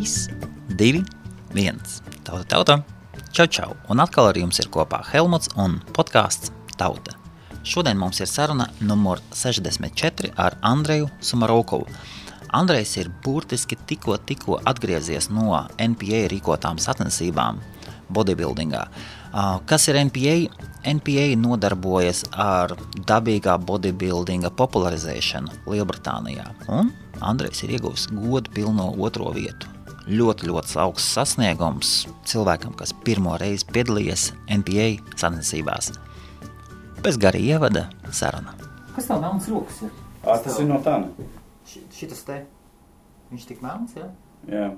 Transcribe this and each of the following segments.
3, 2, 1. Tauta. Čau. Un atkal ar jums ir kopā Helmuts un podcasts Tauta. Šodien mums ir saruna numur 64 ar Andreju Sumarokovu. Andrejs ir burtiski tikko atgriezies no NPA rīkotām sacensībām bodybuildingā. Kas ir NPA? NPA nodarbojas ar dabīgā bodybuildinga popularizēšanu Lielbritānijā. Un Andrejs ir ieguvis godu pilno 2. vietu. Ļoti augsts sasniegums cilvēkam, kas pirmo reizi piedalījies NPA sacensībās. Bez gara ievada saruna. Kas tev melns rokas ir? Tas ir no tā. Šitas te, viņš tik melns, jā? Jā.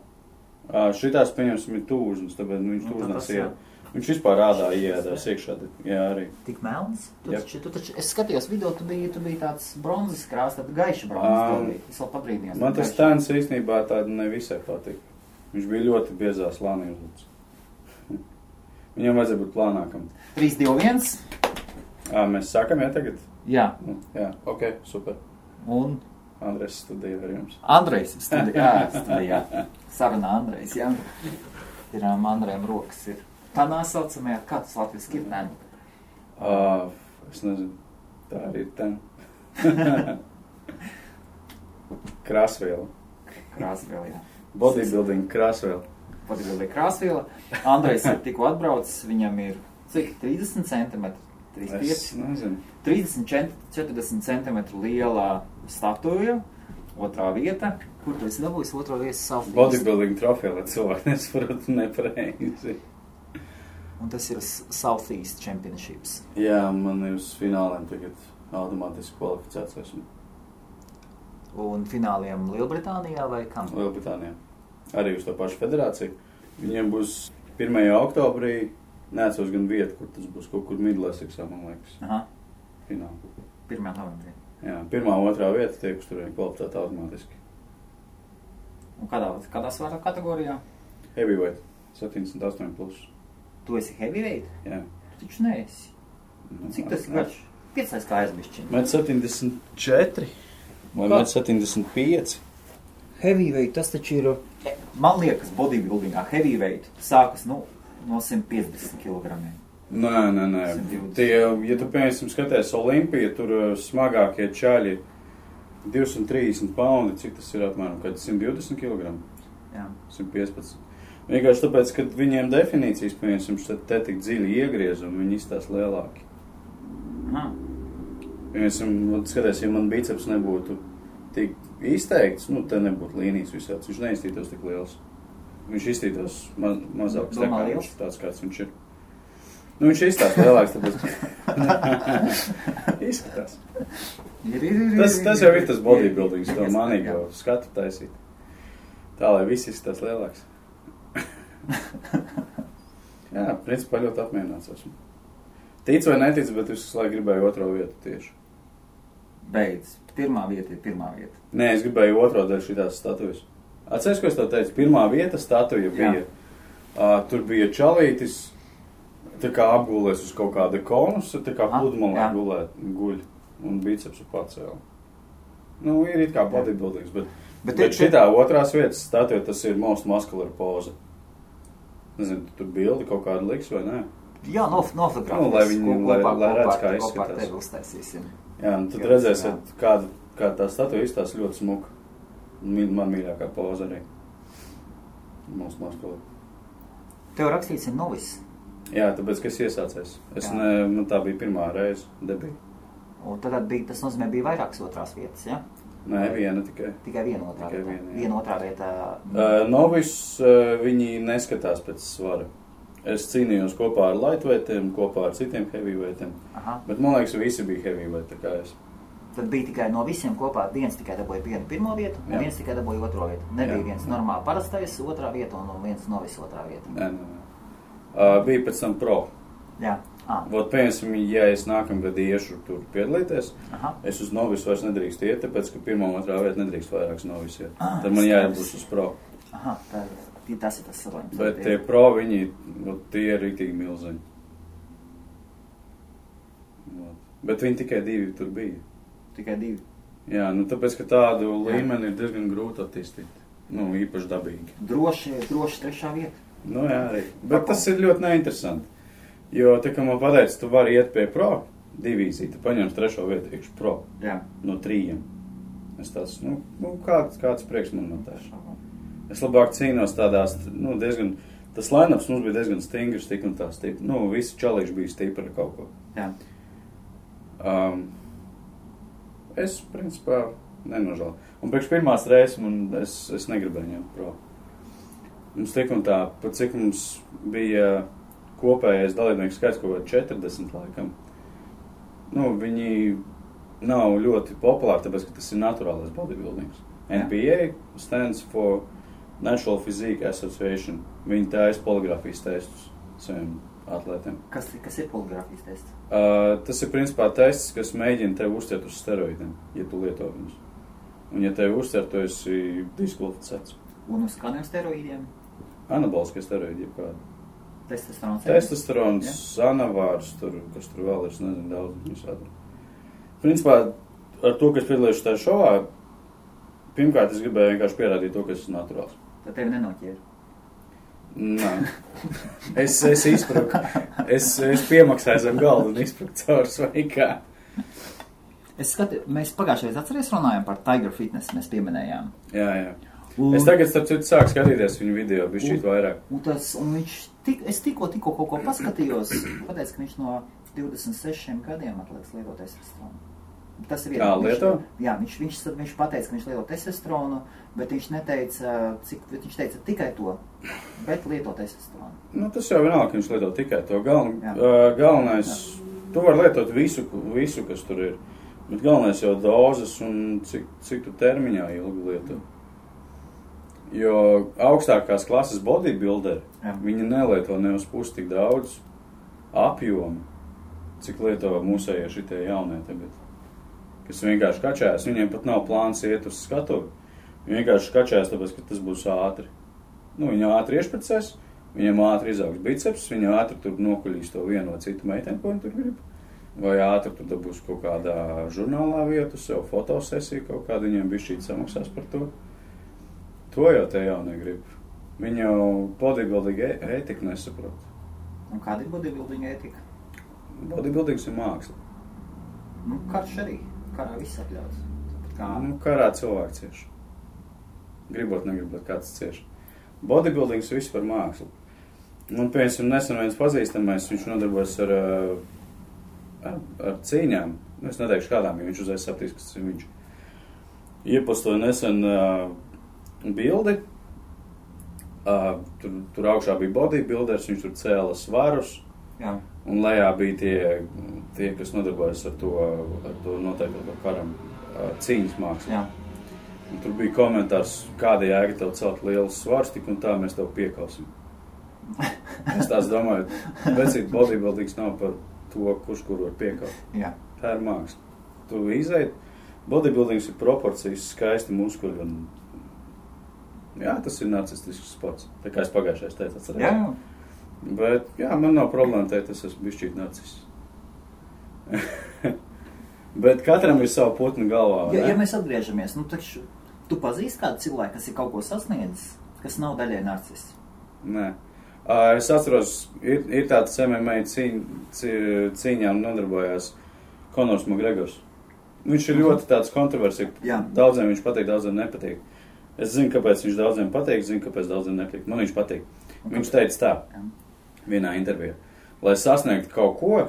Šitās, pieņemsim, ir tūžnes, tāpēc viņš tūžnās iet. Viņš vispār rādā iedās iekšā, jā, arī. Tik melns? Tu taču, es skatījos video, tu biji tāds bronzes krās, tāda gaiša bronzes, es vēl pabrīdījos. Man tas stēns īstenībā tāda nevisai patika. Viņš bija ļoti biezās lānī uzlūdz. Viņam vajadzēja būt plānākam. 3, 2, 1. Mēs sākam, jā, tagad? Jā. Jā, ok, super. Un? Andrejs studija ar jums. Andrejs studijā. Sarunā Andrejs, jā. Ir Andrejam rokas ir. Tādā saucamajā, kā tas latviski ir ten? Es nezinu. Tā arī ir ten. Krāsviela. Krāsviela, jā. Bodybuilding krāsviela. Bodybuilding krāsviela. Andrejs ir tikko atbraucis, viņam ir cik? 30 centimetri? 35? Es nezinu. 30-40 centimetru lielā statuja, 2. vieta. Kur tu esi dabūjis 2. vietas Southeast? Bodybuilding trofeja, lai cilvēki nesapratu nepareizi. Un tas ir Southeast Championships. Jā, man ir uz fināliem tagad automātiski kvalificēts esmu. Un fināliem Lielbritānijā vai kam? Lielbritānijā. Arī uz to pašu federāciju. Viņiem būs 1. oktobrī, neatceros gan vietu, kur tas būs, kaut kur Midleseksā, man liekas. Aha. Fināli. 1. novembrī. Jā, 1. un 2. vieta tiek uz turien kvalificēta automātiski. Un kādā svara kategorijā? Heavyweight, 78+. Tu esi heavyweight? Jā. Tu taču neesi. Cik tas ir garš? 5 kājas bišķiņi. 1,74 vai 1,75. Heavyweight, tas taču ir, man liekas, bodybuildingā heavyweight sākas, no 150 kilogramiem. Nē. Tie, ja tu, piemēram, skaties Olimpiju, tur smagākie čaļi 230 paundi, cik tas ir apmēram, kad 120 kg? Jā. 115. Vienkārši tāpēc, ka viņiem definīcijas, piemēram, te tik dziļi iegriezumi, viņi izstās lielāki. Piemēram, skaties, ja man biceps nebūtu tik izteikts, te nebūtu līnijas visāds, viņš neizstītos tik liels. Viņš izstītos mazāks, tāds kāds viņš ir. Viņš izstās lielāks, tāpēc izskatās. Tas jau ir tas bodybuildings, to manīgo skatu taisīt. Tā, lai viss izskatās lielāks. Jā, principā ļoti apmierināts esmu. Tic vai netic, bet es visu laiku gribēju 2. vietu tieši. Beidz. 1. vieta ir 1. vieta. Nē, es gribēju 2. dēļ šitās statujas. Atceries, ko es tev teicu? 1. vieta statuja bija. Tur bija čalītis, tā kā apgulēs uz kaut kāda konus, tā kā pludmalē guļ un bicepsu pacēla. Ir it kā bodybuildings, bet šitā 2. vietas statuja, tas ir most muscular poza. Nezinu, tur bildi kaut kādu liks vai nē? Jā, nofotografēs. Lai viņi redz, kā izskatās. Kopā ar tevi uztaisīsim. Jā, un tad redzēsiet, kā tā statuja izstās ļoti smuka. Man mīļākā poza arī. Most muscular. Tev rakstīts ir novis. Jā, tāpēc, ka es iesācies. Man tā bija 1. reize debija. Un tad tas nozīmē bija vairākas 2. vietas, ja? Nē, viena tikai. Tikai viena 2. vieta. Viena 2. vieta. Novis viņi neskatās pēc svara. Es cīnījos kopā ar lightweightiem, kopā ar citiem heavyweightiem. Bet man liekas, visi bija heavyweight, tā kā es. Tad bija tikai no visiem kopā, viens tikai dabūja 1. vietu, un viens tikai dabūja 2. vietu. Nebija viens normāli parastais 2. vieta un viens novis 2. vieta. Nē. Bija pēc tam pro. Jā. Vot, piemēram, ja es nākamgad iešu tur piedalīties, es uz novisu vairs nedrīkst iet, tāpēc, ka 1. un 2. vieta nedrīkst vairāks novis iet. Tad man jāiebūs uz pro. Tas ir tas salājums. Bet tie pro, tie ir rītīgi milzeņi. Bet viņi tikai 2 tur bija. Tikai 2? Jā, tāpēc, ka tādu līmeni ir diezgan grūti attīstīt. Nu, īpaši dabīgi. Droši trešā vieta. Nu, jā, arī. Bet tas ir ļoti neinteresanti. Jo, tā kā man pateica, tu vari iet pie pro divīziju, tu paņems trešo vietu iekš pro. Jā. No 3. Es tāds, kāds prieks man no tā. Es labāk cīnos tādās, diezgan, tas line-ups mums bija diezgan stingrs, tik un tā stipri. Visi čalīši bija stipri ar kaut ko. Jā. Es, principā, nenožēlu. Un priekš pirmās reizes es negribēju ņemt pro. Mums tik un tā, pat cik mums bija kopējais dalībnieku skaits kaut kā 40 laikam. Viņi nav ļoti populāri, tāpēc, ka tas ir naturālais bodybuildings. NPA stands for Natural Physique Association. Viņi taisa poligrāfijas testus saviem atlētiem. Kas ir poligrāfijas tests? Tas ir principā tests, kas mēģina tevi uztvert uz steroidiem, ja tu lieto viņus. Un ja tevi uztver, tu esi diskvalificēts. Un uz kādiem steroīdiem? Anaboliskie steroīdi, jebkādi. Testosterons, anavārs, kas tur vēl ir, es nezinu, daudz visādi. Principā, ar to, ka es piedalījos tajā šovā, pirmkārt, es gribēju vienkārši pierādīt to, ka es esmu naturāls. Tad tevi nenoķēra? Nē. Es izpruku. Es piemaksāju zem galdu un izpruku caur svaikā. Es skatu, mēs pagājušajā atceries runājām par Tiger Fitness, mēs pieminējām. Jā. Es tagad, starp citu, sāku skatīties viņu video, bišķīt vairāk. Un es tikko kaut ko paskatījos, pateicu, ka viņš no 26 gadiem atlieks lietot testosteronu. Tas ir lieto? Jā, viņš pateica, ka viņš lieto testosteronu, bet viņš neteica, viņš teica tikai to, bet lieto testosteronu. Tas jau vienalga, ka viņš lieto tikai to. Galvenais, tu var lietot visu, kas tur ir. Bet galvenais jau dozes un cik tu termiņā ilgi lieto. Jo augstākās klases bodybuilderi, viņi nelieto ne uz pusi tik daudz apjomu, cik lieto mūsējie šitie jaunie tagad. Kas vienkārši kačājas, viņiem pat nav plāns iet uz skatuvi. Viņi vienkārši kačājas, tāpēc, ka tas būs ātri. Viņi ātri iešprecēs, viņiem ātri izaugs biceps, viņi ātri tur nokuļīs to vienu vai citu meiteni, ko viņi tur grib. Vai ātri tur dabūs kaut kādā žurnālā vietu, sev fotosesiju kaut kādu, viņiem bišķīt samaksās par to. To jau te jau negrib. Viņi jau bodybuilding ētiku nesaprot. Un kāda ir bodybuilding ētika? Bodybuildings ir māksla. Karš arī. Karā viss atļauts. Karā cilvēki cieš. Gribot, negribot, kāds cieš. Bodybuildings viss par mākslu. Un, piemēram, nesen viens pazīstamais, viņš nodarbojas ar cīņām. Es neteikšu kādām, jo viņš uzreiz sapratīs, kas ir viņš. Iepostoja nesen bildi. Tur augšā bija bodybuilders, viņš tur cēla svarus. Jā. Un lejā bija tie, kas nodarbojas ar to noteikti karam cīņas mākslu. Jā. Un tur bija komentārs, kāda jēga tev celt lielus svarus, tik un tā mēs tev piekausim. Es tās domāju, vecīt bodybuildings nav par to, kurš kur var piekaut. Jā. Tā ir māksla. Tu izeit, bodybuildings ir proporcijas, skaisti muskuļi un... Jā, tas ir narcistisks sports. Tā kā es pagājušais teicu, atcerēju. Jā. Bet, jā, man nav problēma teikt, es esmu bišķīt narcis. Bet katram ir savu putnu galvā, vai ne? Ja mēs atgriežamies, taču tu pazīsti kādu cilvēku, kas ir kaut ko sasniedzis, kas nav daļai narcis? Nē. Es atceros, ir tāds MMA cīņām nodarbojās Konors Makgregors. Viņš ir ļoti tāds kontroversiks. Daudziem viņš patīk, daudziem nepatīk. Es zinu, kāpēc viņš daudziem patīk, zinu, kāpēc daudziem nepatīk. Man viņš patīk. Viņš teica tā, vienā intervijā. Lai sasniegtu kaut ko,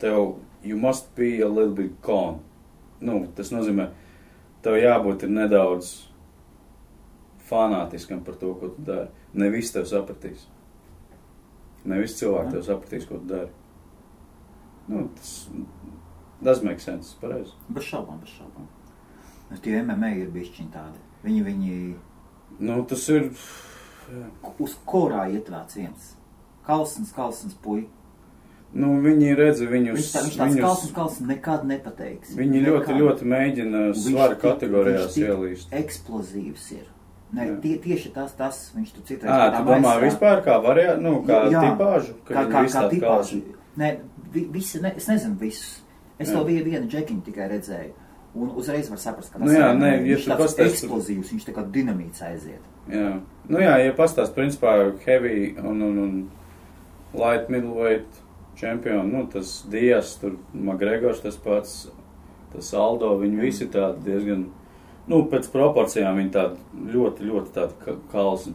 tev you must be a little bit calm. Tas nozīmē, tev jābūt ir nedaudz fanātiskam par to, ko tu dari. Ne visi tev sapratīs. Ne visi cilvēki tev sapratīs, ko tu dari. Tas make sense, pareizi. Bez šaubām. Tie MMA ir bišķiņi tādi. Viņi... tas ir... Uz kurā ietvērts viens? Kalsins puika. Viņi redz viņus... Viņš tāds kalsins nekad nepateiks. Viņi ļoti mēģina svara kategorijās ielīst. Eksplozīvs ir. Tieši tas viņš tu citreiz... Tu domā vispār kā kā tipāžu? Kā tipāžu. Es nezinu visus. Es to vienu džekiņu tikai redzēju. Un uzreiz var saprast, ka tas ja viņš tāds eksplozīvs, viņš tā kā dinamīts aiziet. Jā. Ja pastāst, principā, heavy un light middleweight čempioni, tas Dias, tur McGregors tas pats, tas Aldo, viņi visi tādi diezgan, pēc proporcijām viņi tādi ļoti, ļoti tādi kalsi.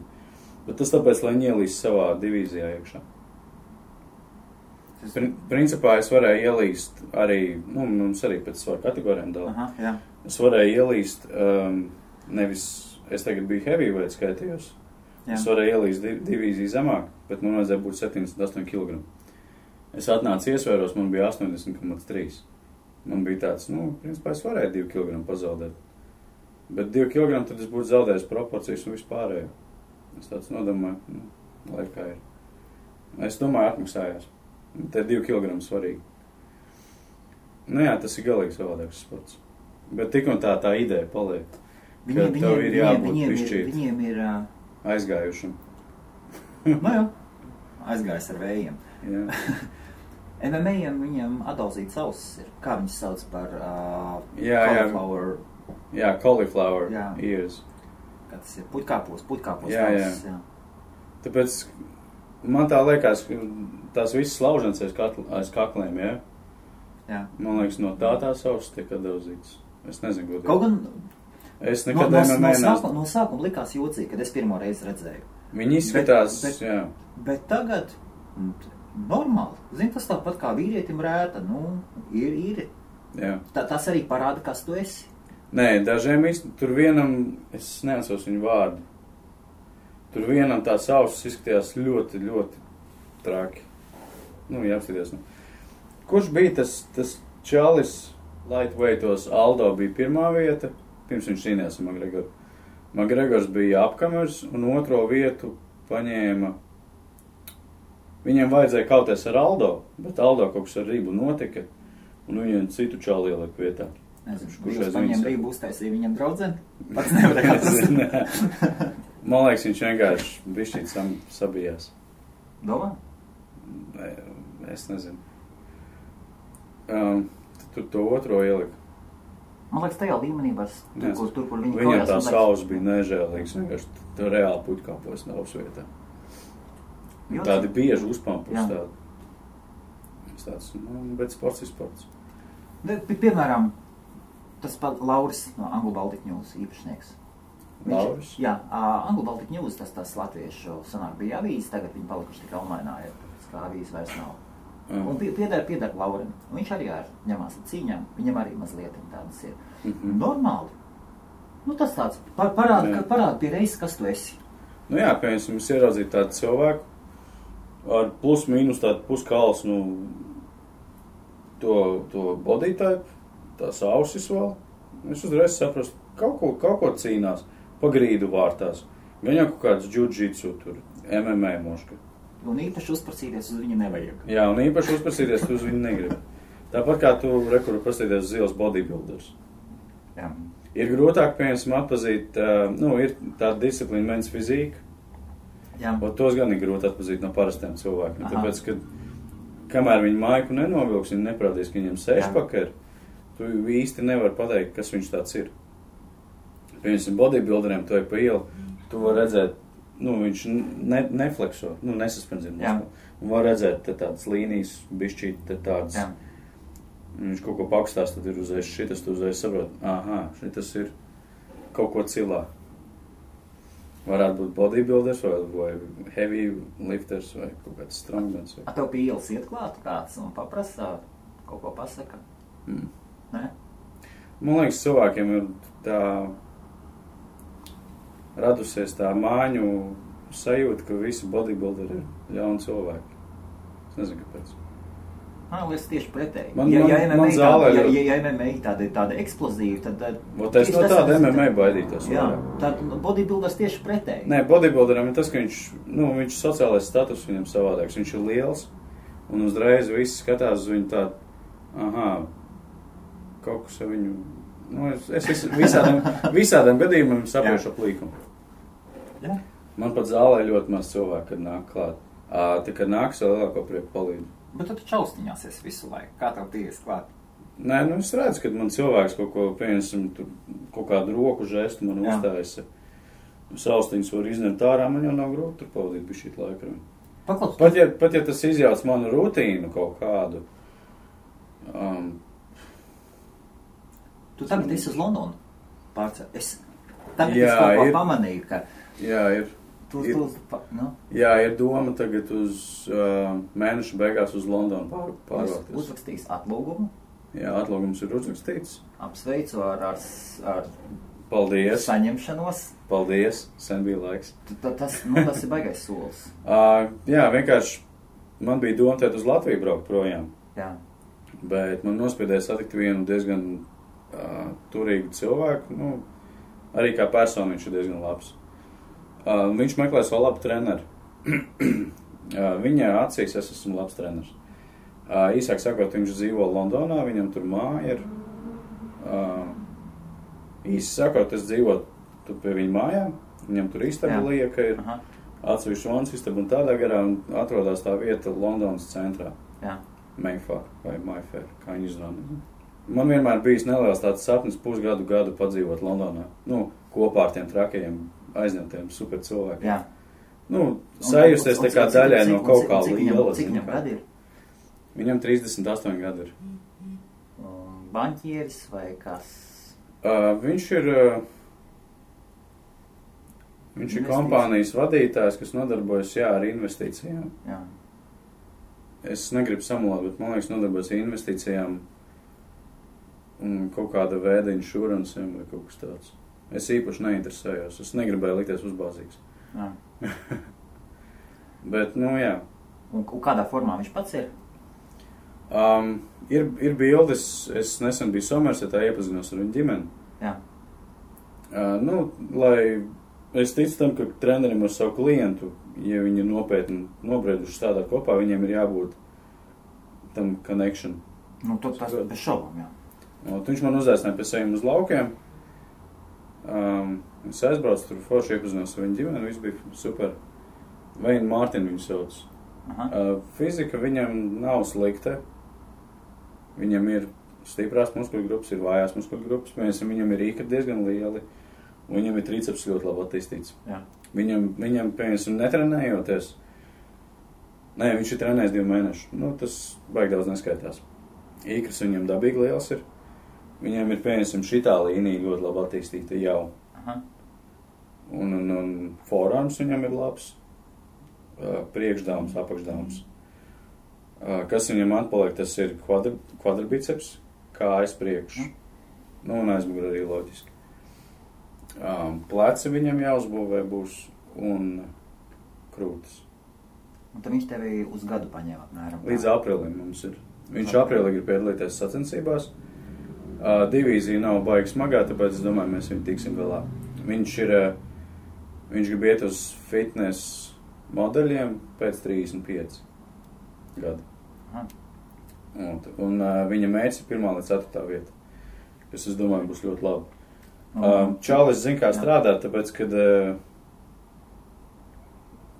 Bet tas tāpēc, lai viņi ielīst savā divīzijā iekšā. Principā es varēju ielīst arī, mums arī pēc svaru kategorijām dala. Es varēju ielīst, nevis, es tagad biju heavyweight skaitījos. Jā. Es varēju ielīst divīziju zemāk, bet man vajadzēja būt 78 kg. Es atnācu iesvēros, man bija 80,3. Man bija tāds, principā es varēju 2 kg pazaudēt. Bet 2 kg tad es būtu zaudējis proporcijas un vispārējo. Es tāds nodomāju, lai kā ir. Es domāju, atmaksājās. Te 2 kg svarīgi. Tas ir galīgi savādāks sports. Bet tik un tā ideja paliek. Tev ir jābūt viņiem ir aizgājušam. Aizgājis ar vējiem. MMA viņiem atdalzīts ausis ir. Kā viņas sauc par cauliflower? Jā, cauliflower ears. Kā tas ir? Putkāpos ausis. Jā. Tāpēc man tā liekas, ka tās visas lauženas aiz kakliem, Jā. Man liekas, no tās ausis tiek atdalzīts. Es nezinu, ko kaut gan es nekad no sākuma likās jocīgi, kad es pirmo reizi redzēju. Viņi izskatās, bet tagad normāli. Zini, tas tāpat kā vīrietim rēta, ir. Jā. Tas arī parāda, kas tu esi. Nē, dažiem tur vienam, es neatceros viņu vārdu. Tur vienam tās ausis izskatījās ļoti, ļoti traki. Jāapskaties. Kurš bija tas čalis lightweightos? Aldo bija pirmā vieta, pirms viņš cīnījās ar McGregoru. McGregors bija apkamers un otro vietu paņēma. Viņiem vajadzēja kauties ar Aldo, bet Aldo kaut kas ar Rību notika un viņiem citu čali ielika vietā. Viņš paņēma Rību uztaisīja viņam draudzeni? Pats nevarēja atrast. Man liekas, viņš vienkārši bišķīt sabijās. Domā? Es nezinu. Tur to otro ielika. Man liekas, tajā līmenī var tur, kur viņi viņam tā saules bija nežēlīgs. Vienkārši tā reāli putkāpos nav vietā. Tādi bieži uzpampus tāds. Bet sports ir sports. Piemēram, tas pat Lauris no Anglo Baltic News īpašnieks. Lauris? Jā, Anglo Baltic News, tas latviešu sanāk bija avīzes, tagad viņi palikuši tikai online, kā avīzes vairs nav. Un piedara Laurim. Viņš arī ņemās ar cīņām, viņam arī mazliet tādas ir. Normāli. Tas tāds parāda pie reizes, kas tu esi. Piemēram, es ieraudzīju tādu cilvēku ar plus mīnus tādu puskals, to body type, tās ausis vēl. Es uzreiz saprastu, kaut ko cīnās. Pagrīdu vārtās. Gan jau kaut kāds jiu-jitsu tur, MMA moška. Un īpaši uzprasīties uz viņu nevajag. Jā, un īpaši uzprasīties uz viņu negrib. Tāpat kā tu rekur prasīties uz ielas bodybuilders. Jā. Ir grūtāk, piemēram, atpazīt, ir tāda disciplīna men's fizika. Jā. Tos gan ir grūti atpazīt no parastiem cilvēkiem. Tāpēc, ka kamēr viņi maiku nenovilks, viņi neprādīs, ka viņam sešpaka ir, tu īsti nevar pateikt, kas viņš tāds ir. Piemēram, bodybuilderiem to ir pa ielu, tu var redzēt, viņš neflekso, nesaspenzina. Un var redzēt tādas līnijas, bišķīt tādas, viņš kaut ko pakstās, tad ir uzreiz šitas, tu uzreiz saprot, šitas ir kaut ko cilā. Varētu būt bodybuilders, vai heavy lifters, vai kaut kāds strongmans. Tev pie ielas iet klāt kāds un paprasa, kaut ko pasaka? Ne? Man liekas, cilvēkiem ir tā radusies tā māņu sajūta, ka visi bodybuilderi ir ļauni cilvēki. Es nezinu, kāpēc. Man liekas tieši pretēji. Ja MMA tāda eksplozīva, tad... Es no tāda MMA baidītos. Jā, tad bodybuilders tieši pretēji. Nē, bodybuilderam ir tas, ka viņš sociālais status viņam savādāks. Viņš ir liels, un uzreiz visi skatās uz viņu tādu, kaut kas ar viņu... Es visādām gadījumiem saprošu ap līkumu. Jā. Man pat zālē ļoti maz cilvēku, kad nāk klāt. Tā, kad nāks, vēl lielāko prieku palīdzu. Bet tu čaustiņās esi visu laiku. Kā tev ties klāt? Nē, nu es redzu, kad man cilvēks kaut ko, piemēram, kaut kādu roku žestu man uzstājas. Saustiņas var izņemt ārā, man jau nav grūti tur pavadīt bišķīt laiku. Pat ja tas izjauc manu rutīnu kaut kādu. Tu tagad esi uz Londonu pārcēl. Tagad es kaut ko pamanīju, ka... Jā, ir. Jā, ir doma tagad uz mēneša beigās uz Londonu pārvākties. Uzrakstījis atlūgumu? Jā, atlūgums ir uzrakstīts. Apsveicu ar Paldies. Saņemšanos. Paldies, sen bija laiks. Tas ir baigais solis. Jā, vienkārši man bija doma tēt uz Latviju braukt projām. Jā. Bet man nospiedēja satikt vienu diezgan turīgu cilvēku. Nu, arī kā personu viņš ir diezgan labs. Viņš meklē savu labu treneru. Viņa acīs es esmu labs treneris. Īsāk sakot, viņš dzīvo Londonā, viņam tur māja ir. Īsi sakot, es dzīvotu pie viņa mājām, viņam tur istaba lieka ir, atsevišķi vans istaba un tādā garā, un atrodas tā vieta Londonas centrā. Jā. Mayfair vai Mayfair, kā viņi izrunā. Man vienmēr bijis neliels tāds sapnis pusgadu padzīvot Londonā. Nu, kopā ar tiem trakajiem, aizņemtiem super cilvēkiem. Jā. Nu, sajusties tā kā daļai no kaut kā liela. Cik viņam gadi ir? Viņam 38 gadi ir. Banķieris vai kas? Viņš ir kompānijas vadītājs, kas nodarbojas, ar investīcijām. Jā. Es negribu samulāt, bet man liekas nodarbojas investīcijām un kaut kāda veida inšuransiem vai kaut kas tāds. Es īpaši neinteresējos. Es negribēju likties uzbāzīgs. Jā. Bet, jā. Un kādā formā viņš pats ir? Ir bildes, es nesen biju Somersetā, iepazinos ar viņu ģimeni. Jā. Lai es ticu tam, ka trenerim ar savu klientu, ja viņi nopietni nobrieduši strādāt kopā, viņiem ir jābūt tam connection. Tas bez šaubām, jā. Viņš man uzaicināja pie saviem uz laukiem. Es aizbraucu tur forši iepazinos ar viņu ģimeni, viss bija super. Veina Mārtiņu viņu sauc. Fizika viņam nav slikta. Viņam ir stiprās muskuļu grupas, ir vājās muskuļu grupas. Viņam ir īkri diezgan lieli. Un viņam ir triceps ļoti labi attīstīts. Jā. Viņam netrenējoties. Nē, viņš ir trenējis 2 mēnešus. Tas baigi daudz neskaitās. Īkris viņam dabīgi liels ir. Viņam ir, šitā līnija ļoti labi attīstīta jau. Un forarms viņam ir labs. Priekšdāms, apakšdāms. Kas viņam atpaliek, tas ir kvadribiceps, kājas priekš. Un aizmugurē arī loģiski. Pleci viņam jāuzbūvē būs un krūtis. Un tad viņš tevi uz gadu paņēma apmēram? Līdz aprīlim mums ir. Viņš aprīlī grib piedalīties sacensībās. Divīzija nav baigi smagā, tāpēc es domāju, mēs viņu tiksim galā. Viņš grib iet uz fitness modeļiem pēc 35 gadu. Un viņa mērķis ir 1. līdz 4. vieta, kas, es domāju, būs ļoti labi. Čalis zina, kā strādāt, tāpēc, kad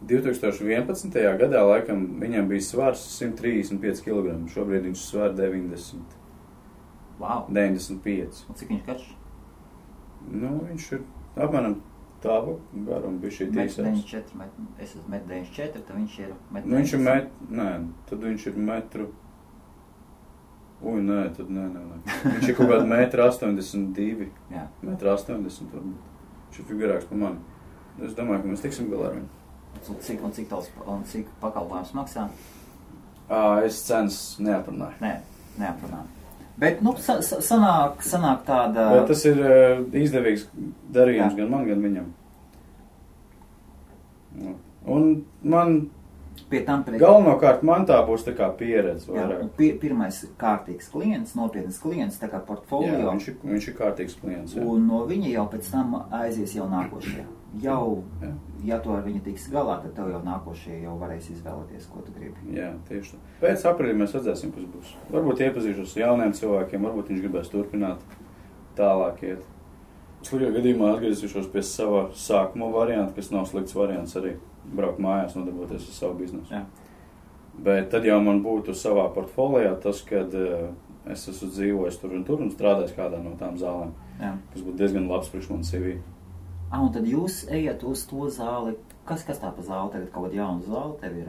2011. gadā laikam viņam bija svars 135 kg, šobrīd viņš svar 90. Wow. 95. Un cik viņš karš? Viņš ir apmēram tāvu garumu bija šī tīsās. Es esmu 1,94, tad viņš ir 1,90. Viņš ir tad viņš ir metru. Tad nē. Viņš ir kaut kādu 1,82 m. Jā. 1,80 m. Viņš ir figurāks par mani. Es domāju, ka mēs tiksim galā ar viņu. Cik pakalpojums maksā? Es cenas neaprunāju. Neaprunāju. Bet, sanāk tāda... Bet tas ir izdevīgs darījums gan man, gan viņam. Un man... Galvenokārt man tā būs tā kā pieredze vairāk. Pirmais kārtīgs klients, nopietnas klients, tā kā portfolio. Jā, viņš ir kārtīgs klients. Jā. Un no viņa jau pēc tam aizies jau nākošie. Ja tu ar viņu tiks galā, tad tev jau nākošie jau varēs izvēlēties, ko tu gribi. Jā, tieši tā. Pēc aprīļa mēs redzēsim, kas būs. Varbūt iepazīšos ar jauniem cilvēkiem, varbūt viņš gribēs turpināt tālāk iet. Slikā gadījumā atgriezīšos pie sava sākuma varianta, kas nav slikts variants arī. Braukt mājās, nodarboties ar savu biznesu. Jā. Bet tad jau man būtu savā portfolijā tas, kad es esmu dzīvojis tur un strādājis kādā no tām zālēm, kas būtu diezgan labs priekš man CV. Un tad jūs ejat uz to zāli. Kas tā pa zāli? Tagad kaut kāda jauna zāle tev ir?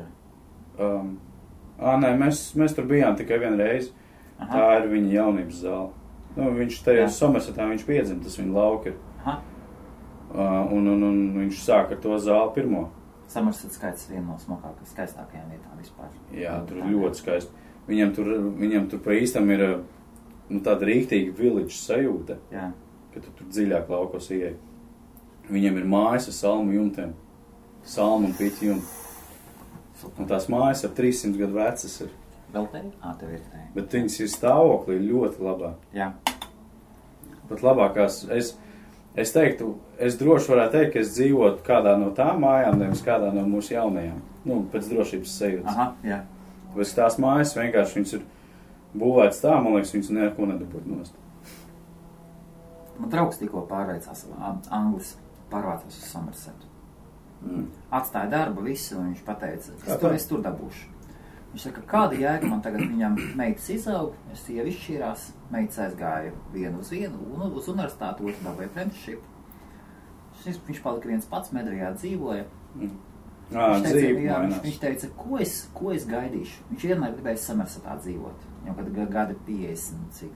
Nē, mēs tur bijām tikai vienu reizi. Aha. Tā ir viņa jaunības zāle. Nu, viņš tajā Somersetā, viņš piedzim, tas viņa lauka ir. Aha. Un viņš sāk ar to zāli pirmo. Somerset skaits viena no skaistākajām vietām vispār. Jā, tur ir ļoti skaisti. Viņam tur pa īstam ir tāda rīktīga village sajūta, ka tu tur dziļāk laukos ieej. Viņam ir mājas ar salmu jumtiem. Salmu un piķi jumti. Un tās mājas ap 300 gadu vecas ir. Vēl te? Tev ir te. Bet viņas ir stāvoklī ļoti labā. Jā. Pat labākās, es teiktu, es droši varētu teikt, ka es dzīvotu kādā no tām mājām, nevis kādā no mūsu jaunajām. Nu, pēc drošības sajūtas. Aha, jā. Bet tās mājas vienkārši viņas ir būvētas tā, man liekas, viņas neko nedabūt nost. Man draugs tikko Anglis pārvācās uz Somersetu. Atstāja darbu visu, un viņš pateica, es tur dabūšu. Viņš saka, kāda jēga man tagad viņam meitas izaug, sieva izšķīrās, meitas aizgāja vienu uz universitāti, otru dabūja apprenticeship. Viņš palika viens pats, Medrijā dzīvoja. Viņš teica, ko es gaidīšu? Viņš vienmēr gribēja Somersetā dzīvot. Jau kad gadi 50,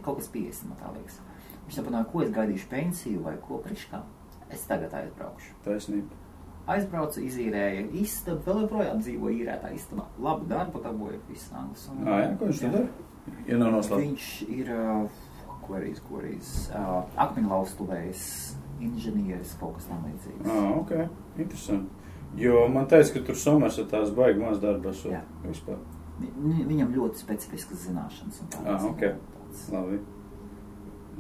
kaut kas 50, man tā liekas. Viņš saprināja, ko es gaidīšu pensiju vai ko priekškā. Es tagad aizbraukšu. Taisnība. Aizbraucu, izīrēja istabu, vēl joprojām dzīvo īrētā istabā. Labu darbu dabūja viss Anglis. Jā, ko viņš tad dara? Ja nav noslēpt. Viņš ir, korīs, akmeņlaustuvējs, inženieris, kaut kas tam līdzīgs. Ok, interesanti. Jo man teica, ka tur Somersetās baigi maz darba esot vispār. Viņam ļoti specifiskas zināšanas un tādas. Ok, labi.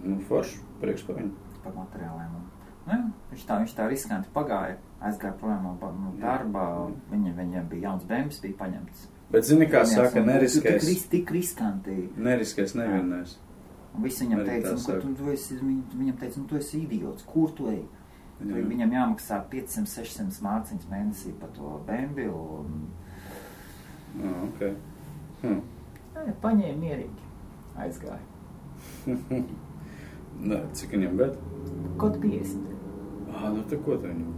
Nu, forši, priekš par viņu. Par materiāliem. Viņš tā riskanti pagāja, aizgāja projām no darba, viņam bija jauns bēmas, bija paņemts. Bet zini, kā saka, neriskēs. Tik riskanti. Neriskēs nevienais. Un viss viņam teica, tu esi idiots, kur tu ej? Viņam jāmaksā 500-600 mārciņas mēnesī par to bēmbi un... Ok. Paņēma mierīgi, aizgāja. Cik viņam bet? Kaut 50. Nu te ko te viņam?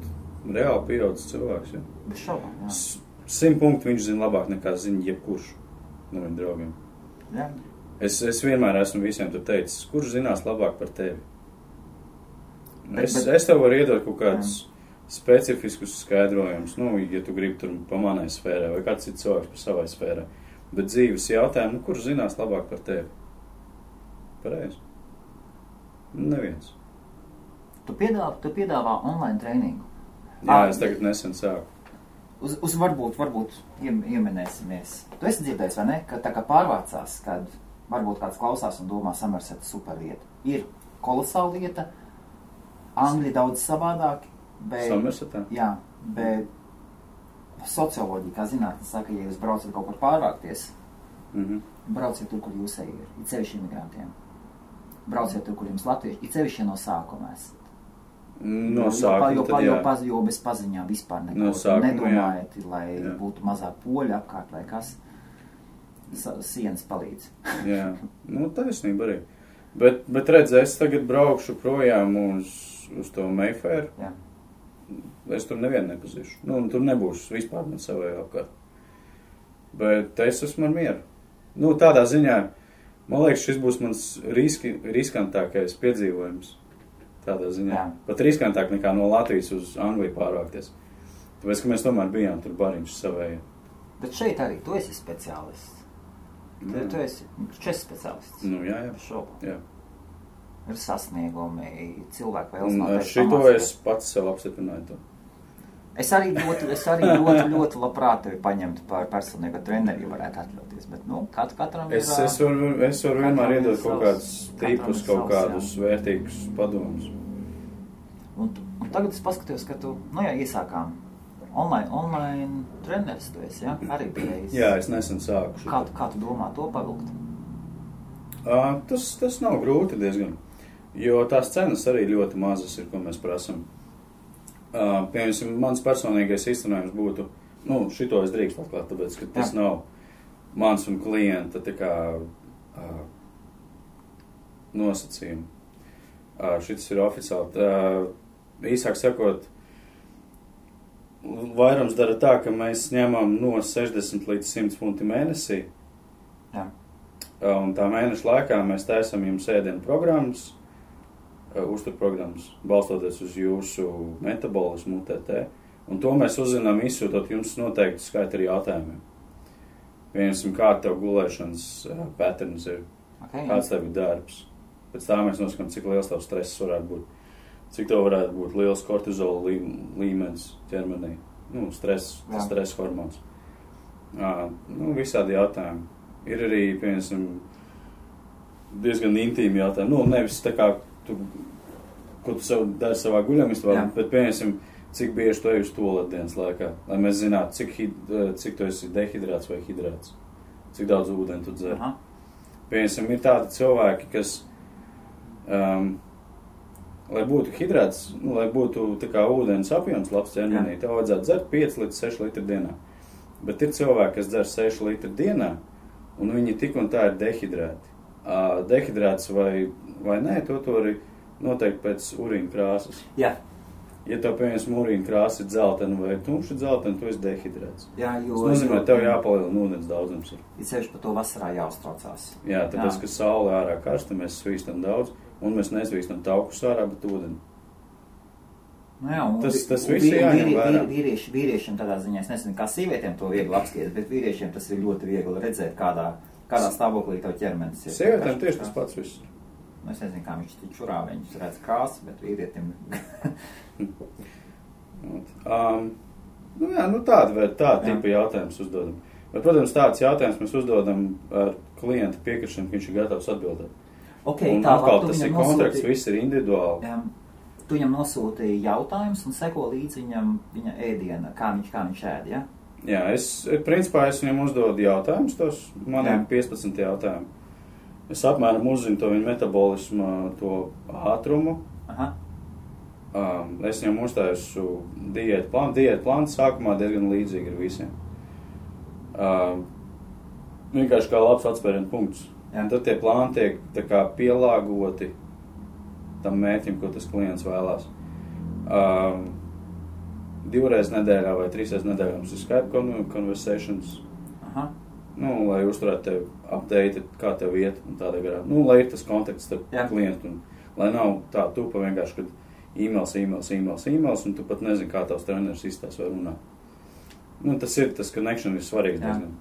Reāli pieaudzis cilvēks, ja? Bez šaubām, jā. 100 punktu viņš zina labāk nekā zina jebkurš no viņa draugiem. Jā. Es vienmēr esmu visiem tur teicis, kurš zinās labāk par tevi? Es tev varu iedot kaut kādus specifiskus skaidrojumus, ja tu gribi tur pa manai sfērai vai kāds cits cilvēks par savai sfērai. Bet dzīves jautājumu, kurš zinās labāk par tevi? Pareizi. Neviens. Tu piedāvā online trēningu. Jā, es tagad nesen sāku. Uz varbūt ieminēsimies. Tu esi dzirdējis, vai ne? Ka tā kā pārvācās, kad varbūt kāds klausās un domā Somerseta super vieta. Ir kolosāla vieta, Angļi daudz savādāki. Somersetā? Jā, bet socioloģija, kā zinātne, saka, ja jūs braucat kaut kur pārvākties, brauciet tur, kur jūs ir cevišķi imigrantiem. Brauciet tur, kur jums latvieši, ir cevišķi no sākuma esat. No sākuma tad jā. Jo bez paziņām vispār no sākuma, nedomājiet, lai būtu mazāk poļu apkārt vai kas. Sienas palīdz. Jā, taisnība arī. Bet redz, es tagad braukšu projām uz to Mayfair. Jā. Es tur nevienu nepazīšu. Tur nebūs vispār man savai apkārt. Bet es esmu ar mieru. Tādā ziņā, man liekas, šis būs mans riskantākais piedzīvojums. Tādā ziņā. Jā. Pat riskantāk nekā no Latvijas uz Angliju pārvākties. Tāpēc, ka mēs tomēr bijām tur bariņš savēji. Bet šeit arī tu esi speciālists. Tu esi speciālists. Jā. Jā. Ir sasniegumi, cilvēku vēlas un šito es pats sev apstiprināju to. Es arī ļoti labprāt tevi paņemtu par personīgo treneri, ja varētu atļauties, bet, katram ir... Es varu vienmēr iedot kaut kādus tipus, kaut kādus vērtīgus padomus. Un tagad es paskatījos, ka tu, iesākām online treneris tu esi, ja? Arī bijis. Jā, es nesen sāku. Kā tu domā to pavilkt? Tas nav grūti diezgan, jo tās cenas arī ļoti mazas ir, ko mēs prasam. Piemēram, mans personīgais izcinājums būtu, šito es drīkst atklāt, tāpēc, ka tas nav mans un klienta tā kā nosacījumi. Šis ir oficiāli. Īsāk sakot, vairums dara tā, ka mēs ņemam no 60 līdz 100 funti mēnesī. Jā. Un tā mēneša laikā mēs taisam jums ēdienu programmas, uzturprogrammas, balstoties uz jūsu metabolismu, UTT. Un to mēs uzzinām, izsūtot jums noteikti skaitu ar jautājumiem. Piemēram, kā tev gulēšanas patterns ir, kāds tev ir darbs. Pēc tā mēs noskatām, cik liels tev stress varētu būt. Cik tev varētu būt liels kortizola līmenis ķermenī. Stress hormons. Visādi jautājumi. Ir arī, piemēram, diezgan intīmi jautājumi. Nevis tā kā, ko tu dari savā guļamistabā, bet, piemēram, cik bieži tu ej uz tualeti dienas laikā, lai mēs zinātu, cik tu esi dehidrāts vai hidrāts, cik daudz ūdeni tu dzer. Piemēram, ir tādi cilvēki, kas, lai būtu hidrāts, lai būtu tā kā ūdens apjoms labs ķermenī, tev vajadzētu dzert 5 līdz 6 litri dienā. Bet ir cilvēki, kas dzer 6 litri dienā, un viņi tik un tā ir dehidrēti. Dehidrāts vai nē, to arī noteikti pēc urīna krāsas. Jā. Ja tev, piemēram, urīna krāsa ir dzeltena vai tumša dzeltena, tu esi dehidrēts. Jā, tas nozīmē, tev jāpalielina ūdens daudzums. Ir sevišķi par to vasarā jāuztraucās. Jā, tāpēc, ka saule ārā karsta, mēs svīstam daudz, un mēs nesvīstam taukus ārā, bet ūdeni. Tas viss jāņem vērā. Vīriešiem tādā ziņā, es nezinu, kā sievietēm to viegli apskatīt, bet vīriešiem tas ir ļoti viegli redzēt, kādā stāvoklī tev ķermenis ir. Sievietēm tieši tas pats viss. Es nezinu, kā viņš čurā, viņš redz krāsu, bet vīrietim... Tāda tipa jautājums uzdodam. Bet, protams, tāds jautājums mēs uzdodam ar klienta piekrišanu, ka viņš ir gatavs atbildēt. Okay, un atkal tas ir kontrakts, viss ir individuāli. Tu viņam nosūtīji jautājumus un seko līdz viņa ēdiena, kā viņš ēd, ja? Jā, principā es viņam uzdodu jautājumus, tos maniem 15 jautājumu. Es apmēram uzzinu to viņa metabolismu, to ātrumu. Es viņam uztaisu diētu plānu. Diētu plāns sākumā diezgan līdzīgi ir visiem. Vienkārši kā labs atspērienu punkts. Un tad tie plāni tiek tā kā pielāgoti tam mērķim, ko tas klients vēlās. 2 reizes nedēļā vai 3 reizes nedēļā mums ir Skype conversations. Lai uzturētu tevi update, kā tev iet un tādā garā. Lai ir tas kontakts starp klientu un lai nav tā tupa vienkārši, kad e-mails, un tu pat nezini, kā tavs treneris izstās vai runā. Tas ir, tas connection ir svarīgs diezgan.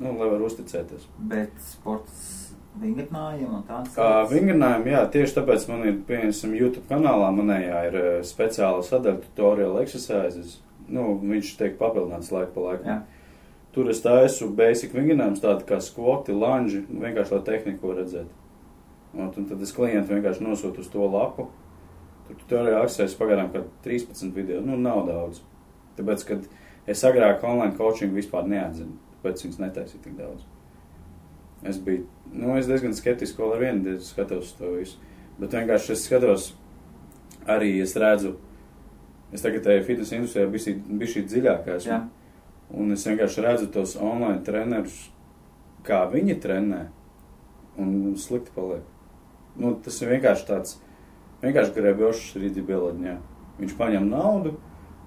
Lai var uzticēties. Bet sports vingrinājumi un tāds? Vingrinājumi, jā, tieši tāpēc man ir, piemēram, YouTube kanālā manējā ir speciāla sadaļa tutorial exercises. Viņš tiek papildināts laiku pa laikam. Jā. Tur es taisu basic vingrinājumus, tādi kā skvoti, lunži, vienkārši lai tehniku redzēt. Un tad es klientu vienkārši nosūtu uz to lapu. Tur tutorial exercises pagarām kā 13 video, nav daudz. Tāpēc, kad es agrāk online coaching vispār neatzinu, tāpēc viņas netaisīju tik daudz. Es biju, es diezgan skeptiski vēl ar vienu skatos to visu. Bet vienkārši es skatos, arī es redzu, es tagad fitness industrijā bišķi dziļāk esmu. Jā. Un es vienkārši redzu tos online trenerus, kā viņi trenē, un slikti paliek. Tas ir vienkārši tāds, vienkārši grebjošs rīdi bieladiņā. Viņš paņem naudu,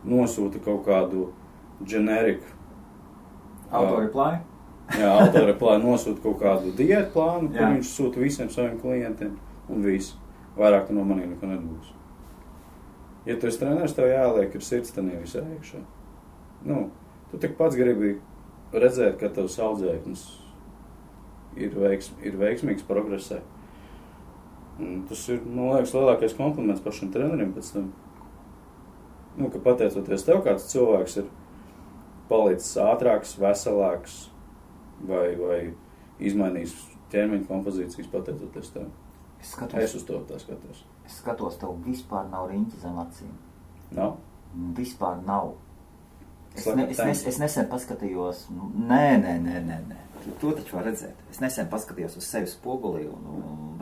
nosūta kaut kādu generiku. Autoreply? Jā, autoreply nosūta kaut kādu diētu plānu, kur viņš sūta visiem saviem klientiem, un visu. Vairāk tu no manī neko nedabūs. Ja tu esi treneris, tev jāliek ir sirdstenī visā iekšā. Tu tik pats gribi redzēt, ka tavs audzēknis ir veiksmīgs progresē. Tas ir, man liekas, lielākais kompliments pašam trenerim pēc tam. Ka pateicoties tev, kāds cilvēks ir palicis ātrāks, veselāks vai izmainījis ķermeņa kompozīcijas pateicoties tev. Es uz to tā skatos. Es skatos, tev vispār nav riņķi zem acīm. Nav? Vispār nav. Es nesen paskatījos, nē. To taču var redzēt. Es nesen paskatījos uz sevi spogulī un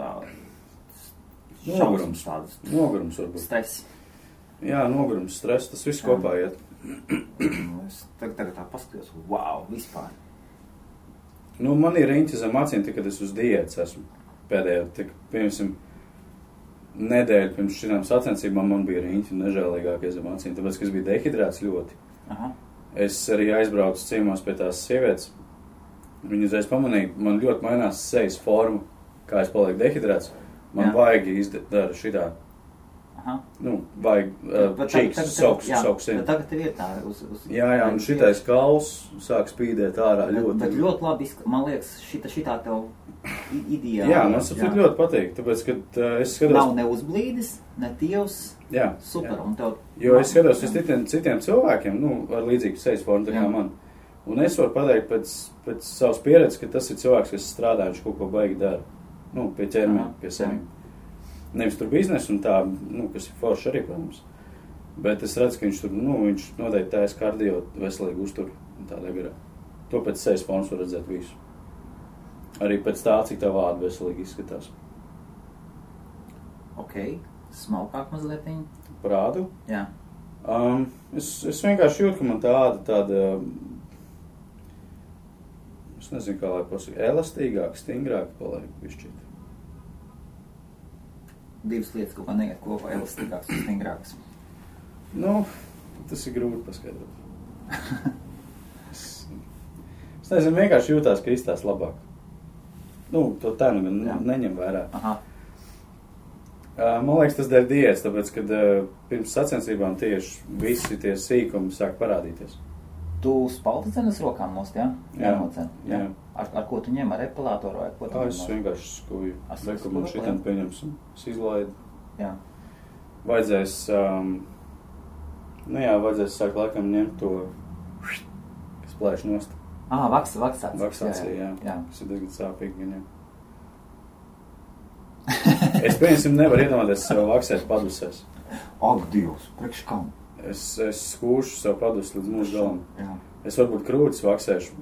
Nogurums varbūt. Stress. Jā, nogurums, stress, tas viss kopā iet. Es tagad tā paskatījos, wow, vispār. Nu, man ir riņķi zem acīm, kad es uz diētas esmu pēdējo, piemēram, nedēļu pirms šitām sacensībām man bija riņķi nežēlīgākie zem acīm, tāpēc, ka es biju dehidrēts ļoti. Aha. Es arī aizbraucu ciemos pie tās sievietes. Viņa uzreiz pamanīja, man ļoti mainās sejas forma, kā es palieku dehidrēts. Man vajag izdara šitā. Aha. Nu, vajag čīks, sauks. Bet tagad tev ir tā uz Jā, un šitais kauls sāk spīdēt ārā ļoti. Bet ļoti labi, man liekas, šitā tev ideāli. Jā, man saprot ļoti patīk, tāpēc, kad es skatos... Nav ne uzblīdis, ne tievs, super, un tev... Jo es skatos uz citiem cilvēkiem, nu, ar līdzīgu sejas formu, tā kā man. Un es varu pateikt pēc savas pieredzes, ka tas ir cilvēks, kas strādā, viņš kaut ko baigi dara. Nu, pie ķermeņa, pie sevīm. Nevis tur biznesu un tā, nu, kas ir forši arī, protams. Bet es redzu, ka viņš tur, nu, viņš noteikti taisa kardio veselīgi uztur un tādā garā. To pēc sejas formas var redzēt visu. Arī pēc tā, cik tā vāda veselīgi izskatās. Ok, smalkāk mazlietiņ. Prādu? Jā. Es vienkārši jūtu, ka man tāda, es nezinu, kā lai pasaka, elastīgāk, stingrāk paliek višķīt. Divas lietas kaut kā neiet kopā, elastīgāks un stingrāks. Nu, tas ir grūti paskaidrot. Es nezinu, vienkārši jūtās, ka izstās labāk. Nu, to tā nu gan neņem vērā. Aha. Man liekas, tas dēļ diētas, tāpēc, kad pirms sacensībām tieši visi tie sīkumi sāk parādīties. Tu spalti dzenes rokām nost, jā? Jā. Ar ko tu ņem? Ar epilātoru vai ko tu ņem? Es vienkārši skuju. Skuju, Man šitam pieņemsim. Es izlaidu. Jā. Vajadzēs, vajadzēs sākt laikam ņemt to, kas plēš nost. Vaksācija. Vaksācija, jā. Tas ir diezgan sāpīgi, gan jau. Es pieņemsim nevaru iedomāties sev vaksēt padusēs. Ak, Dievs, priekš kam? Es skūšu sev padus līdz mūžu galam. Jā. Es varbūt krūtis vaksēšu.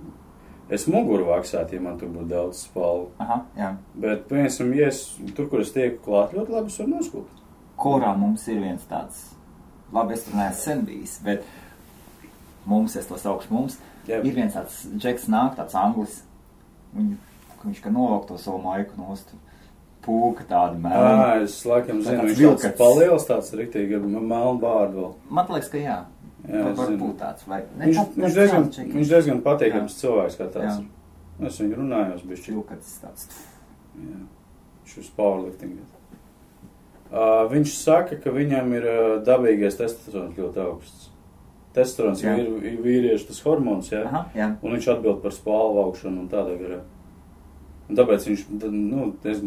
Es muguru vaksētu, ja man tur būtu daudz spalvu. Aha, jā. Bet, piemēram, ja es tur, kur es tieku klāt, ļoti labi es varu noskult. Korā mums ir viens tāds, labi, es tur neesmu sen bijis, bet mums, es to saukšu mums, ir viens tāds džeks nāk, tāds anglis, viņš kā novāk to savu maiku nost. Pūka tāda melna. Es laikam zinu, viņš tāds paliels tāds riktīgi ar melnu bārdu vēl. Man liekas, ka jā. Varbūt tāds. Viņš diezgan patīkams cilvēks kā tāds. Es viņu runājos bišķi. Vilkats tāds. Jā. Viņš uz powerlifting. Viņš saka, ka viņam ir dabīgais testosterons ļoti augsts. Testosterons ir vīriešu tas hormons, jā? Aha, jā. Un viņš atbild par spalvu augšanu un tādā garā. Un tāpēc viņš,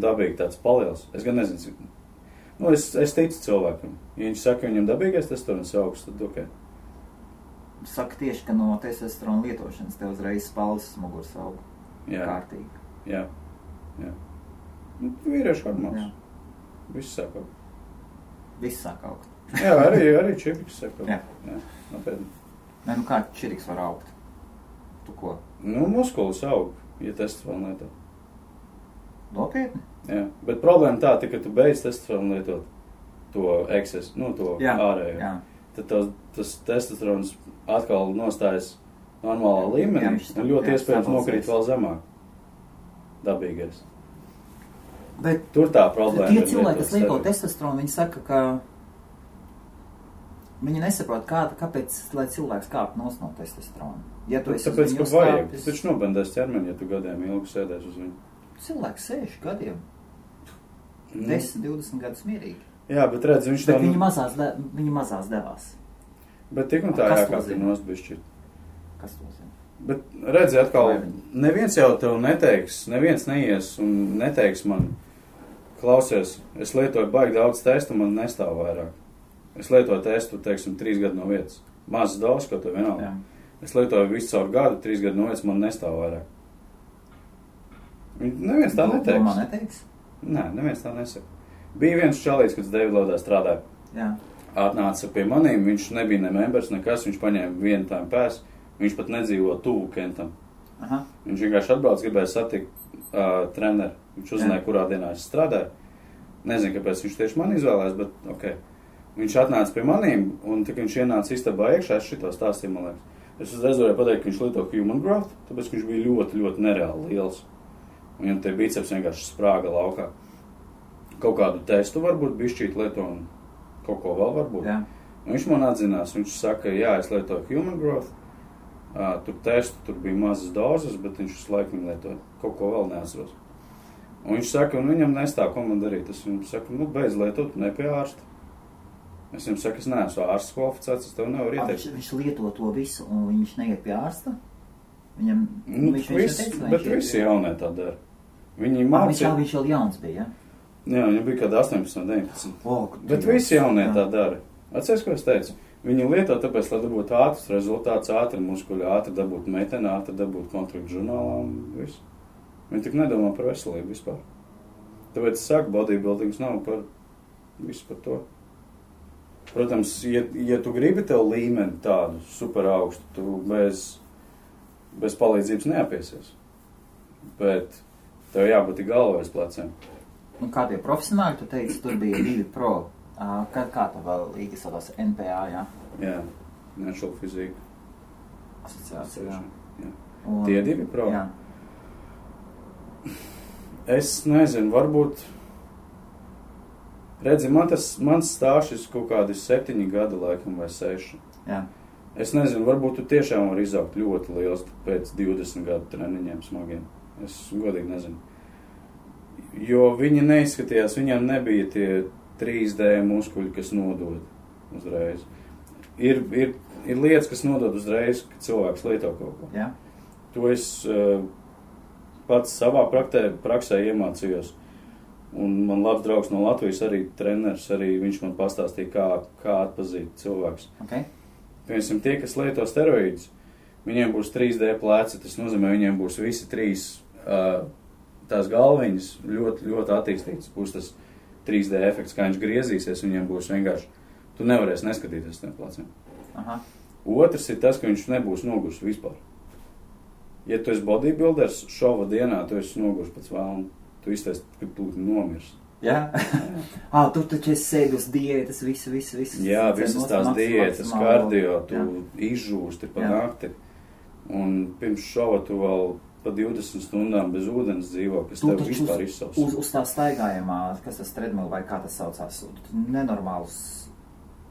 dabīgi tāds paliels. Es gan nezinu, cik. Es ticu cilvēkam. Ja viņš saka, ka viņam dabīgais testosterons augsts, tad ok. Saka tieši, ka no testosterona lietošanas tev uzreiz spalvas muguras aug. Jā. Kārtīgi. Jā. Vīriešu hormons. Viss sāk augt. Viss sāk augt. Jā, arī čiriks sāk augt. Jā. Nopietni. Nē, kā čiriks var augt? Tu ko? Muskulis aug, ja testosteronu lieto. Nopietni? Jā, bet problēma tā, ka tu beidz testosteronu lietot to eksesu, to ārējo. Jā. Tad tas testosterons atkal nostājas normālā līmenī un ļoti iespējams nokrīt vēl zemāk. Dabīgais. Bet tur tā problēma. Tie cilvēki, kas lieto testosteronu, viņi saka, ka viņi nesaprot, kāpēc, lai cilvēks kāp no testosterona. Ja tu esi tāpēc, ka vajag. Tu taču nobendēs ķermeni, ja tu gadiem ilgi sēdēs uz viņu. Cilvēks 6 gadiem. 10-20 gadus mierīgi. Jā, bet redz, viņš tā... Viņi mazās devās. Bet tik un tā jākāp ir nosbišķi. Kas to zina? Bet redzi, atkal, neviens jau tev neteiks, neviens neies un neteiks man, klausies, es lietoju baigi daudz testu, man nestāv vairāk. Es lietoju testu, teiksim, 3 gadu no vietas. Mazas daudz, ko tev vienalga. Es lietoju visu caur gadu, 3 gadu no vietas, man nestāv vairāk. Neviens tā neteiks. Man neteiks? Nē, neviens tā nesaka. Bija viens čalīts, kad Davidlodā strādāja. Jā. Atnāca pie manīm, viņš nebija ne members, nekas, viņš paņēma vienu tām pēs, viņš pat nedzīvo tuvu Kentam. Aha. Viņš vienkārši atbrauc, gribēja satikt treneru. Viņš uzzināja, kurā dienā es strādāju. Nezinu, kāpēc viņš tieši man izvēlējās, bet ok. Viņš atnāca pie manīm, un tik viņš ienāca istabā iekšā, es šito stāstīju, man liekas. Es uzreiz varēju pateikt, ka viņš lieto human growth, tāpēc, ka viņš bija ļoti, ļoti nereāli liels. Viņam tie biceps vienkārši sprāga laukā. Kaut kādu testu varbūt bišķīt lieto un kaut ko vēl varbūt. Jā. Un viņš man atzinās, viņš saka, jā, es lietoju human growth, tur testu, tur bija mazas dozes, bet viņš visu laiku viņu lietoja. Kaut ko vēl neatceros. Un viņš saka, un viņam nestāv, ko man darīt. Es viņam saku, beidz lietot, ne pie ārsta. Es viņam saku, es neesmu ārsts kvalificēts, es tev nevaru ieteikt. Viņš lieto to visu, un viņš neiet pie ārsta? Viņam, bet visi jaunie tā dara. Viņi mācīja. Viņš vēl jauns bija, ja? Jā, viņam bija kāda 18, 19. Bet visi jaunie tā dara. Atceries, ko es teicu? Viņi lieto tāpēc, lai dabūtu ātrs rezultāts, ātri muskuļi, ātri dabūt meteni, ātri dabūt kontraktu žurnālā un visu. Viņi tik nedomā par veselību vispār. Tāpēc es saku, bodybuildings nav par visu par to. Protams, ja tu gribi tev līmeni tādu super augstu, tu bez palīdzības neapiesies. Bet tev jābūt galvā aiz pleciem. Un kā tie profesionāļi, tu teici, tur bija 2 pro. Kā tā vēl līga saucās NPA, jā? Jā, Natural Physique. Asociācija, jā. Tie 2 pro? Jā. Es nezinu, varbūt... Redzi, mans stāšs kaut kādi 7 gadi laikam vai 6. Jā. Es nezinu, varbūt tu tiešām var izaugt ļoti liels pēc 20 gadu treniņiem smagiem. Es godīgi nezinu. Jo viņi neizskatījās, viņiem nebija tie 3D muskuļi, kas nodod uzreiz. Ir lietas, kas nodod uzreiz, kad cilvēks lieto kaut ko. Jā. To es pats savā praksē iemācījos. Un man labs draugs no Latvijas arī treneris, arī viņš man pastāstīja, kā atpazīt cilvēks. Okay. Piemēram, tie, kas lieto steroīdus, viņiem būs 3D pleci, tas nozīmē, viņiem būs visi 3 tās galviņas ļoti, ļoti attīstītas. Būs tas 3D efekts, kā viņš griezīsies, viņiem būs vienkārši, tu nevarēsi neskatīties tiem pleciem. Aha. Otrs ir tas, ka viņš nebūs nogurs vispār. Ja tu esi bodybuilders, šova dienā tu esi nogurs pēc vēlna. Tu iztaisi, ka tu nomirs. Jā? Tu taču esi sēdi uz diētas, visu. Jā, visas tās diētas, kardio, tu izžūsti pa nakti. Un pirms šova tu vēl pa 20 stundām bez ūdens dzīvo, kas tev vispār izsauc. Uz tā staigājumā, kas tas treadmill vai kā tas saucās, nenormāls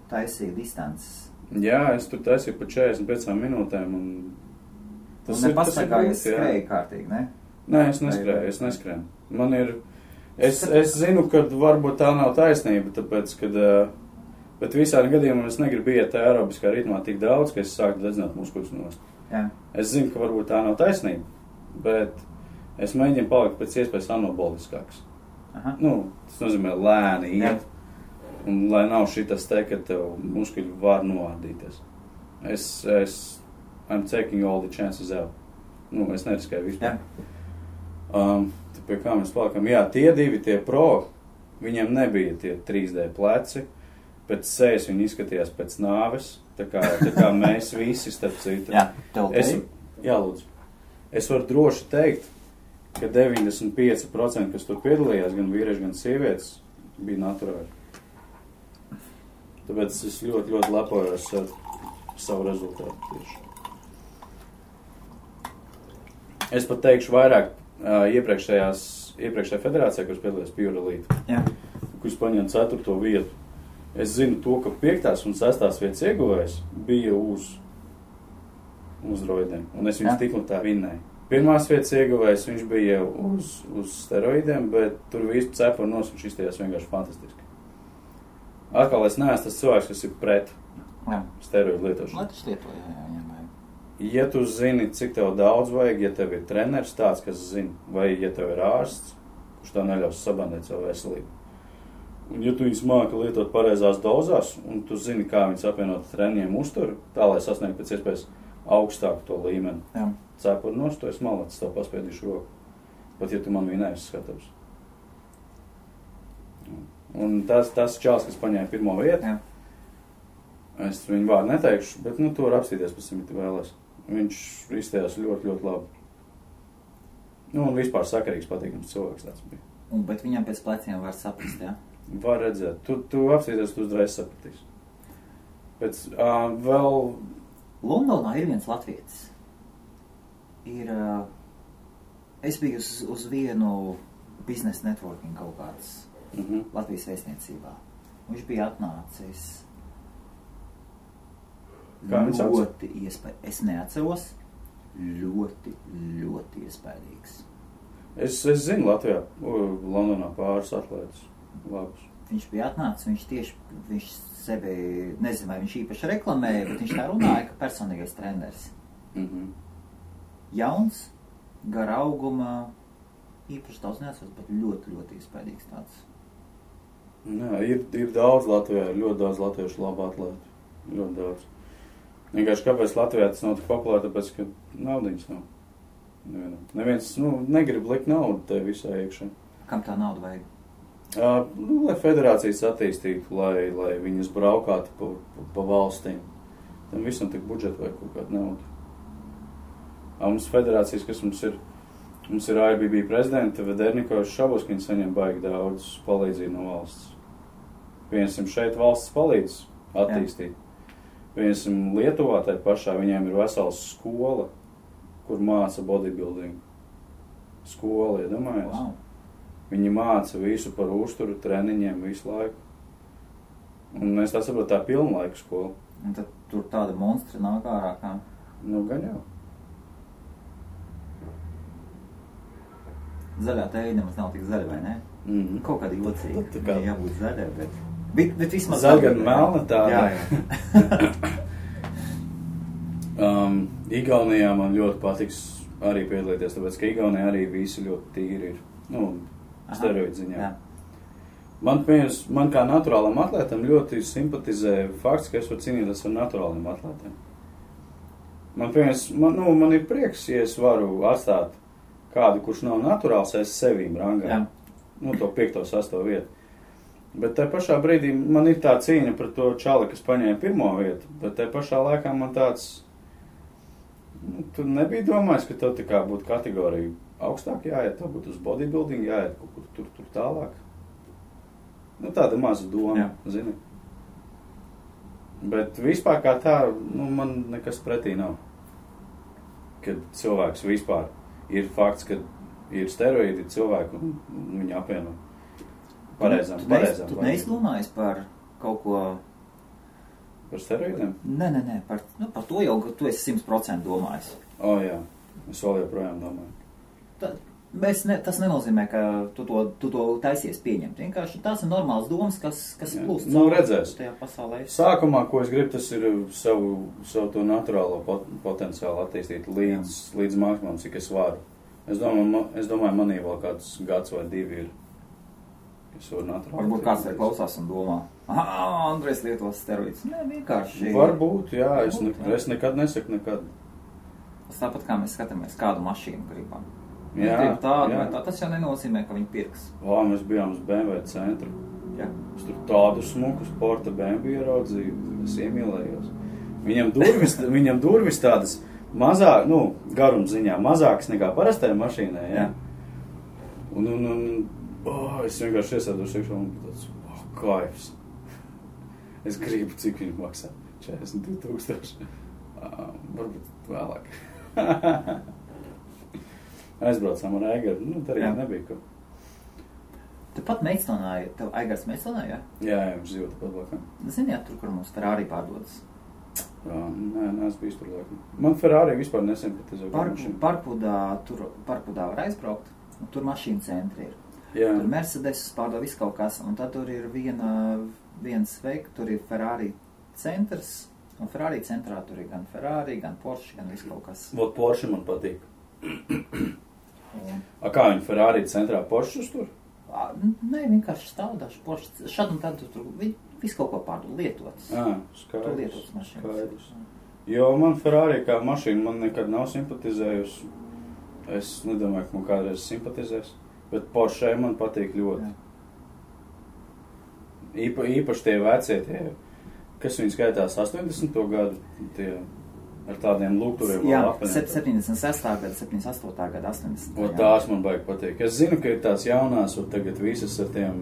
taisīja distances. Jā, es tur taisīju pa 45 minūtēm. Tu nepastaigājies skrēji kārtīgi, ne? Nē, es neskrēju. Man ir, es zinu, ka varbūt tā nav taisnība, tāpēc, kad, bet visādi gadījumā es negribu iet aerobiskā ritmā tik daudz, ka es sāku dedzināt muskuļus nost. Jā. Es zinu, ka varbūt tā nav taisnība, bet es mēģinu palikt pēc iespējas anaboliskāks. Aha. Tas nozīmē lēni iet, un lai nav šitas te, ka tev muskuļi var noārdīties. I'm taking all the chances out. Es neriskēju vispār. Pie kā mēs palikam? Jā, tie 2, tie pro, viņiem nebija tie 3D pleci, pēc sejas viņi izskatījās pēc nāves, tā kā mēs visi, starp citu. Jā, tev teikt? Jā, lūdzu. Es varu droši teikt, ka 95%, kas tur piedalījās, gan vīrieši, gan sievietes, bija naturāli. Tāpēc es ļoti, ļoti lepojos ar savu rezultātu tieši. Es pat teikšu vairāk, iepriekšējā federācijā, kuras piedalījās Pure Elite, kuras paņēma 4. vietu. Es zinu to, ka 5. un 6. vietas ieguvējs bija uz roidiem, un es viņus tik un tā vinnēju. 1. vietas ieguvējs viņš bija uz steroidiem, bet tur visu cepuru nos, viņš izstājās vienkārši fantastiski. Atkal es neesmu tas cilvēks, kas ir pret steroidu lietošanu. Lai tas lieto, jā. Ja tu zini, cik tev daudz vajag, ja tev ir treneris tāds, kas zina, vai ja tev ir ārsts, kurš tev neļaus sabandēt savu veselību. Un ja tu viņus māki lietot pareizās dozās, un tu zini, kā viņus apvienot treniņiem uzturu, tā, lai sasniegtu pēc iespējas augstāku to līmeni. Jā. Cepuri nost, to es malacis, tev paspēdīšu roku. Pat ja tu man vienais skatavs. Un tas čāls, kas paņēma 1. vietu, es viņu vārdu neteikšu, bet tu var apstīties pēc tam, ja tu vēlēs. Viņš izstājās ļoti, ļoti labi. Un vispār sakarīgs, patīkams cilvēks tāds bija. Bet viņam pēc pleciem var saprast, jā? Var redzēt. Tu apstīties, tu uzreiz sapratīsi. Pēc vēl Londonā ir viens latvietis. Es biju uz vienu biznesa networking kaut kādas Latvijas vēstniecībā. Viņš bija atnācis ļoti iespējams. Es neatceros, ļoti, ļoti iespējīgs. Es zinu Latvijā, Londonā pāris atlētas labus. Viņš bija atnācis, viņš sevi, nezinu, vai viņš īpaši reklamēja, bet viņš tā runāja, ka personīgais treneris. Jauns, gara auguma, īpaši daudz neatceros, bet ļoti, ļoti iespējīgs tāds. Jā, ir daudz Latvijā, ir ļoti daudz latviešu labu atlētu. Ļoti daudz. Vienkārši kāpēc Latvijā tas nav tik populāri, tāpēc, ka naudiņas nav. Neviens, negrib likt naudu te visā iekšā. Kam tā nauda vajag? Lai federācijas attīstītu, lai viņas braukātu pa valstīm. Tam visam tik budžetu vajag kaut kādu naudu. Mums federācijas, kas mums ir IBB prezidenta, Vedernikovs Šabuskins saņem baigi daudz palīdzību no valsts. Piemēram, šeit valsts palīdz attīstīt. Piemēram, Lietuvā tai pašā viņiem ir vesela skola, kur māca bodybuilding. Skola, iedomājies? Wow. Viņi māca visu par uzturu, treniņiem visu laiku. Un es tā saprotu, tā pilnlaika skola. Un tad tur tāda monstri nāk ārā kā? Gan jau. Zaļā tēja nemaz nav tik zaļa, vai ne? Kaut kāda jocīga. Tā kā jābūt zaļai, bet vismaz zaļa gan melna tāda. Jā. Igaunijā man ļoti patiks arī piedalīties, tāpēc, ka Igaunijā arī visi ļoti tīri ir. Steroidu ziņā. Jā. Man kā naturālam atlētam ļoti simpatizē fakts, ka es varu cīnīties ar naturāliem atlētiem. Man ir prieks, ja es varu atstāt kādu, kurš nav naturāls, es sevīm rangā. To 5. 6. vietu. Bet tai pašā brīdī man ir tā cīņa par to čali, kas paņēma 1. vietu, bet tai pašā laikā man tāds, tu nebija domājis, ka tev tā kā būtu kategorija augstāk jāiet, tev būtu uz bodybuilding jāiet kaut kur tur tālāk. Tāda maza doma, zini. Bet vispār kā tā, man nekas pretī nav. Kad cilvēks vispār ir fakts, ka ir steroīdi cilvēki un viņi apvieno pareizām. Tu neizdomājies par kaut ko... Par steroīdiem? Nē, par to jau, ka tu esi 100% domājis. Jā, es vēl joprojām domāju. Tas nenozīmē, ka tu to taisies pieņemt. Vienkārši tās ir normāls domas, kas plūst redzēs. Tajā pasaulē. Sākumā, ko es gribu, tas ir savu to naturālo potenciālu attīstīt līdz maksimumam, cik es varu. Es domāju, manī vēl kāds gads vai 2 ir. Es varu naturāli. Varbūt kāds te klausās un domā, Andrejs lietos steroīdus. Nē, vienkārši. Varbūt, jā. Es nekad nesaku nekad. Tas tāpat kā mēs skatāmies, kādu mašīnu gribam. Jā, tas jau nenozīmē, ka viņi pirks. Mēs bijām uz BMW centru. Jā. Es tur tādu smuku sporta BMW ieraudzīju, es iemīlējos. Viņam durvis tādas mazāk, garumziņā, mazākas nekā parastajā mašīnā, jā. Un es vienkārši iesēdos iekšā un tāds, kaifs. Es gribu, cik viņi maksā. 42,000. Varbūt vēlāk. Aizbraucām ar Aigaru, darījām nebija ko. Tepat Meitstonā, tev Aigars Meitstonā, jā? Jā, viņš dzīvo tepat blakām. Ziniet, tur, kur mums Ferrari pārdodas? Nē, es biju tur laikam. Man Ferrari vispār nesimpatizē. Parkpudā var aizbraukt, un tur mašīnu centri ir. Jā. Tur Mercedes pārdod visu kaut kas, un tad tur ir viens veik, tur ir Ferrari centrs, un Ferrari centrā tur ir gan Ferrari, gan Porsche, gan visu kaut kas. Vot Porsche man patīk. Kā viņi Ferrari centrā Porsche tur? Nē, vienkārši stāvdaši Porsche. Šad un tad tur visu kaut ko pārdod lietotas. Skaidrs. Tur lietotas mašīnas. Jo man Ferrari kā mašīna man nekad nav simpatizējusi. Es nedomāju, ka man kādreiz simpatizēs. Bet Porsche man patīk ļoti. Īpaši tie vecie, kas viņi skaitās 80. gadu, tie ar tādiem lūgturiem. Jā, 76. gada, 78. gada, 80. O, tās man baigi patīk. Es zinu, ka ir tās jaunās, un tagad visas ar tiem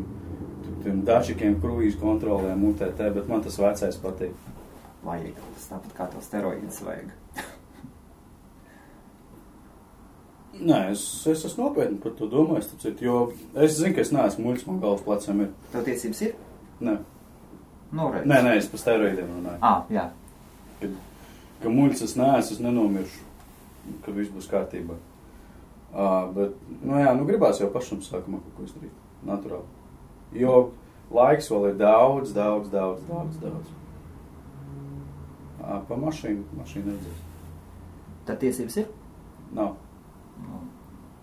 dačikiem, kruīzu kontrolēm, UTT, bet man tas vecais patīk. vajag. Tas tāpat kā to steroīdus vajag. Nē, es esmu nopietni par to domājis, jo es zinu, ka es neesmu muļs, man galvas plecam ir. Tev tiesības ir? Nē. Noreiz. Nē, es par steroīdiem runāju. Jā. Ka muļs es neesmu, es nenomiršu, ka viss būs kārtībā. Bet, gribās jau pašam sākumā kaut ko izdarīt. Naturāli. Jo laiks vēl ir daudz. Pa mašīnu redzēs. Tad tiesības ir? Nav.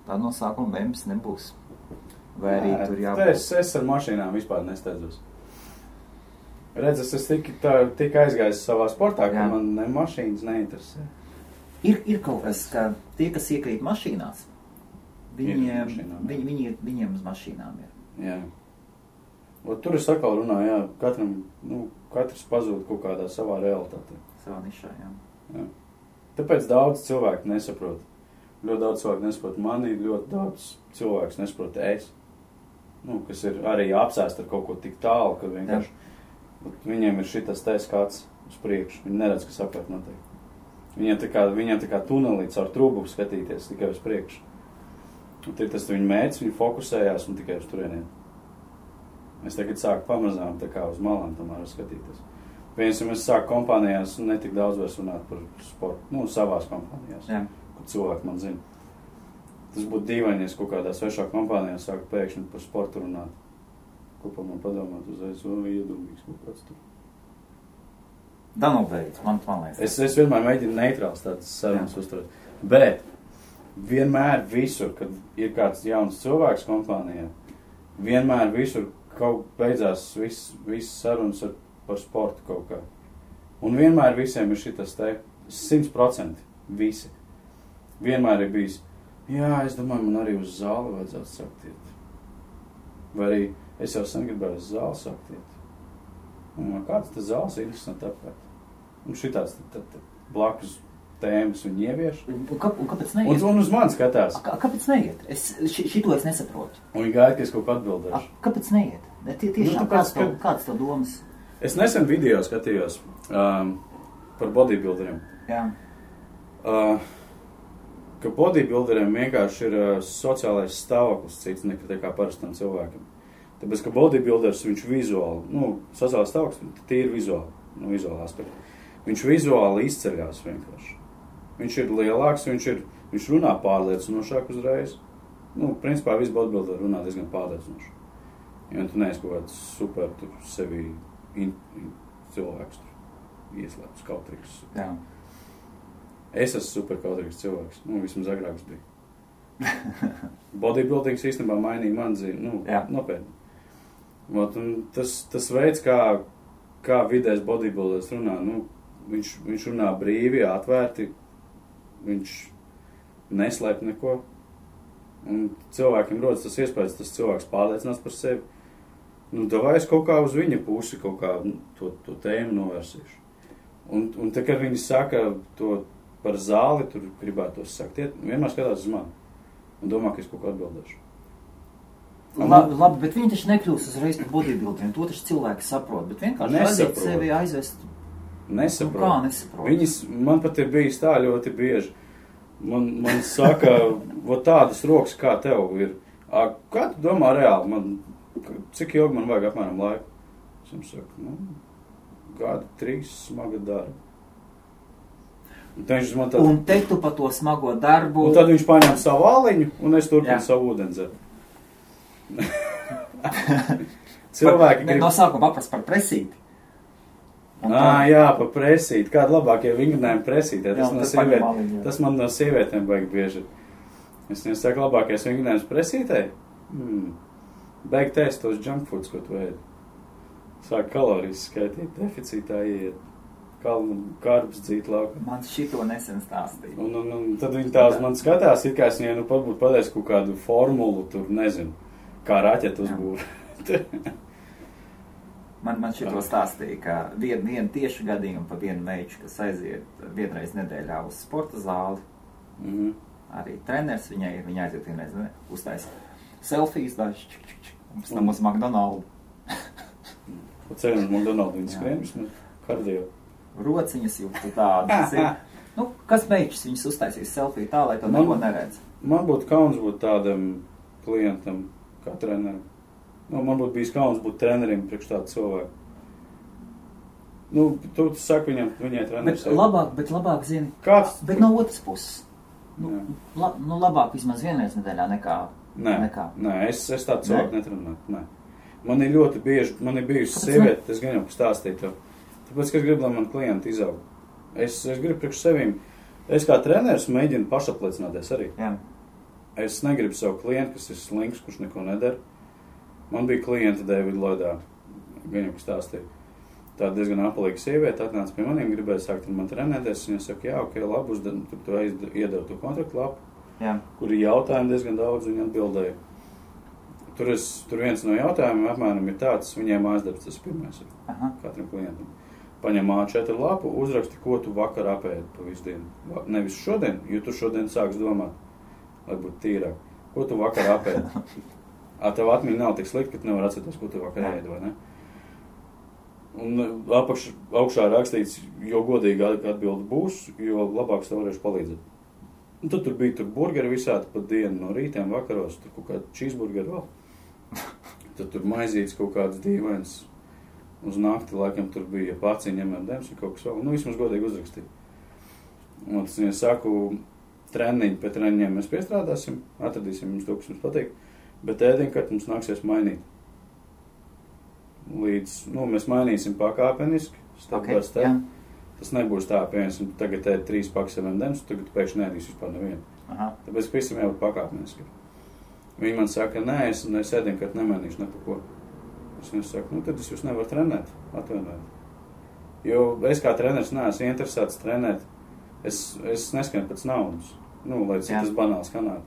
Tā no sākuma bembis nebūs. Vai arī tur jābūt? Es ar mašīnām vispār nesteidzos. Redz, es tik aizgājis savā sportā, ka man ne mašīnas neinteresē. Ir kaut kas, ka tie, kas iekrīt mašīnās, viņiem uz mašīnām ir. Jā. Tur es atkal runāju, katrs pazūd kaut kādā savā realitātē. Savā nišā, jā. Tāpēc daudz cilvēku nesaprot. Ļoti daudz cilvēku nesaprot mani, ļoti daudz cilvēku nesaprot es. Kas ir arī apsēst ar kaut ko tik tālu, ka vienkārši viņiem ir šitas skats uz priekšu. Viņi neredz, kas apkārt notiek. Viņiem tā kā tunelīts ar trūbu skatīties tikai uz priekšu. Un tas viņa mērķis, viņi fokusējās un tikai uz turieniem. Es tagad sāku pamazām tā kā uz malām tomēr skatīties. Piemēram, es sāku kompānijās netik daudz vairs runāt par sportu, savās kompānijās, kur cilvēki man zina. Tas būtu dīvaini, ja kaut kādā svešā kompānijā sāku pēkšņi par sportu runāt. Ko par man padomāt uzreiz, iedomīgs kaut kāds tur. Da beidz, man liekas. Es vienmēr mēģinu neitrāls tādas sarunas uzturēt. Bet vienmēr visur, kad ir kāds jauns cilvēks kompānijā, vienmēr visur kaut beidzās viss sarunas par sportu kaut kā. Un vienmēr visiem ir šitas 100% visi. Vienmēr ir bijis, es domāju, man arī uz zāli vajadzētu sākt iet. Vai arī es jau sen gribēju uz zāli sākt iet. Un kāds tas zāles ir interesanti apkārt. Un šitāds blakus tēmas viņi ievieš. Un kāpēc neiet? Un uz mani skatās. Kāpēc neiet? Šito es nesaprotu. Un viņi gaida, ka es kaut ko atbildēšu. Kāpēc neiet? Tiešām, kāds tev domas? Es nesen video skatījos par bodybuilderiem. Jā. Ka bodybuilderiem vienkārši ir sociālais stāvoklis cits nekā parastam cilvēkam. Tāpēc, ka bodybuilders, viņš vizuāli, sociālais stāvoklis, tīri vizuāli, vizuāli aspekti. Viņš vizuāli izceļās vienkārši. Viņš ir lielāks, viņš runā pārliecinošāk uzreiz. Principā visi bodybuilderi runā diezgan pārliecinoši. Ja tu neesi kaut kāds super tur sevi cilvēks tur ieslēpts kautrīgs. Jā. Es esmu super kautrīgs cilvēks. Vismaz agrāks bija. Bodybuildings īstenībā mainīja man dzīvi. Nopietni. Tas veids, kā vidējs bodybuilders runā, viņš runā brīvi, atvērti, viņš neslēp neko. Un cilvēkiem rodas tas iespējas, tas cilvēks pārliecinās par sevi. Davai es kaut kā uz viņa pusi kaut kā to tēmu novērsīšu. Un tā, kad viņi saka to par zāli, tur gribētos sakt iet, vienmēr skatās uz mani un domā, ka es kaut ko atbildēšu. Labi, bet viņi taču nekļūst uzreiz par bodybuilderiem, to taču cilvēki saprot, bet vienkārši aiziet sevi aizvest. Nesaprot. Kā nesaprot? Man pat ir bijis tā ļoti bieži. Man saka, tādas rokas kā tev ir. Kā tu domā reāli? Cik ilgi man vajag apmēram laiku? Es jums saku, gadu 3 smaga darba. Un te tu pa to smago darbu... Un tad viņš paņem savu āliņu, un es turpinu savu ūdenzeri. Cilvēki grib... No sākuma paprast par presīti. Jā, par presīti. Kādi labākie vingrinājumi presītē? Tas man no sievietēm vajag bieži. Es nesaku labākais vingrinājums presītē? Beig tēst tos junk foods, ko tu ēdi. Sāk kalorijas skaitīt, deficītā ieiet. Karbs dzīt laukā. Man šito nesen stāstīja. Un tad viņi tās man skatās, it kā es viņai pat būtu pateicis kaut kādu formulu, tur nezinu, kā raķetu uzbūvēt. Man šito stāstīja, ka vienu tieši gadījumu pa vienu meiču, kas aiziet vienreiz nedēļā uz sporta zāli. Arī treneris viņai ir, viņa aiziet vienreiz uztaisa selfijas daži, un pēc tam uz McDonaldu. Pa ceļu uz McDonaldu viņi skrien vismaz kardio. rociņas jūtu tādas. Nu, kas meičs viņas uztaisīs selfiju tā, lai to neko neredz? Man būtu kauns būt tādam klientam kā trenerim. Nu, man būtu bijis kauns būt trenerim priekš tādu cilvēku. Nu, tu saki viņai treneris. Bet labāk zini, kāds? Bet no otras puses. Nu, labāk vismaz vienreiz nedēļā nekā. Nē, es tādu cilvēku netrenētu. Nē. Man ir ļoti bieži, man ir bijusi sieviete, es gan jau pastāstīju to. Tāpēc, ka es gribu, lai man klienti izaug. Es gribu priekš sevīm. Es kā treneris mēģinu pašapliecināties arī. Jā. Es negribu savu klientu, kas ir slinks, kurš neko nedara. Man bija klienta Davida Lloydā, gan jau pastāstīju. Tā diezgan apalīga sieviete atnāca pie maniem, gribēja sākt ar man trenēties. Viņa saka, jā, ok, labi, tur tu iedevu to kontraktu lapu, kur ir jautājumi diezgan daudz, viņa atbildēja. Tur viens no jautājumiem apmēram ir tāds, viņai mājasdarbs, tas pirmais ir katram klientam. Paņem A4 lapu, uzraksti, ko tu vakar apēdi pa visu dienu. Nevis šodien, jo tu šodien sāks domāt, lai būtu tīrāk. Ko tu vakar apēdi? Tev atmiņa nav tik slikta, ka tu nevar atcerēties, ko tu vakar ēdi, vai ne? Un augšā rakstīts, jo godīgi atbildi būs, jo labāks tev varēšu palīdzēt. Un tad tur bija burgeri visādi pa dienu, no rītiem, vakaros, tur kaut kādi cheeseburgeri vēl. Tad tur maizītes kaut kāds dīvains. Uz nakti, laikam, tur bija paciņi, M&M's vai kaut kas vēl. Nu, vismaz godīgi uzrakstīja. Un tas viņai saku, treniņi pēc treniņiem mēs piestrādāsim, atradīsim jums to, kas mums patīk, bet ēdienkārt mums nāksies mainīt. Mēs mainīsim pakāpeniski, step by step. Tas nebūs tā, piemēram, tagad ēd 3 pakas M&M's, tagad pēkšņi neēdīs vispār nevienu. Tāpēc visam jābūt pakāpeniski. Viņi man saka, nē, es ēdienkārt nemainīšu ne pa ko. Es viņu saku, tad es jūs nevaru trenēt, atvainojiet. Jo es kā treneris neesmu interesēts trenēt. Es neskanu pēc naudas, lai cik tas banāls kanāli.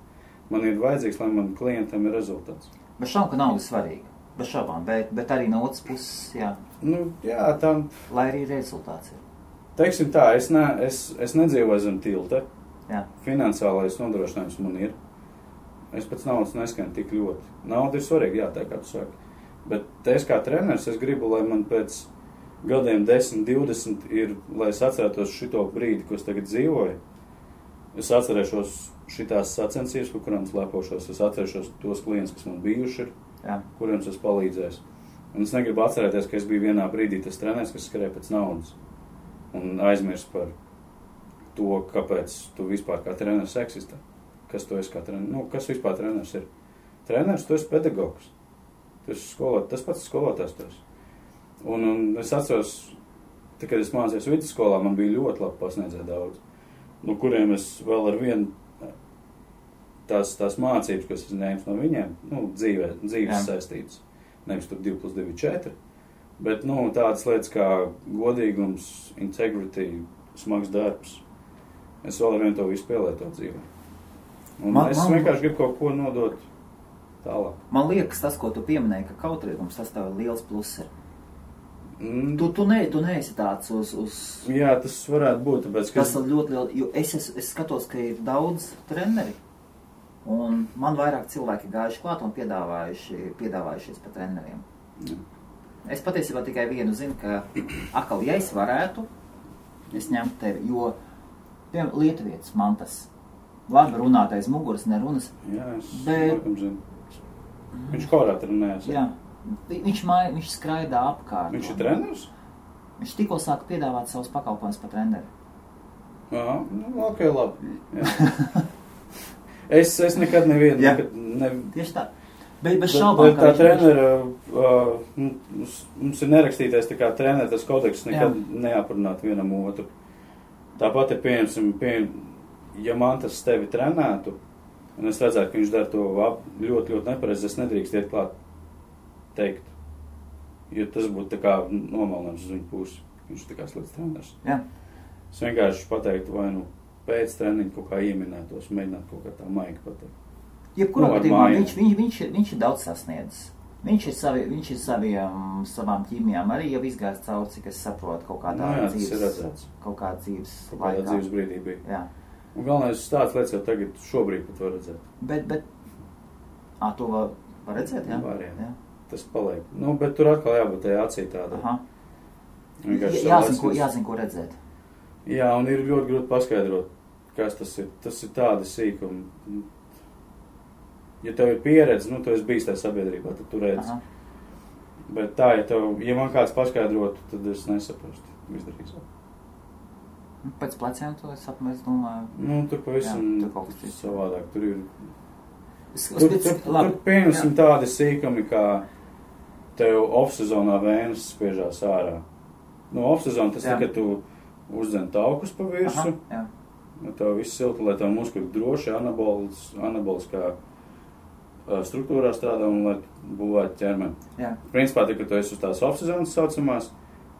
Man ir vajadzīgs, lai man klientam ir rezultāts. Bet šaubām, ka nauda svarīga. Bez šaubām, bet arī no otras puses, jā. Tā. Lai arī rezultāts ir. Teiksim tā, es nedzīvoju zem tilta. Jā. Finansiālais nodrošinājums man ir. Es pēc naudas neskanu tik ļoti. Nauda ir svarīga, jā, tā kā tu saki. Bet es kā treneris, es gribu, lai man pēc gadiem 10, 20 ir, lai es atcerētos šito brīdi, ko es tagad dzīvoju. Es atcerēšos šitās sacensības, par kurām es lepošos. Es atcerēšos tos klientus, kas man bijuši ir, kuriem es palīdzēju. Un es negribu atcerēties, ka es biju vienā brīdī tas treneris, kas skrēja pēc naudas. Un aizmirst par to, kāpēc tu vispār kā treneris eksistē. Kas tu esi kā treneris? Kas vispār treneris ir? Treneris, tu esi pedagogs. Tu esi skolotājs, tas pats skolotājs tu esi. Un es atceros, kad es mācījos vidusskolā, man bija ļoti labi pasniedzēja daudz. No kuriem es vēl ar vienu tās mācības, kas es ņēmu no viņiem, dzīves saistītas. Nevis tur 2+2 4. Bet, tādas lietas kā godīgums, integrity, smags darbs. Es vēl ar vienu to visu pielietot dzīvē. Un es vienkārši gribu kaut ko nodot tālāk. Man liekas, tas, ko tu pieminēji, ka kautrīgums, tas tev ir liels pluss ir. Tu neesi tāds uz... Jā, tas varētu būt, tāpēc, ka... Tas ir ļoti liels, jo es skatos, ka ir daudz treneri, un man vairāk cilvēki gājuši klāt un piedāvājušies par treneriem. Es patiesībā tikai vienu zinu, ka atkal, ja es varētu, es ņemtu tevi, jo, piemēram, Lietuvietis man tas labi runātais muguras nerunas. Jā, es laikam zinu. Viņš korā trenējas. Jā. Viņš skraidā apkārt. Viņš ir treneris? Viņš tikko sāka piedāvāt savus pakalpojumus par treneri. Jā, ok, labi. Es nekad nevienu... Tieši tā. Bet šaubām, tā trenera, mums ir nerakstītais tā kā trenera, tas kodeks nekad neaprunāt vienam otru. Tāpat ir pieņemsim, ja man tas tevi trenētu, un es redzētu, ka viņš dara to ļoti, ļoti nepareizi, es nedrīkst iet klāt teikt. Jo tas būtu tā kā nomalnājums uz viņu pusi. Viņš ir tā kā slikts treneris. Jā. Es vienkārši pateiktu, vai pēc treniņa kaut kā ieminētos, mēģināt kaut kā tā maigi pateikt. Jebkurā gadījumā viņš ir daudz sasniedzis. Viņš ir savām ķīmijām arī jau izgājis cauri, cik es saprotu, kaut kādā dzīves laikā. Dzīves brīdī bija. Jā. Un galvenais tāds lietas jau tagad šobrīd pat var redzēt. Bet to var redzēt, jā? Var, jā. Tas paliek. Bet tur atkal jābūt tajā acī tāda. Jāzina, ko redzēt. Jā, un ir ļoti grūti paskaidrot, kas tas ir. Tas ir tādi sīkumi. Ja tev ir pieredze, tu esi bijis tajā sabiedrībā, tad tu redzi. Bet tā, ja man kāds paskaidrotu, tad es nesaprastu visdrīzāk. Pēc pleciem to es domāju. Tur pavisam savādāk. Tur ir... Tur pieņemsim tādi sīkumi, kā tev off-sezonā vēnes spiežās ārā. Off-sezona tas kad tu uzdzen taukus pa virsu. Tev viss silti, lai tev muskuļi droši, anaboliskā struktūrā strādā un lai būvētu ķermeni. Principā, kad tu esi uz tās off-sezonas saucamās,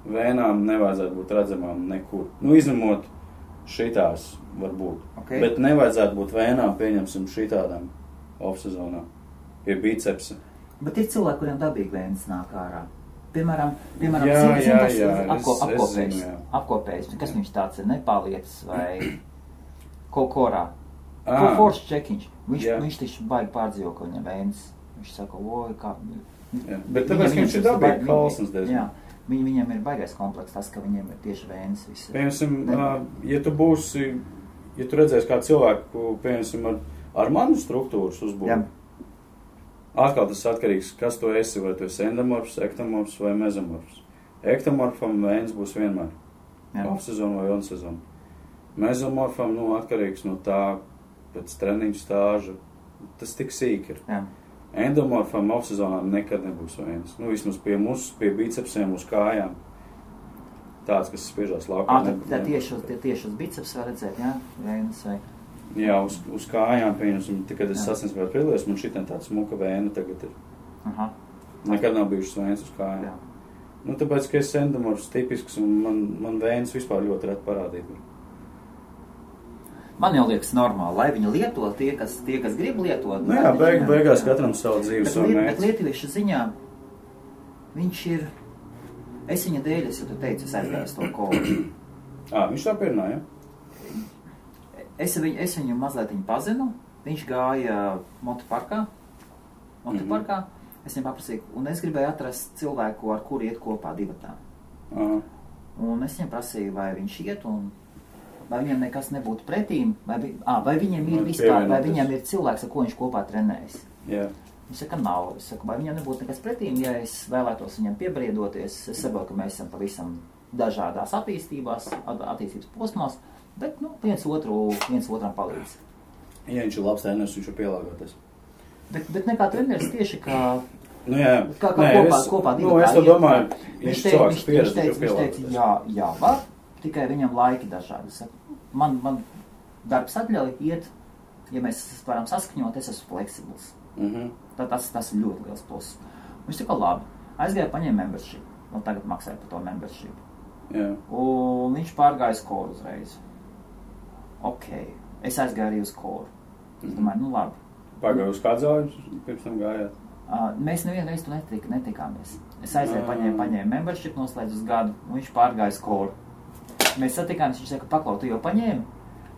vēnām nevajadzētu būt redzamām nekur. Izņemot šitās varbūt. Bet nevajadzētu būt vēnām, pieņemsim šitādām off-sezonā. Pie bicepsa. Bet ir cilvēki, kuriem dabīgi vēnas nāk ārā. Piemēram, apkopējs. Kas viņš tāds ir? Nepālietis vai korā? Force checkiņš. Viņš taču baigi pārdzīvo, ka viņam vēnas. Viņš saka, oi, kā... Bet tāpēc, ka viņš ir dabīgi kalsnes diezgan. Viņam ir baigais kompleks, tas, ka viņiem ir tieši vēnas visi. Piemēram, ja tu redzēsi kā cilvēku, piemēram, ar manu struktūras uzbūvi, atkal tas atkarīgs, kas tu esi, vai tu esi endomorfs, ektomorfs vai mezomorfs. Ektomorfam vēnas būs vienmēr. Off-sezonu vai on-sezonu. Mezomorfam, atkarīgs no tā, pēc treniņu stāža, tas tik sīk ir. Endomorfam off-sezonā nekad nebūs vēnas. Vismaz pie bicepsiem, uz kājām. Tāds, kas spiežās laukā. Tieši uz biceps var redzēt, vēnas vai? Jā, uz kājām, pieņemsim, kad es sasniedzu vēl prilēs, man šitien tāds smuka vēna tagad ir. Nekad nav bijušas vēnas uz kājām. Tāpēc, ka es endomorfs tipisks un man vēnas vispār ļoti reti parādīt. Man jau liekas normāli, lai viņi lieto tie, kas grib lietot. Beigās katram savu dzīvi, savu mērķi. Bet lietuviešu ziņā viņš ir... Es viņa dēļ, ja tu teici, es aizgāju to kolu. Viņš tā pierunā, ja? Es viņu mazliet pazinu. Viņš gāja motoparkā. Es viņam paprasīju, un es gribēju atrast cilvēku, ar kuru iet kopā divatā. Un es viņam prasīju, vai viņš iet un... Vai viņam nekas nebūtu pretīm, vai viņam ir vispār, vai viņam ir cilvēks, ar ko viņš kopā trenējas. Viņš saka, nav. Es saku, vai viņam nebūtu nekas pretīm, ja es vēlētos viņam piebriedoties. Es saprotu, ka mēs esam pavisam dažādās attīstības posmās, bet, viens otram palīdz. Ja viņš ir labs treneris, viņš ir pielāgoties. Bet nekā treneris tieši kā... Kopā divatā. Es to domāju, viņš cilvēks pieredzi, viņš teica, jā, var, tikai viņam laiki dažādi. Man darbs atļauj iet, ja mēs varam saskaņot, es esmu fleksibls. Tas ir ļoti liels plus. Viņš tika labi. Aizgāja paņēma membership. Tagad maksāja par to membership. Un viņš pārgāja uz koru uzreiz. Es aizgāju arī uz koru. Es domāju, labi. Pārgāju uz kādu zāļu, pirms tam gājāt? Mēs nevienu reizi tu netikāmies. Es aizgāju paņēma membership, noslēdz uz gadu, un viņš pārgāja uz koru. Mēs satikāmies, viņš saka, paklau, tu jau paņēmi?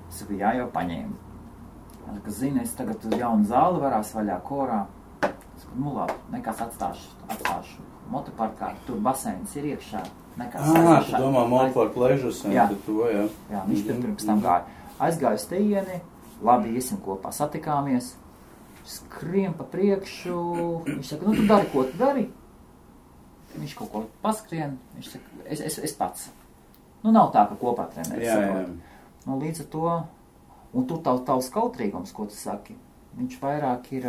Es saku, jā, jau paņēmi. Ka zini, es tagad jaunu zāli varās vaļā korā. Es saku, labi, nekas atstāšu motoparkā, tur baseins ir iekšā. Tu domā motopark ležus, tad to, jā. Jā, viņš pirms tam gāja. Aizgāju uz teieni, labi, iesim kopā, satikāmies, skrien pa priekšu, viņš saka, tu dari, ko tu dari? Viņš kaut ko paskrien, viņš saka, es pats. Nav tā, ka kopā trenēs. Jā. Līdz ar to, un tur tavs kautrīgums, ko tu saki, viņš vairāk ir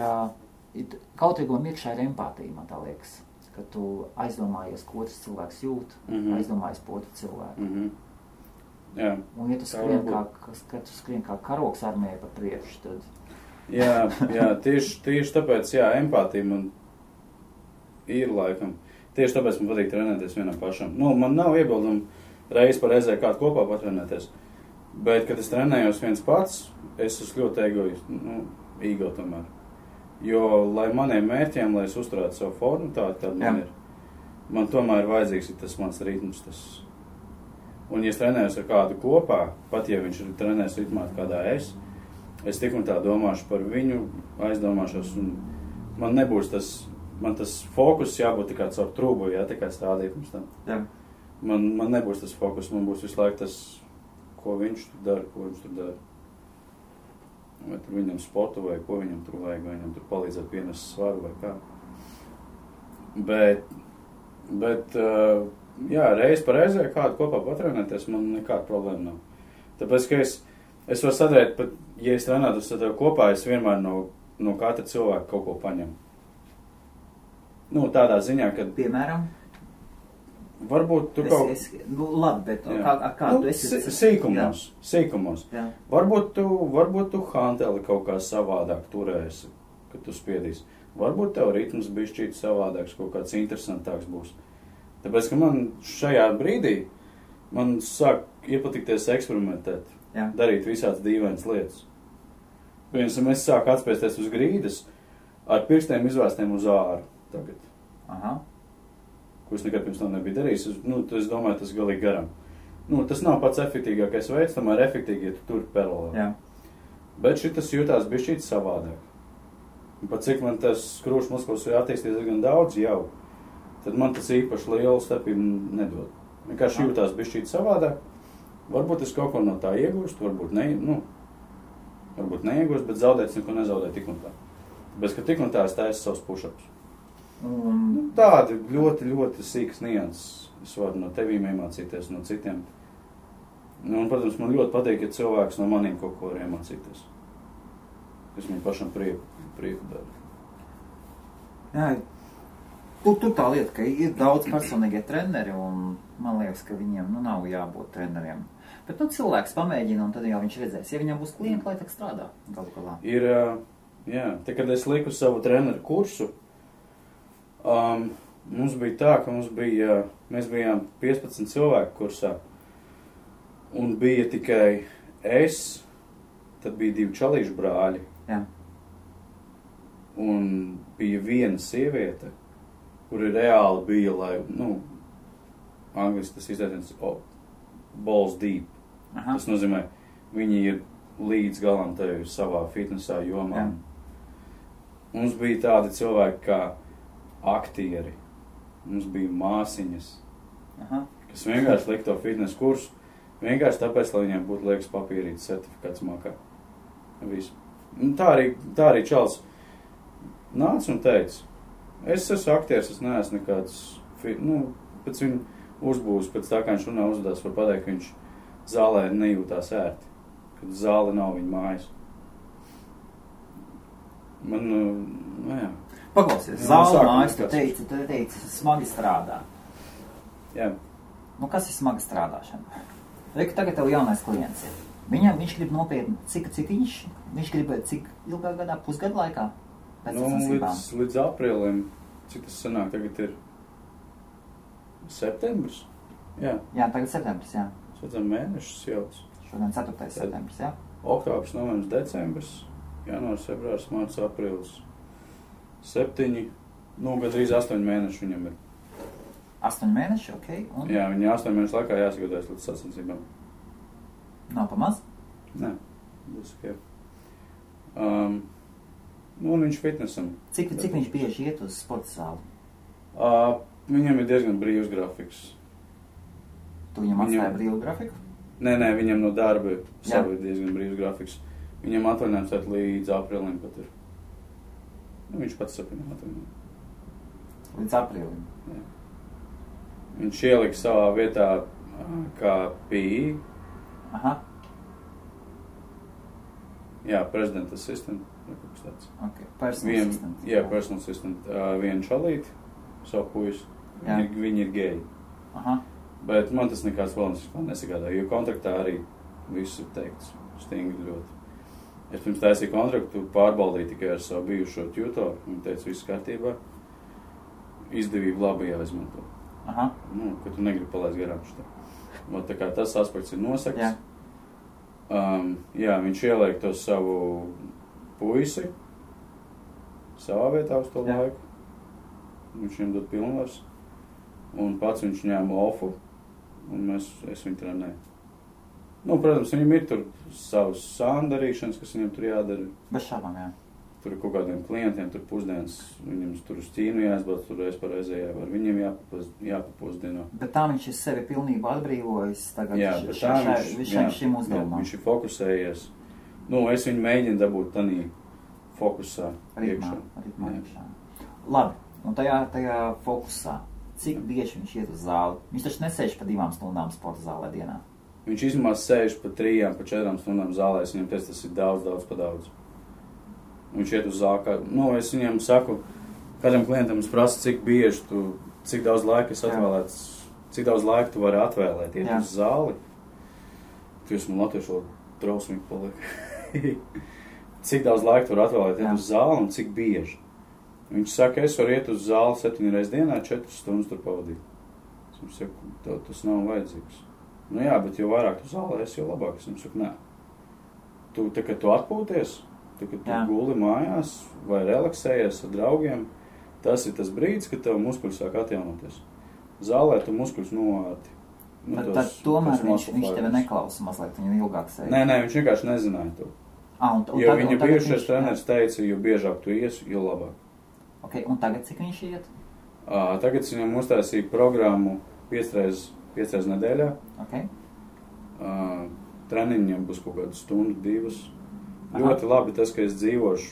kautrīguma iekšā ir empātija, man tā liekas, ka tu aizdomājies, ko otrs cilvēks jūt, aizdomājies par otru cilvēku. Jā. Un ja tu skrien kā karoks armijai pa priekšu, tad... Jā, tieši tāpēc, empātija man ir laikam. Tieši tāpēc man patīk trenēties vienam pašam. Man nav iebildumi reizi par reizē kādu kopā patrenēties. Bet, kad es trenējos viens pats, es esmu ļoti ego tomēr. Jo, lai maniem mērķiem, lai es uzturētu savu formu tādu man ir, man tomēr vajadzīgs ir tas mans ritms. Un, ja es trenējos ar kādu kopā, pat ja viņš ir trenējis ritmā kādā es tik un tā domāšu par viņu, aizdomāšos, un man nebūs tas fokus jābūt tikai caur trūbu, tikai stādīt mums tam. Man nebūs tas fokus, man būs visu laiku tas, ko viņš tur dara. Vai tur viņam sportu, vai ko viņam tur vajag, vai viņam tur palīdzēt pienest svaru, vai kā. Bet jā, reiz par reizē kādu kopā patrenēties, man nekāda problēma nav. Tāpēc, ka es varu sadarīt, pat, ja es trenētos ar tevi kopā, es vienmēr no katra cilvēka kaut ko paņemu. Nu, tādā ziņā, kad... Piemēram? Varbūt tu kaut... labi, bet kā tu esi... Sīkumos. Jā. Varbūt tu hanteli kaut kā savādāk turēsi, kad tu spiedīsi. Varbūt tev ritms bišķīt savādāks, kaut kāds interesantāks būs. Tāpēc, ka man šajā brīdī, man sāk iepatikties eksperimentēt, darīt visādas dīvainas lietas. Piemēram, es sāku atspēsties uz grīdas ar pirkstiem izvērstiem uz āru tagad. Aha. Ko es nekad pirms tam nebiju darījis, es domāju, tas galīgi garam. Tas nav pats efektīgākais veids, tomēr efektīgi, ja tu tur paralēli. Jā. Bet šitas jūtās bišķīt savādāk. Un pat cik man tas skrūšu muskulis ir attīstījies gan daudz jau, tad man tas īpaši lielu starpību nedod. Vienkārši jūtās bišķīt savādāk. Varbūt es kaut ko no tā iegūstu, varbūt neiegūstu, bet zaudēt neko nezaudēt tik un tā. Tāpēc, ka tik un tā es taisu savus push-ups. Tādi ļoti, ļoti sīkas nianses. Es varu no tevīm iemācīties, no citiem. Un, protams, man ļoti patīk, ja cilvēks no maniem kaut ko var iemācīties. Es viņu pašam prieku daru. Jā, tur tā lieta, ka ir daudz personīgie treneri, un man liekas, ka viņiem nav jābūt treneriem. Bet cilvēks pamēģina, un tad jau viņš redzēs. Ja viņam būs klienti, lai tak strādā galu galā. Ir, jā, te, kad es liku savu treneru kursu, mums bija tā, ka mēs bijām 15 cilvēku kursā, un bija tikai es, tad bija 2 čalīšu brāļi, un bija viena sieviete, kuri reāli bija, lai, angliski tas izteiciens balls deep. Aha. Tas nozīmē, viņi ir līdz galam tevi savā fitnesā jomā. Mums bija tādi cilvēki kā aktieri, mums bija māsiņas, kas vienkārši lika to fitness kursu, vienkārši tāpēc, lai viņiem būtu liekas papīrītas certifikāts makā. Visu. Tā arī čals nāca un teica, es esmu aktieris, es neesmu nekāds, pēc viņu uzbūs, pēc tā, kā viņš runā uzvedās, var pateikt, ka viņš zālē nejūtās ērti, kad zāle nav viņa mājas. Jā. Paklausies, zāle mājas, tu teici, smagi strādā. Jā. Kas ir smagi strādāšana? Reika, tagad tev jaunais klients ir. Viņš grib nopietni, cik viņš grib cik ilgā gadā, pusgadu laikā? Līdz aprīlim, cik tas sanāk, tagad ir septembris? Jā, tagad septembris, jā. Šodien mēnešus jauc. Šodien 4. septembris, jā. Oktobris, novembris, decembris, janvārs, februārs, mārts, aprīlis. 7, gandrīz 8 mēneši viņam ir. 8 mēneši, ok. Un? Jā, viņi 8 mēnešu laikā jāsagatavojas līdz sacensībām. Nav pamaz? Nē, būs ok. Un viņš fitnesam. Cik viņš bieži iet uz sporta zāli? Viņam ir diezgan brīvs grafiks. Tu viņam atstāji brīvu grafiku? Nē, viņam no darba savu ir diezgan brīvs grafiks. Viņam atvaļinājums līdz aprīlim pat ir. Viņš pats sapņo atvaļinājumu. Līdz aprīlim? Jā. Viņš ielika savā vietā kā PI. Aha. Jā, president assistant. Okay. Personal assistant. Jā, personal assistant. Vienu čalīti, savu puisi. Viņi ir geji. Aha. Bet man tas nekāds valens nesagādā, jo kontraktā arī viss ir teikts stingri ļoti. Es pirms taisīju kontraktu, pārbaudīju tikai ar savu bijušo tutoru. Viņa teica, viss kārtībā. Izdevību labi jāizmanto. Aha. Ka tu negribi palaist garām šitā. Tā kā tas aspekts ir nosakts. Jā, viņš ieliek to savu puisi savā vietā uz to laiku. Viņš viņam dod pilnvars. Un pats viņš ņēma ofu. Un es viņu trenēju. Protams, viņam ir tur savas sāndarīšanas, kas viņam tur jādara. Bez šābām, jā. tur ir kaut kādiem klientiem, tur pusdienas, viņam tur uz Ķīnu jāizbrauc, tur reiz par reizē var viņam jāpapusdieno. Bet tā viņš ir sevi pilnībā atbrīvojis tagad šim uzdevumam. Viņš ir fokusējies. Nu, es viņu mēģinu dabūt tanī fokusā iekšā. Labi, un tajā fokusā, cik bieži viņš iet uz zāli? Viņš taču nesēž pa 2 stundām sporta zālē dienā. Viņš izmās sēž pa 3, pa 4 stundām zālē, es viņam teicu, tas ir daudz pa daudz. Viņš iet uz zāli, es viņam saku, kādam klientam es prasu, cik daudz laika es atvēlēts, cik daudz laika tu vari atvēlēt, iet uz zāli. Jūs man latviešu drausmīgi paliek. Cik daudz laika tu vari atvēlēt, iet uz zāli un cik bieži. Viņš saka, es varu iet uz zāli 7 reizes dienā, 4 stundas tur pavadīt. Es viņam saku, tas nav vajadzīgs. Nu jā, bet jo vairāk tu zālē esi, jo labāk. Es viņam saku, nē. Kad tu atpūties, kad tu guli mājās vai relaksējies ar draugiem, tas ir tas brīdis, kad tev muskuļi sāk atjaunoties. Zālē tu muskuļus novārti. Tad tomēr viņš tevi neklausa mazliet, viņam ilgāk sēž. Nē, viņš vienkārši nezināja to. Jo viņa bijušais treneris teica, jo biežāk tu iesi, jo labāk. Ok, un tagad cik viņš iet? Tagad viņam uztaisīja programmu 5 reizes nedēļā. Ok. Treniņiem būs kaut kādu stundu, 2. Ļoti labi tas, ka es dzīvošu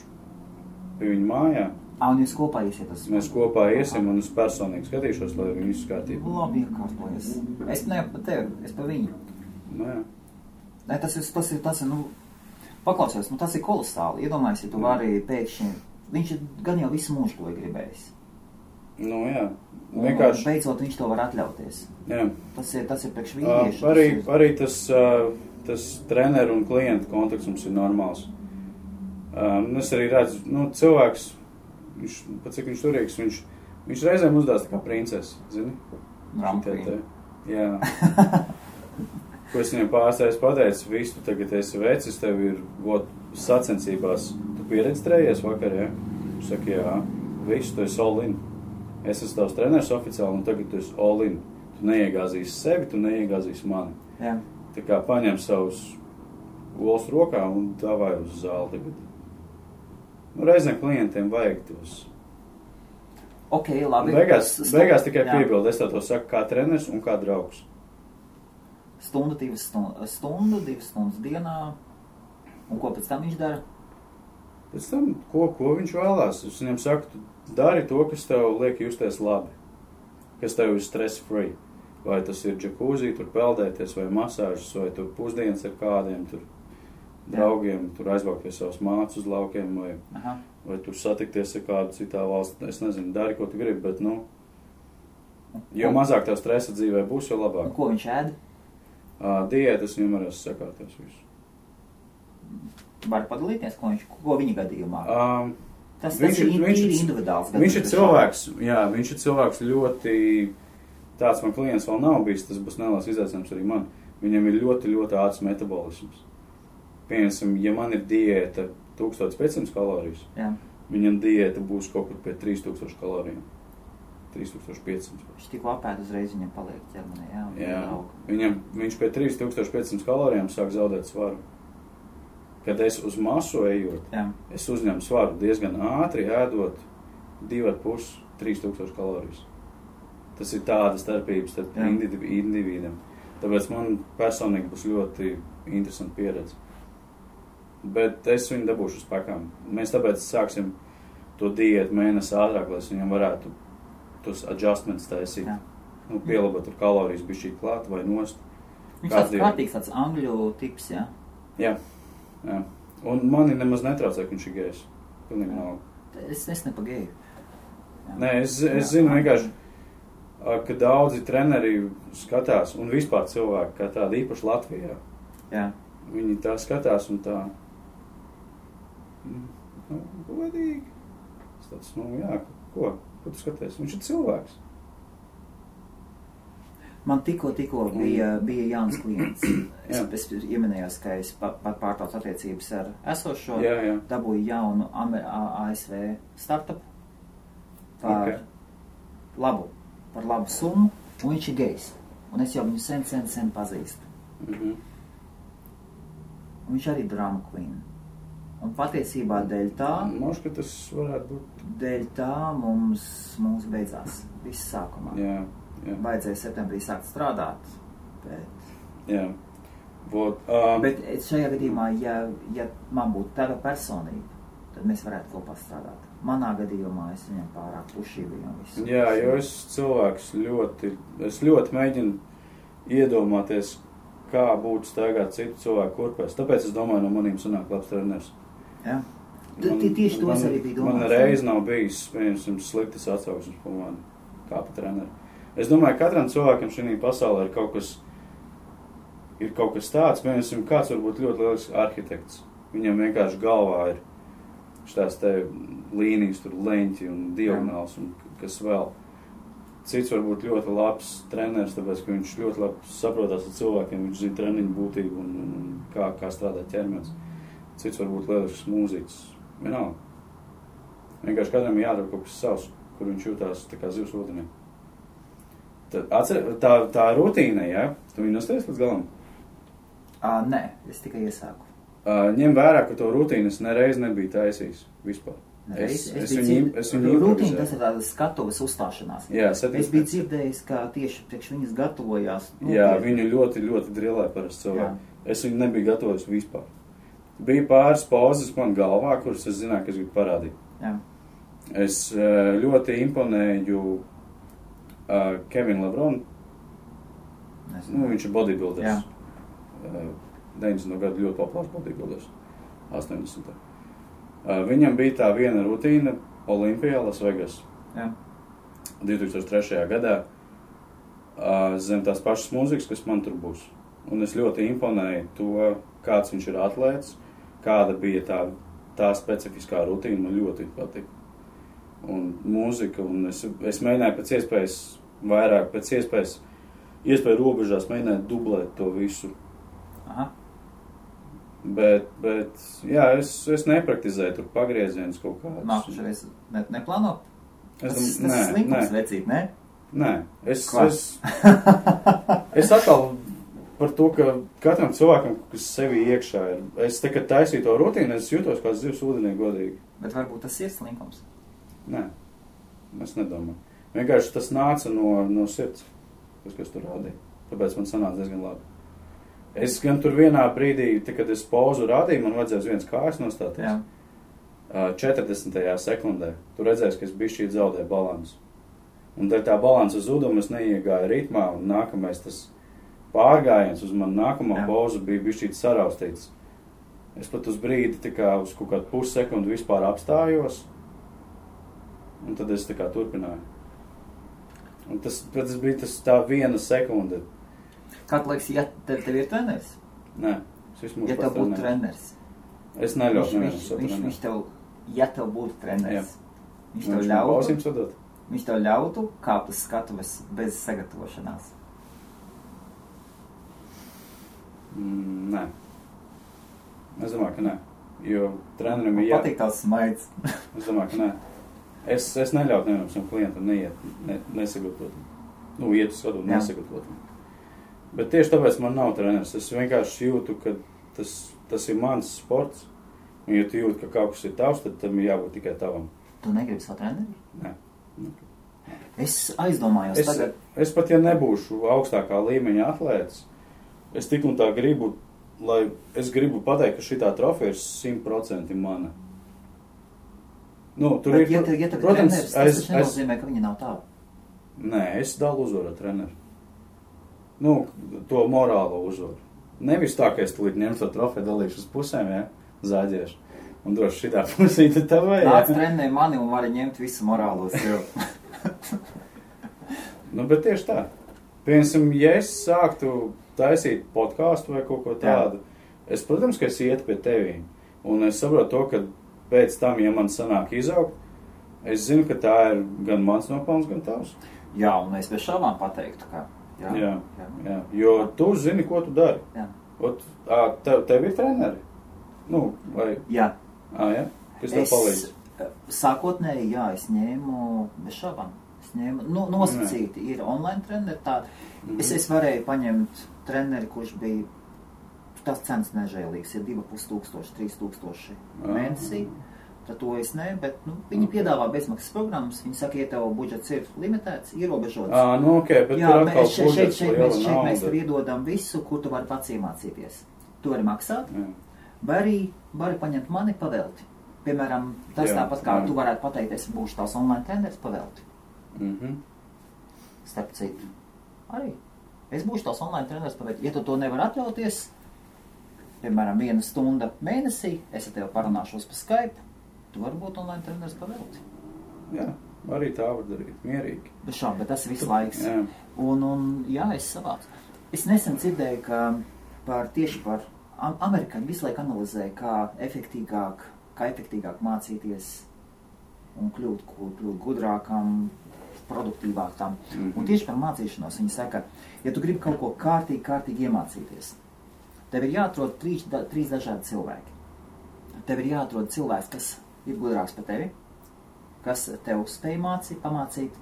pie viņa mājā. Un jūs kopā iesiet uz... Mēs kopā iesim un es personīgi skatīšos, lai viņi visu kārtību. Labi, iekārtojas. Es ne pa tevi, es pa viņu. Nu jā. Ne, tas ir, paklausies, tas ir kolosāli. Iedomājies, ja tu vari pēkšņi... Viņš ir gan jau visu mūžu to gribējis. Nu jā. Vienkārši... Beidzot viņš to var atļauties. Jā. Tas ir priekš vīrieši. Arī tas treneru un klientu kontakts mums ir normāls. Es arī redzu, cilvēks, pat cik viņš turīgs, viņš reizēm uzdās tā kā princesi, zini? Jā. Ko es viņam pārstājas pateicu, visu tu tagad esi vecis, tev ir sacensībās. Tu pieredstrējies vakar, ja? Saka, jā, visu, tu esi all in. Es esmu tavs treneris oficiāli, un tagad tu esi all in. Tu neiegāzīsi sevi, tu neiegāzīsi mani. Jā. Tā kā paņem savus olas rokā un davai uz zāli tagad. Reizēm klientiem vajag tos. Ok, labi. Beigās tikai piebildu, es to saku kā treneris un kā draugs. Stundu, 2 stundas dienā. Un ko pēc tam viņš dara? Pēc tam, ko viņš vēlās? Es viņam saku, tu dari to, kas tev liek justies labi. Kas tev ir stress free. Vai tas ir džakūzī, tur peldēties, vai masāžas, vai tur pusdienas ar kādiem tur draugiem, tur aizbraukt pie savas mātes uz laukiem, vai tur satikties ar kādu citā valstī. Es nezinu, dari, ko tu gribi, bet, jo mazāk tev stresa dzīvē būs, jo labāk. Un ko viņš ēd? Diētas viņam varēs sakārties visu. Var padalīties, ko viņa gadījumā? Tas ir individuāls. Viņš ir cilvēks, viņš ir cilvēks ļoti... Tāds man klients vēl nav bijis, tas būs neliels izaicinājums arī man. Viņam ir ļoti, ļoti ātrs metabolisms. Piemēram, ja man ir diēta 1500 kalorijas, viņam diēta būs kaut kur pie 3000 kalorijām. 3500. Viņš tik apēd uzreiz viņam paliek ķermenī, Viņš pie 3500 kalorijām sāk zaudēt svaru. Kad es uz masu ejot, es uzņemu svaru diezgan ātri, ēdot 2,5–3000 kalorijas. Tas ir tāda starpības starp individiem. Tāpēc man personīgi būs ļoti interesanti pieredze. Bet es viņu dabūšu uz pakām. Mēs tāpēc sāksim to diētu mēnesi ātrāk, lai viņam varētu tos adjustments taisīt. Pielabot tur kalorijas bišķīt klāt vai nost. Viņš tāds kārtīgs, tāds angļu tips, jā? Jā. Un mani nemaz netraucē, ka viņš ir gejs. Pilnīgi nav. Es nepagēju. Nē, es zinu vienkārši, ka daudzi treneri skatās, un vispār cilvēki, kā tādi īpaši Latvijā. Jā. Viņi tā skatās un tā, godīgi. Tas tāds, ko tu skaties? Viņš ir cilvēks. Man tikko bija jauns klients. Es ieminējos, ka es pārtaucu attiecības ar esošo, dabūju jaunu ASV startup par labu summu, un viņš ir gejs. Un es jau viņu sen pazīstu. Un viņš arī drama queen. Un patiesībā dēļ tā... Možda, ka tas varētu būt... Dēļ tā mums beidzās viss sākumā. Jā. Vajadzēja septembrī sākt strādāt, bet... Jā. Bet šajā gadījumā, ja man būtu tava personība, tad mēs varētu kopā strādāt. Manā gadījumā es viņam pārāk pušīju un visu. Jā, jo es cilvēks ļoti mēģinu iedomāties, kā būtu staigāt citu cilvēku kurpēs. Tāpēc es domāju, no manīm sanāk labs treneris. Jā. Tieši tos arī bija domāts. Man reiz nav bijis, piemēram, sliktas atsauksmes par mani, kā pa treneri. Es domāju, katram cilvēkam šī pasaulē ir kaut kas tāds, piemēram, kāds varbūt ļoti lielisks arhitekts. Viņam vienkārši galvā ir šitās te līnijas, tur leņķi un diagonāls un kas vēl. Cits varbūt ļoti labs treneris, tāpēc, ka viņš ļoti labi saprotās ar cilvēkiem, viņš zina treniņu būtību un kā strādā ķermenis. Cits varbūt lielisks mūziķis. Vienalga. Vienkārši katram ir jādara kaut kas savs, kur viņš jūtās tā kā zivs ūdenī. Tā rutīna, ja? Tu viņu nostājies līdz galam? Nē, es tikai iesāku. Ņem vērā, ka to rutīnu es nereiz nebiju taisījis vispār. Es viņu rutīnu, tas ir tādas skatuves uzstāšanās. Jā, es biju dzirdējis, ka tieši priekš viņas gatavojās. Jā, viņu ļoti, ļoti drillē parasti cilvēki. Es viņu nebiju gatavojis vispār. Bija pāris pauzes man galvā, kuras es zināju, ka es gribu parādīt. Jā. Es ļoti imponēju Kevinu Lebronu. Viņš ir bodybuilders. 90. gadu ļoti populārs bodybuilders. 80. Viņam bija tā viena rutīna Olimpijā, Las Vegas. Jā. 2003. gadā zem tās pašas mūzikas, kas man tur būs. Un es ļoti imponēju to, kāds viņš ir atlēts, kāda bija tā specifiskā rutīna, man ļoti patika. Un mūzika, un es mēģināju pēc iespējas vairāk, pēc iespēju robežās mēģināju dublēt to visu. Aha. Bet jā, es nepraktizēju tur pagriezienus kaut kādus. Nākušais neplāno? Tas nē, slinkums vecīt, ne? Nē, es atkal par to, ka katram cilvēkam, kas sevi iekšā ir, es te, kad taisīju to rutīnu, es jūtos kā zivs ūdenī godīgi. Bet varbūt tas ir slinkums? Nē, es nedomāju. Vienkārši tas nāca no sirds, kas tur rādīja. Tāpēc man sanāca diezgan labi. Es gan tur vienā brīdī, kad es pauzu rādīju, man vajadzēja uz viens kājas nostāties. Jā. 40. sekundē. Tu redzēsi, ka es bišķīt zaudēju balansu. Un dēļ tā balansa zuduma es neiegāju ritmā, un nākamais tas pārgājiens uz manu nākamo pauzu bija bišķīt saraustīts. Es pat uz brīdi tā kā uz kaut kādu pussekundu vispār apstājos, un tad es tā kā turpināju. Un tas bija tā viena sekunde. Kā tu liekas, ja tev ir treneris? Nē, ja tev būtu treneris. Es neļautu nevienam savu treneru. Viņš tev, ja tev būtu treneris, viņš tev ļautu kāpt uz skatuves bez sagatavošanās. Nē. Es domāju, ka nē. Jo trenerim ir patīk tās smaids. Es domāju, ka nē. Es neļautu nevienam savam klientam nesagatavot. Iet uz skatuvi nesagatavot. Bet tieši tāpēc man nav treneris. Es vienkārši jūtu, ka tas ir mans sports. Un ja tu jūti, ka kaut kas ir tavs, tad tam ir jābūt tikai tavam. Tu negribi savu treneri? Nē. Es aizdomājos tagad. Es pat, ja nebūšu augstākā līmeņa atlētis, es tik un tā gribu, es gribu pateikt, ka šitā trofeja ir 100% mana. Tur bet, ja tev treneris, tas nenozīmē, ka viņa nav tāda. Nē, es dalu uzvaru treneru. To morālo uzvaru. Nevis tā, ka es tulīt ņemšu to trofeju, dalīšu uz pusēm, zāģiešu. Un droši šitā pusīte tavai, Nāc trenē mani un vari ņemt visu morālo sev. Bet tieši tā. Piemēram, ja es sāktu taisīt podkāstu vai kaut ko tādu, es, protams, ka es ietu pie tevī. Un es saprotu to, ka pēc tam, ja man sanāk izaugt, es zinu, ka tā ir gan mans nopelns, gan tavs. Jā, un es bez šaubām pateiktu, ka... Jā. Jo tu zini, ko tu dari. Jā. Tev ir treneri? Vai... Jā. Jā? Kas tev palīdz? Sākotnēji, jā, es ņēmu bez šaubām. Es ņēmu, nosacīti ir online treneri tādi. Es varēju paņemt treneri, kurš bija tas cenas nežēlīgs, ir 2500, 3000 mēnesī. Tad to es ne, bet viņi piedāvā bezmaksas programmas. Viņi saka, ja tev budžets ir limitēts, ierobežots. Bet jā, šeit mēs tev iedodam visu, kur tu vari pats iemācīties. Tu vari maksāt, vai arī vari paņemt mani pavelti. Piemēram, tas tāpat kā tu varētu pateikt, es būšu tās online treneris pavelti. Starp citu. Arī. Es būšu tās online treneris pavelti. Ja tu to nevar atļauties, piemēram, 1 stunda mēnesī, es ar tevi parunāšos pa Skype, tu vari būt online treneris pavelti. Jā, arī tā var darīt, mierīgi. Bet tas ir visu laiks. Jā, es savācu. Es nesen dzirdēju, ka tieši par amerikāņu visu laiku analizēju, kā efektīgāk mācīties un kļūt gudrākam, produktīvākam. Un tieši par mācīšanos viņi saka, ja tu gribi kaut ko kārtīgi iemācīties, tev ir jāatrod 3 dažādi cilvēki. Tev ir jāatrod cilvēks, kas ir gudrāks par tevi, kas tev spēj pamācīt.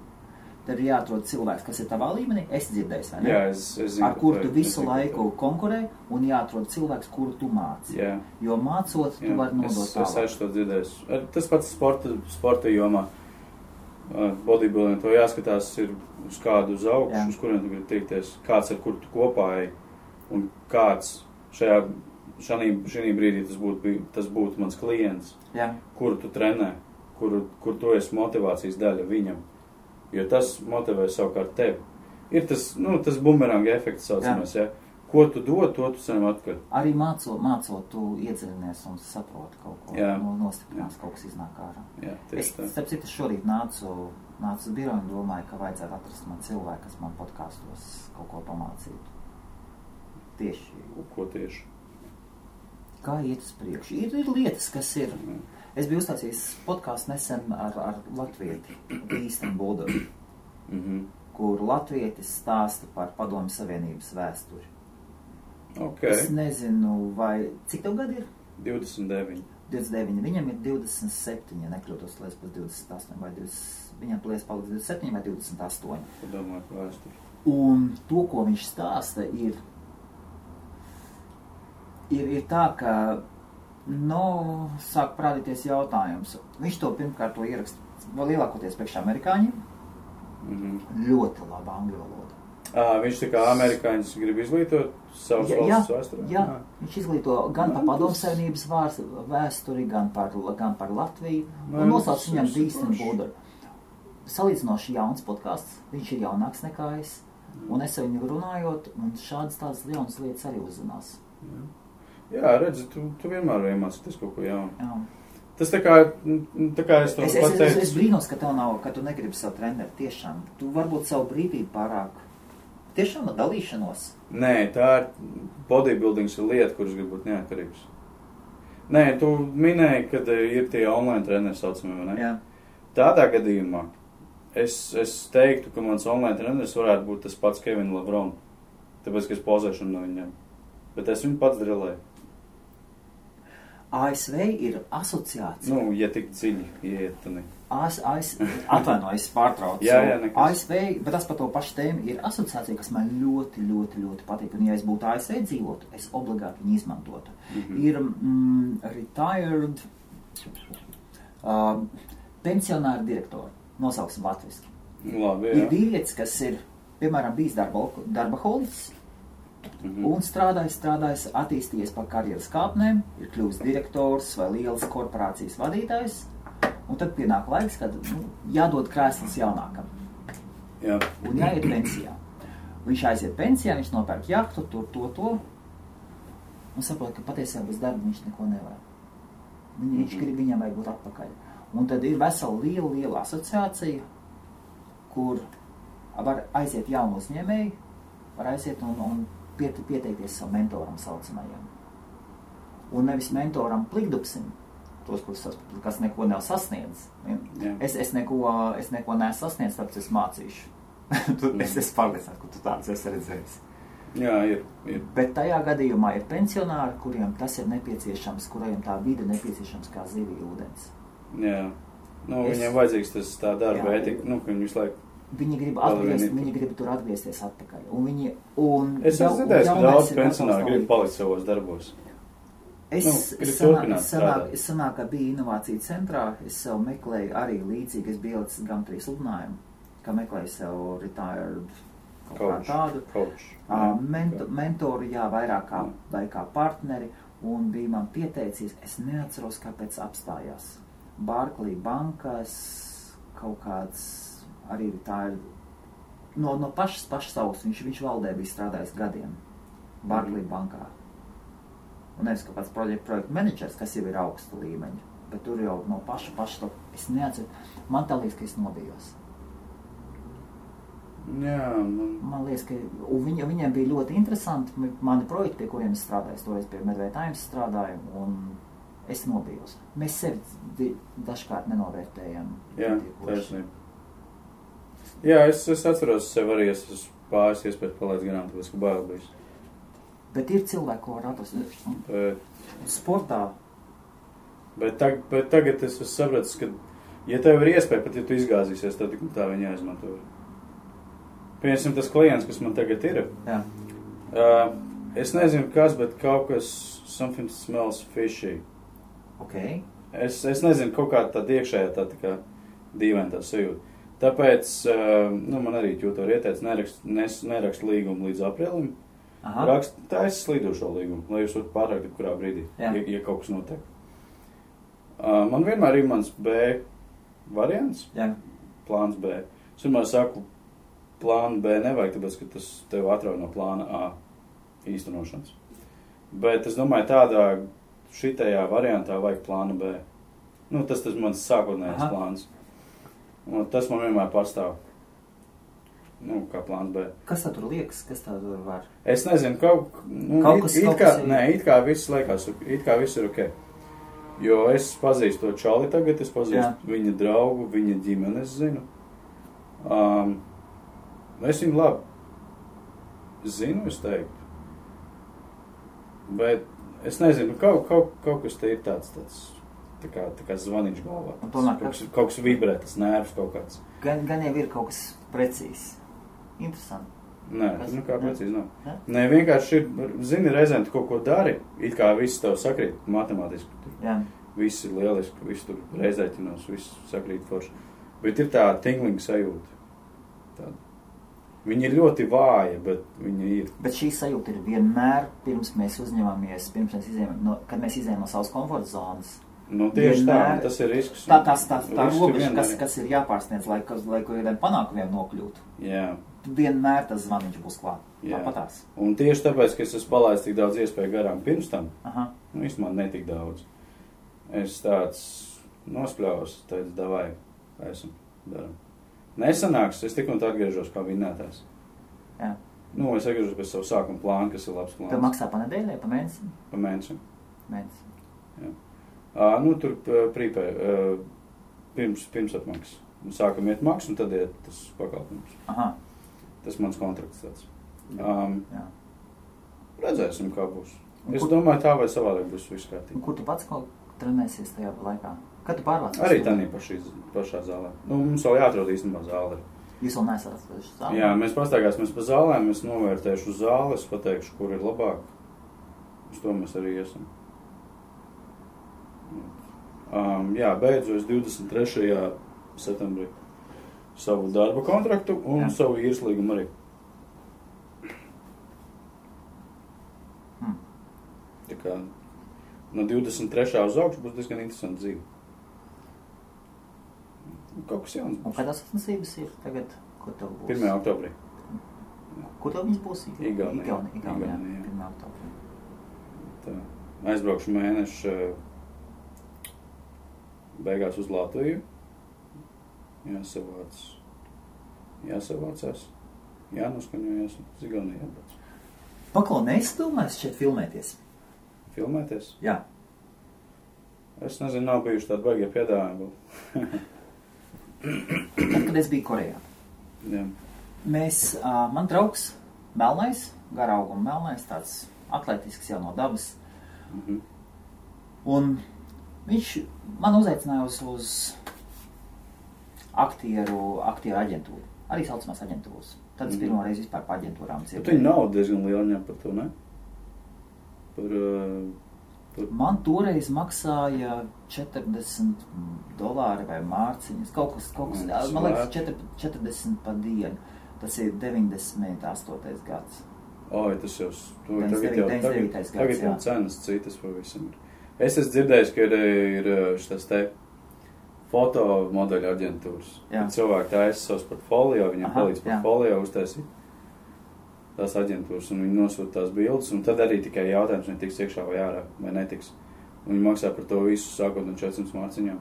Tev ir jāatrod cilvēks, kas ir tavā līmenī. Es dzirdēju, vai ne? Jā, es zinu, ar kuru tu visu laiku konkurē, un jāatrod cilvēks, kuru tu māci. Jā. Jo mācot, tu vari nodot tālāk. Es to dzirdēju. Tas pats sporta jomā. Bodybuilding, to jāskatās ir uz kādu uz augšu, uz kuriem tu gribi tiekties, kāds ar kuru tu kopā ej, un kāds šī brīdī tas būtu mans klients, kuru tu trenē, kur tu esi motivācijas daļa viņam, jo tas motivē savukārt tevi. Ir tas bumeranga efekts saucamies, Ko tu dod, to tu saņem atpakaļ. Arī mācot, tu iedziļinies un saproti kaut ko, nostiprinās, kaut kas iznāk ārā. Jā, tieši tā. Starp citu, šorīt nācu uz biroju un domāju, ka vajadzētu atrast man cilvēku, kas man podkastos kaut ko pamācītu. Ko tieši? Kā iet uz priekšu? Ir lietas, kas ir. Es biju uztaisījis podcastu nesen ar latvieti, Īsten Buldoru, kur latvietis stāsta par Padomju Savienības vēsturi. Okay. Es nezinu, cik tev gadi ir? 29. 29. Viņam ir 27, ja nekļūtos, liekas pēc 28, vai 20, viņam liekas paliks 27 vai 28. Padomāju par vēsturi. Un to, ko viņš stāsta, ir tā, ka, sāk parādīties jautājums. Viņš to pirmkārt to ieraksta vēl lielākoties priekš amerikāņiem. Ļoti laba angļu valoda. Viņš tā kā amerikāņus grib izglītot savas valsts vēsturē? Jā, viņš izglīto gan par Padomju Savienības vēsturi, gan par Latviju. Un nosauc viņam Īsten Buldoru. Salīdzinoši jauns podcasts, viņš ir jaunāks nekā es. Un es ar viņu runājot, un tādas jaunas lietas arī uzzinās. Jā, redzi, tu vienmēr iemācīties kaut ko jaunu. Jā. Tas tā kā es to pateicu. Es brīnos, ka tu negribi savu treneri tiešām. Tu varbūt savu brīvību pārāk. Tiešām ar dalīšanos? Nē, tā ir bodybuildings ir lieta, kuras grib būt neatkarīgs. Nē, tu minēji, kad ir tie online treneri saucamie, vai ne? Jā. Tādā gadījumā es teiktu, ka mans online treneris varētu būt tas pats Kevin Lebrun. Tāpēc, ka es pozēšu no viņam. Bet es viņu pats drilēju. ASV ir asociācija. Ja tik dziļi ieiet, tad ne. Atvainojas pārtrauc. Jā, nekas. ASV, bet tas par to pašu tēmu, ir asociācija, kas man ļoti, ļoti, ļoti patīk. Un ja es būtu ASV dzīvotu, es obligāti viņu izmantotu. Ir retired pensionāri direktori, nosauksim latviski. Labi, jā. Ir vīrietis, kas ir, piemēram, bijis darbaholiķis, un strādājis, attīstījies pa karjeras kāpnēm, ir kļuvis direktors vai lielas korporācijas vadītājs. Un tad pienāk laiks, kad jādod krēsls jaunākam. Jā. Un jāiet pensijā. Viņš aiziet pensijā, viņš nopērk jahtu, to. Un saprot, ka patiesībā bez darba viņš neko nevar. Viņš grib, viņam vajag būt atpakaļ. Un tad ir vesela liela asociācija, kur var aiziet jaunu uzņēmēju, var aiziet un pieteikties savu mentoram saucamajam. Un nevis mentoram plikdupsim, tos, kas neko nav sasniedz. Es neko neesmu sasniedz, tāpēc es mācīšu. Es esmu pārliecināts, ka tu tāds esi redzējis. Jā, ir. Bet tajā gadījumā ir pensionāri, kuriem tas ir nepieciešams, kuriem tā vide nepieciešams kā zivī ūdens. Jā. Viņiem vajadzīgs tas tā darba etika, ka viņi visu laiku Viņi grib tur atgriezties atpakaļ. Es esmu dzirdējis, ka daudz pensionāri grib palikt savos darbos. Sanāk, ka bija inovācija centrā, es sev meklēju arī līdzīgi, es biju ielicis GAM3 sludinājumu, ka meklēju sev retired kaut tādu mentoru, vairāk kā partneri, un bija man pieteicies, es neatceros, kāpēc apstājās. Barclays bankas, kaut kāds arī retired, no pašas savas, viņš valdē bija strādājis gadiem, Barclays bankā. Un nevis kaut kāds projektu menedžers, kas jau ir augsta līmeņa, bet tur jau no paša to, es neatceru, man tā liekas, ka es nobijos. Jā, man liekas, ka viņiem bija ļoti interesanti mani projekti, pie kuriem es strādāju, es toreiz pie Medvei Times strādāju, un es nobijos. Mēs sevi dažkārt nenovērtējam. Jā, taisnība. Jā, es atceros sev arī, es pāris iespējas palaidz garām, tāpēc, ka bail bijis. Bet ir cilvēki, ko var atrast sportā. Bet tagad es sapratu, ka, ja tev ir iespēja, pat ja tu izgāzīsies, tad tik tā viņa jāizmanto. Piemēram, tas klients, kas man tagad ir, es nezinu kas, bet kaut kas, something smells fishy. Okay. Es nezinu, kaut kā tāda iekšējā tā kā dīvaina tā sajūta. Tāpēc, man arī ķūto ieteic, nerakst līgumu līdz aprīlim. Taisa slīdošo līgumu, lai jūs varat pārākt kurā brīdī, ja kaut kas notiek. Man vienmēr ir mans B variants, plāns B. Es vienmēr saku, plānu B nevajag, tāpēc, ka tas tev atrauj no plāna A īstenošanas. Bet es domāju, šitajā variantā vajag plānu B. Tas mans sākotnējais plāns. Un tas man vienmēr pastāv. Kā plāns B. Kas tā tur liekas? Kas tā tur var? Es nezinu, it kā viss liekas, it kā viss ir ok. Jo es pazīstu to čali tagad, es pazīstu viņa draugu, viņa ģimeni, es zinu. Es viņu labi zinu, es teiktu. Bet es nezinu, kaut kas te ir tāds tā kā zvaniņš galvā. Kaut kas vibrē, tas nervs kaut kāds. Gan jau ir kaut kas precīzs. Interesanti. Nē, kā precīzi nav. Nē, vienkārši ir, zini, reizēm tu kaut ko dari, it kā viss tev sakrīt matemātiski. Viss ir lieliski, viss tur reizēķinos, viss sakrīt forši. Bet ir tā tinglinga sajūta. Tāda. Viņa ir ļoti vāja, bet viņa ir. Bet šī sajūta ir vienmēr, pirms mēs kad mēs izējām no savas komforta zonas. Tieši tā, tas ir risks. Tā robeža, kas ir jāpārsniedz, lai kādiem panākumiem nokļūtu. Jā. Vienmēr tas zvaniņš būs klāt. Tāpatās. Un tieši tāpēc, ka es esmu palaidis tik daudz iespēju garām pirms tam, īstenībā netik daudz. Es tāds nospļaus, teicu, davai, esam, daram. Nesanāks, es tik un tā atgriežos kā vinnētājs. Jā. Es atgriežos pēc savu sākuma plānu, kas ir labs plāns. Tev maksā pa nedēļai, pa mēnesi? Pa mēnesi. Jā. Tur prīpē, pirms apmaks. Sākam iet maks, un tad iet tas pakalpojums. Tas mans kontrakts tāds. Redzēsim, kā būs. Es domāju, tā vai savādāk būs viss kārtīgi. Kur tu pats kaut trenēsies tajā laikā? Kad tu pārvācies? Arī tādā pašā zālē. Mums vēl jāatrod īstenībā zāli. Jūs vēl neesat atraduši zāli? Jā, mēs pastaigāsimies pa zālēm, es novērtēšu zāli, es pateikšu, kur ir labāk. Uz to mēs arī esam. Beidzu es 23. septembrī savu darba kontraktu un savu īres līgumu arī. Tā kā no 23. uz augšu būs diezgan interesanti dzīve. Kaut kas jauns būs. Un kādās sacensības ir tagad, ko tev būs? 1. oktobrī. Kur tev viņas būs? Igaunijā. 1. oktobrī. Tā. Aizbraukšu mēnešu beigās uz Latviju. Jāsavācās. Jānoskaņojas. Uz Igauniju jābrauc. Paklau, neizdomājas šeit filmēties? Filmēties? Jā. Es nezinu, nav bijuši tādi baigie piedāvājumi. Tad, kad es biju Korejā. Jā. Man draugs melnais, garauguma melnais, tāds atletisks jau no dabas. Un viņš man uzaicināja uz aktieru aģentūru. Arī saucamās aģentūras. Tad es pirmo reizi vispār par aģentūrām dzirdēju. Bet viņi nav diezgan liela ņem par to, ne? Man toreiz maksāja $40 vai mārciņas. Kaut kas, man liekas, 40 pa dienu. Tas ir 98. gads. Oi, tas jau, tagad jau cenas citas pavisam ir. Es esmu dzirdējis, ka ir šitas te fotomodeļu aģentūras. Cilvēki taisa savus portfolio, viņam palīdz portfolio uztaisīt tās aģentūras, un viņi nosūta tās bildes, un tad arī tikai jautājums, vai tiks iekšā vai ārā, vai netiks. Un viņi maksā par to visu, sākot no 400 mārciņām.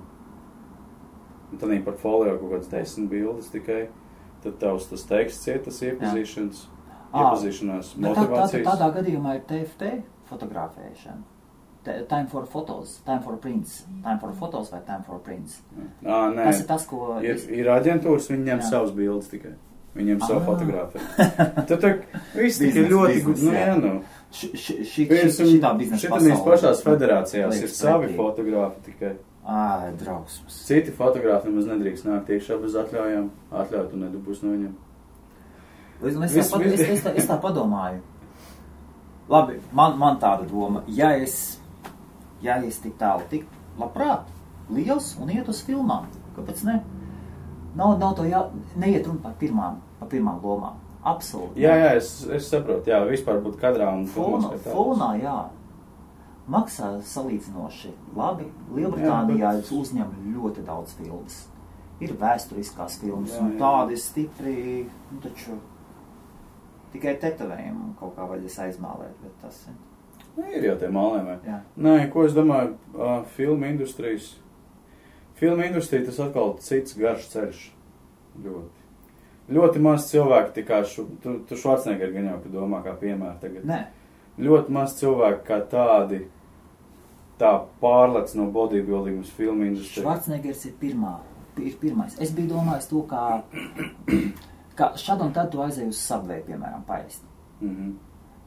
Un tad viņi portfolio kaut kāds 10 bildes tikai, tad tavs tas teksts iet, tas iepazīšanās, motivācijas. Tādā gadījumā ir TFT fotografēšana. Time for photos, time for prints. Time for photos vai time for prints. Nē, tas ir tas, ko... Ir aģentūras, viņi ņem savus bildes tikai. Viņiem savu fotogrāfiju. Tad viss tikai ļoti gudri. Šitā biznesa pasaulē. Šitā pašās federācijās ir savi fotogrāfi tikai. Drausmas. Citi fotogrāfi nemaz nedrīkst nākt iekšā bez atļaujām. Atļautu un nedubūs no viņiem. Es tā padomāju. Labi, man tāda doma. Ja es tik tālu tik labprāt, liels un iet uz filmām, kāpēc ne? Nav to neiet runa par pirmām lomām. Absolūti. Jā, es saprotu, vispār būt kadrā un fonā, maksā salīdzinoši labi. Lielbritānijā uzņem ļoti daudz filmas. Ir vēsturiskās filmas, un tādi stipri, taču tikai tetovējumu kaut kā vajadzēs aizmālēt, bet tas ir. Ir jau tie mālējumi. Nē, ko es domāju, filmu industrija tas atkal cits garš ceļš. Ļoti maz cilvēki, tā kā tu Schwarzenegger gan jau, ka domā kā piemēra tagad. Nē. Ļoti maz cilvēki kā tādi, tā pārlec no bodybuilding uz filmu industriju. Schwarzeneggers ir pirmais. Es biju domājis to, kā šad un tad tu aizēji uz Subway, piemēram, paēst.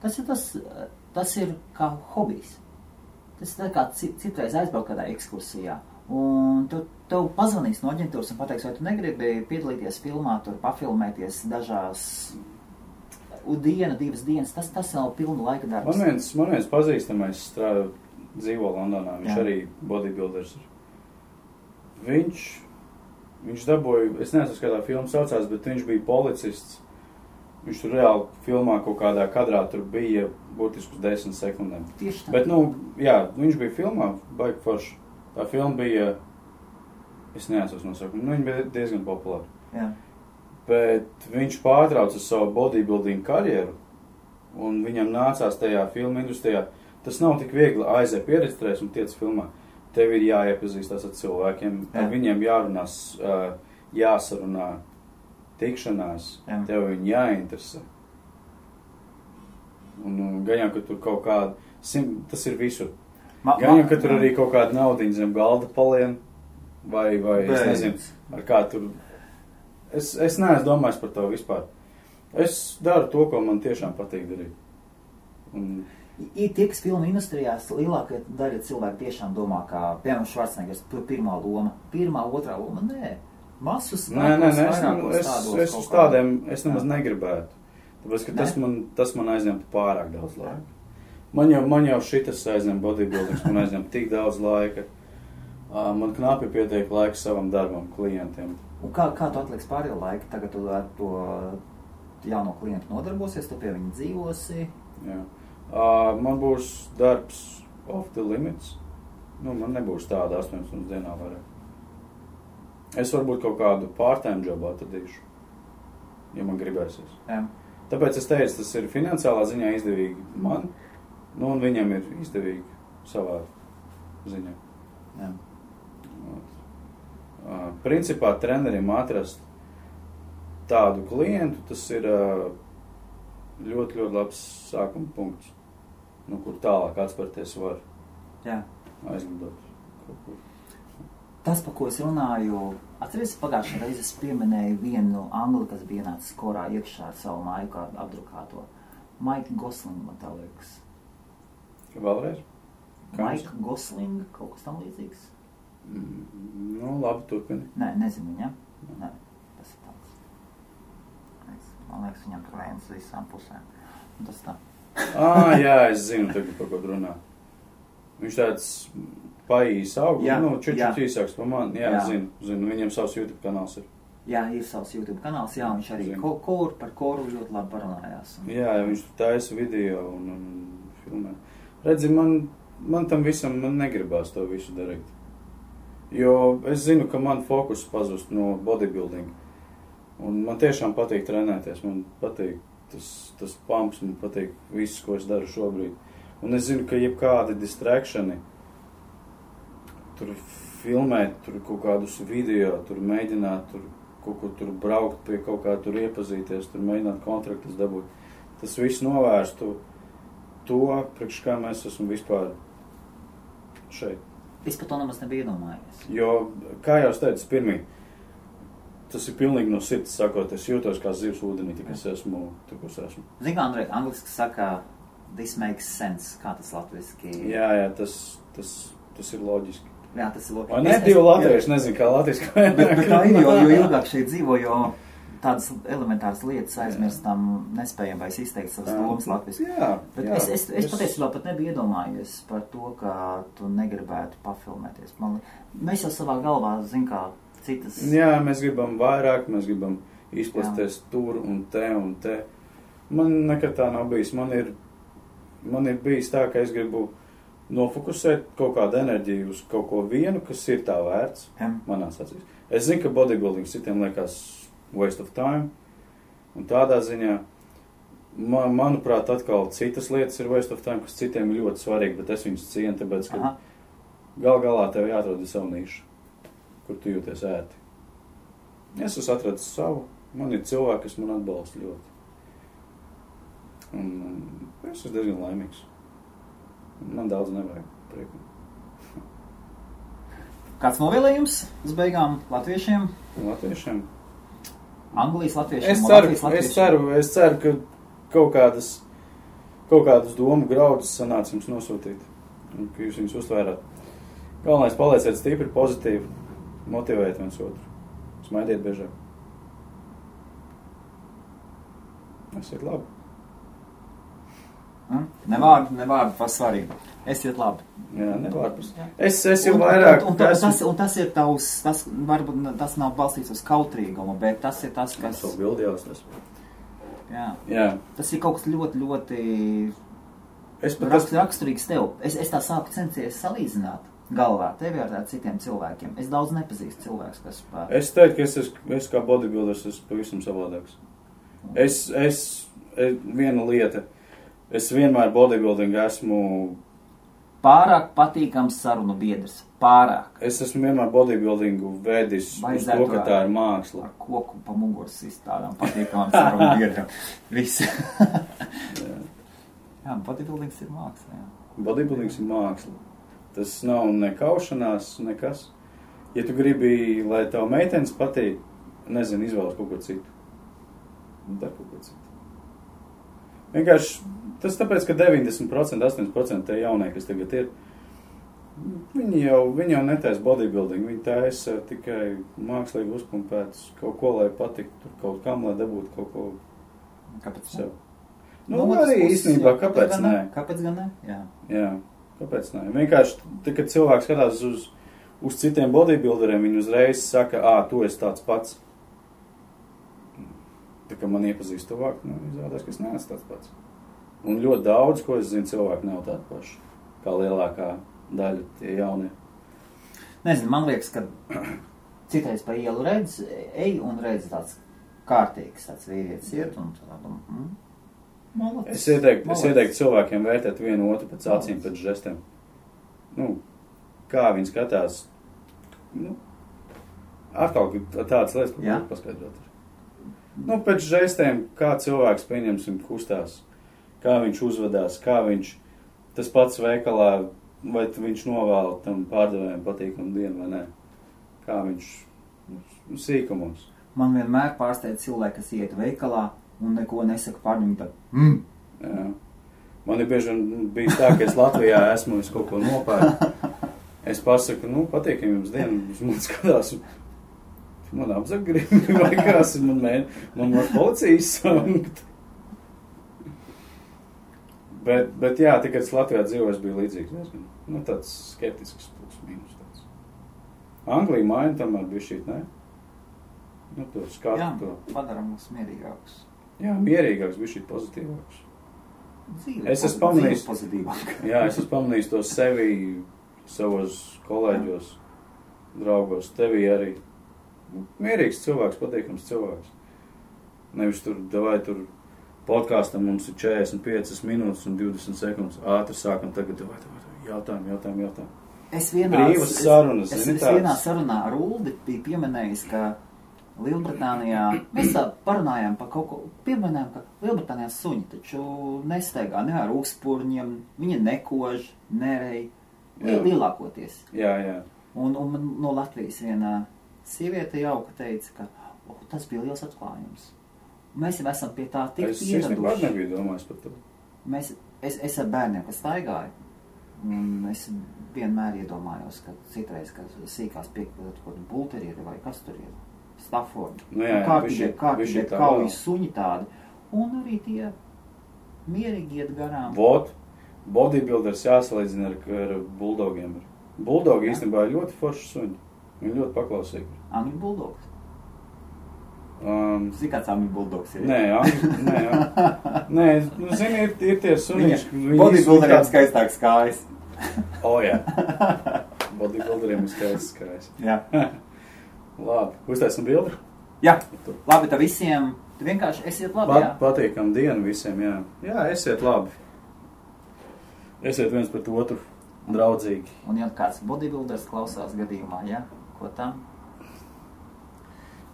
Tas ir kā hobijs. Tas ir tā kā citreiz aizbraukt kādā ekskursijā. Un tev pazvanīs no aģentūras un pateiks, vai tu negribi piedalīties filmā, tur pafilmēties dažās diena, 2 dienas. Tas nav pilnu laika darbs. Man viens pazīstamais dzīvo Londonā. Viņš arī bodybuilders ir. Viņš dabūja, es nezinu, kādā filma saucās, bet viņš bija policists. Viņš tur reāli filmā kaut kādā kadrā tur bija būtiski uz 10 sekundēm. Tieši tā. Bet, viņš bija filmā, baigi forši. Tā filma bija, es neatceros nosaukumu, viņa bija diezgan populāra. Jā. Bet viņš pārtrauca savu bodybuilding karjeru, un viņam nācās tajā filmu industrijā. Tas nav tik viegli aiziet pieregistrēs un tiec filmā. Tev ir jāiepazīstās ar cilvēkiem, ar viņiem jārunās, jāsarunā tikšanās, tev viņi jāinteresē. Un gan jau, ka tur kaut kāda, tas ir visur. Gan jau, ka tur arī kaut kāda naudiņa zem galda palien, vai es nezinu, ar kā tur. Es neesmu domājis par to vispār. Es daru to, ko man tiešām patīk darīt. Ir tie, kas filmu industrijās lielākā daļa cilvēku tiešām domā, kā, piemēram, Schwarzeneggers, pirmā loma, otrā loma, nē. Masus es uz tādiem, es nemaz negribētu. Tāpēc, ka tas man aizņemtu pārāk daudz laika. Man jau šitas aizņem bodybuildings, man aizņem tik daudz laika. Man knapi pietiek laika savam darbam, klientiem. Un kā tu atliksi pārējo laiku? Tagad tu ar to jauno klientu nodarbosies, tu pie viņa dzīvosi? Jā. Man būs darbs off the limits. Man nebūs tāda 8 stundas dienā vairāk. Es varbūt kaut kādu part-time jobu atradīšu, ja man gribēsies. Jā. Tāpēc es teicu, tas ir finansiālā ziņā izdevīgi man, un viņam ir izdevīgi savā ziņā. Jā. Principā trenerim atrast tādu klientu, tas ir ļoti, ļoti labs sākuma punkts, kur tālāk atspērties var aizlidot kaut kur. Tas, par ko es runāju, atceries, pagājušajā reizē es pieminēju vienu angli, kas bija ienācis korā iekšā ar savu māju kā apdrukāto. Mike Gosling, man tā liekas. Vēlreiz? Mike Gosling, kaut kas tam līdzīgs? Labi, turpini. Nē, nezinu viņa. Nē, tas ir tāds. liekas, viņam tur vējas visām pusēm. Un tas tā. Jā, es zinu, tagad par ko runā. Viņš tāds paīs augu, čučuķi īsāks par mani. Jā. Zinu, viņam savs YouTube kanāls ir. Jā, ir savs YouTube kanāls, jā, viņš arī par koru ļoti labi parunājās. Jā, viņš tur taisa video un filmē. Redzi, man tam visam negribās to visu darīt. Jo es zinu, ka man fokus pazust no bodybuilding. Un man tiešām patīk trenēties, man patīk tas pumps, man patīk viss, ko es daru šobrīd. Un es zinu, ka jebkādi distractioni, tur filmēt, tur kaut kādus video, tur mēģināt, tur kaut kur tur braukt pie kaut kā, tur iepazīties, tur mēģināt kontraktus dabūt. Tas viss novērstu to, priekš kā mēs esam vispār šeit. Es par to nemaz nebiju iedomājies. Jo, kā jau es teicu, pirmī, tas ir pilnīgi no sirds sakot, es jūtos kā zivs ūdenī, tik es esmu, tik es esmu. Zini, kā Andrej, angliski saka, this makes sense, kā tas latviski? Jā, tas ir loģiski. Jā, tas ir loģiski. Vai ne, divi latvieši, nezinu, kā latviski. Bet tā ir, jo ilgāk šeit dzīvo, jo tādas elementāras lietas aizmirstam, nespējam vairs izteikt savas domas latviski. Bet es patiesībā pat nebiju iedomājies par to, ka tu negribētu pafilmēties. Mēs jau savā galvā, zin kā, citas... Jā, mēs gribam vairāk, mēs gribam izplasties tur un te. Man nekad tā nav bijis. Man ir bijis tā, ka es gribu nofokusēt kaut kādu enerģiju uz kaut ko vienu, kas ir tā vērts manās acīs. Es zinu, ka bodybuilding citiem liekas waste of time, un tādā ziņā, manuprāt, atkal citas lietas ir waste of time, kas citiem ir ļoti svarīgi, bet es viņus cienu, tāpēc, ka galā tev jāatrod savu nišu, kur tu jūties ērti. Es esmu atradis savu, man ir cilvēki, kas man atbalsta ļoti. Un es esmu diezgan laimīgs. Man daudz nevajag prieku. Kāds novēlējums uz beigām latviešiem? Latviešiem? Anglijas latviešiem? Es ceru, ka kaut kādus domu graudus sanāca jums nosūtīt. Un ka jūs viņus uztvērāt. Galvenais palieciet stipri, pozitīvi, motivējiet viens otru. Smaidiet biežāk. Esiet labi. Nevārdu par svarīgu. Esiet labi. Jā, nevārdu par svarīgu. Es jau vairāk... Un tas ir tavs, varbūt tas nav balstīts uz kautrīgumu, bet tas ir tas, kas... Tas bildi jau tas. Jā. Tas ir kaut kas ļoti, ļoti raksturīgs tev. Es tā sāku censties salīdzināt galvā tevi ar citiem cilvēkiem. Es daudz nepazīstu cilvēkus, kas... Es teiktu, ka es kā bodybuilders esmu pavisam savādāks. Viena lieta... Es vienmēr bodybuilding esmu... Pārāk patīkams sarunu biedrs. Pārāk. Es esmu vienmēr bodybuildingu vedis uz to, ka tā ir māksla. Ar koku pa muguras izstādām patīkamām sarunu biedram. Visi. Jā, bodybuildings ir māksla. Jā. Bodybuildings ir māksla. Tas nav nekaušanās, nekas. Ja tu gribi, lai tev meitenes patīk, nezinu, izvēlas kaut ko citu. Dar kaut ko citu. Vienkārši tas tāpēc, ka 90%, 80% tie jaunie, kas tagad ir, viņi jau netaisa bodybuilding, viņi taisa tikai mākslīgi uzpumpētas kaut ko, lai patiktu, tur kaut kam, lai dabūtu kaut ko. Kāpēc sev? Arī īstenībā, kāpēc nē? Kāpēc gan nē? Jā, kāpēc nē? Vienkārši, kad cilvēks skatās uz citiem bodybuilderiem, viņi uzreiz saka, tu esi tāds pats. Tā kā man iepazīst tuvāk, izrādās, ka es neesmu tāds pats. Un ļoti daudz, ko es zinu, cilvēki nav tādi paši, kā lielākā daļa tie jaunie. Nezinu, man liekas, ka citreiz pa ielu ej un redz tāds kārtīgs, tāds vīrietis iet un tādu, Es ieteiktu cilvēkiem vērtēt vienu otru pēc acīm, pēc žestiem. Kā viņi skatās, atkal tādas lietas, ko grib paskaidrot. Pēc žestiem, kā cilvēks, pieņemsim, kustās, kā viņš uzvedās, kā viņš, tas pats veikalā, vai viņš novēl tam pārdevējiem patīkamu dienu vai nē. Kā viņš sīkumos. Man vienmēr pārsteidz cilvēki, kas iet veikalā un neko nesaka pārņem tā. Jā. Man ir bieži bijis tā, ka es Latvijā esmu, es kaut ko nopērku. Es pasaku, patīkam jums dienu, jūs man skatās. man apzakgrīmi vai kas, man policijas saukt. Bet jā, tikai es Latvijā dzīvoju, es biju līdzīgs diezgan. Nu, tāds skeptisks plus mīnus tāds. Anglija maina tomēr bija šī, ne? Nu, to skatu. Jā, padaram mums mierīgākus. Jā, mierīgāks, bija šī pozitīvāks. Dzīve, es esmu pamanījis, pozitīvāk. Jā, es esmu pamanījis to sevi, savos kolēģos, draugos, tevī arī. Mierīgs cilvēks, patīkams cilvēks. Nevis tur podkāstam mums ir 45 minūtes un 20 sekundes. Ātri sākam tagad, jautājumu. Es Brīvas sarunas, zini tāds? Es vienā sarunā ar Uldi biju pieminējis, ka Lielbritānijā, mēs parunājām par kaut ko, pieminējām, ka Lielbritānijā suņi taču nestaigā ne ar ūkspurņiem, viņi nekož, nerej, lielākoties. Jā. Un no Latvijas vienā sieviete jauka teica, ka tas bija liels atklājums. Mēs jau esam pie tā tik pieraduši. Es nekad nebiju domājis par to. Es ar bērniem, kas staigāju, un es vienmēr iedomājos, ka citreiz, ka sīkās piekļūt kaut kādu bulterieri vai kas tur ir, Staffordi. Nu jā, kārtīgie kaujas suņi tādi. Un arī tie mierīgi iet garām. Bodybuilders jāsalīdzina ar buldogiem. Buldogi īstenībā ir ļoti forši suņi. Viņi ļoti paklausīgi. Angļu buldogs. Zini, kāds angļu buldogs ir? Nē, nu zini, ir tie suņi. Bodybuilderiem skaistāks kājas. Jā. Bodybuilderiem ir skaistāks kājas. Jā. Labi, uztaisim bildi? Jā, labi, tā visiem, tu vienkārši esiet labi, jā. Patīkam dienu visiem, jā. Jā, esiet labi. Esiet viens pret otru draudzīgi. Un ja kāds bodybuilders klausās gadījumā, jā, ko tam?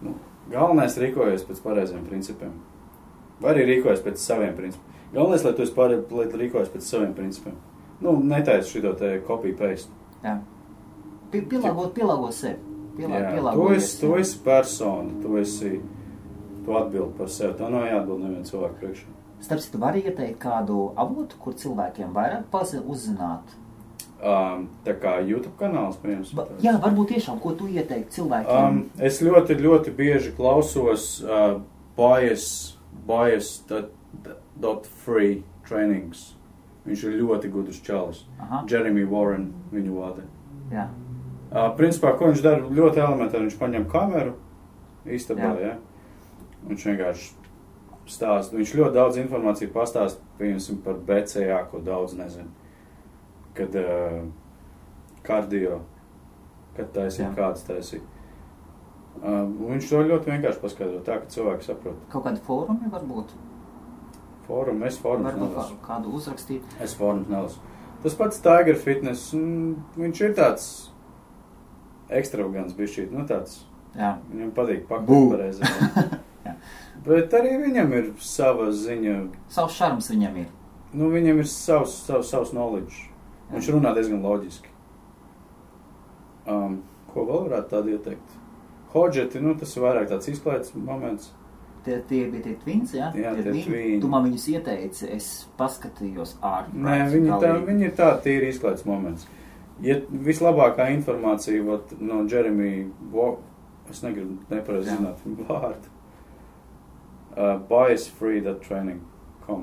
Nu, galvenais rīkojies pēc pareiziem principiem. Vai arī rīkojies pēc saviem principiem. Galvenais, lai tu rīkojies pēc saviem principiem. Nu, netaisi šito te copy-paste. Jā. Pielāgo sevi. Tu esi persona, tu atbildi par sevi, tā nav jāatbild nevienu cilvēku priekšā. Starp citu, var ieteikt kādu avotu, kur cilvēkiem vairāk uzzināt? Tā kā YouTube kanāls, piemērs. Jā, varbūt tiešām, ko tu ieteikt cilvēkiem? Es ļoti bieži klausos bias.free trainings. Viņš ir ļoti gudrs čalis. Jeremy Warren viņu vada. Jā. Principā, ko viņš dara ļoti elementāri, viņš paņem kameru istabā, ja? Viņš vienkārši stāst, viņš ļoti daudz informāciju pastāst, piemēram, par BCA, ko daudz nezinu. Kad kardio, kad taisīt, kādas taisīt. Viņš to ļoti vienkārši paskaidro tā, ka cilvēki saprot. Kaut kādi fórumi varbūt? Es fórums nelasu. Varbūt kādu uzrakstīt? Es fórums nelasu. Tas pats Tiger Fitness, viņš ir tāds ekstravagants bišķīt, nu tāds. Jā. Viņam patīk pakot pareizi. Bet arī viņam ir sava ziņa. Savs šarms viņam ir. Nu, viņam ir savs knowledge. Viņš runā diezgan loģiski. Ko vēl varētu tādu ieteikt? Hodžeti, nu, tas ir vairāk tāds izklaides moments. Tie bija tie twins, jā? Jā, tie twins. Tu man viņus ieteici, es paskatījos Nē, viņi ir tā tīri izklaides moments. Ja vislabākā informācija no Jeremy, es negribu nepareizi zināt vārdu, biasfree.training.com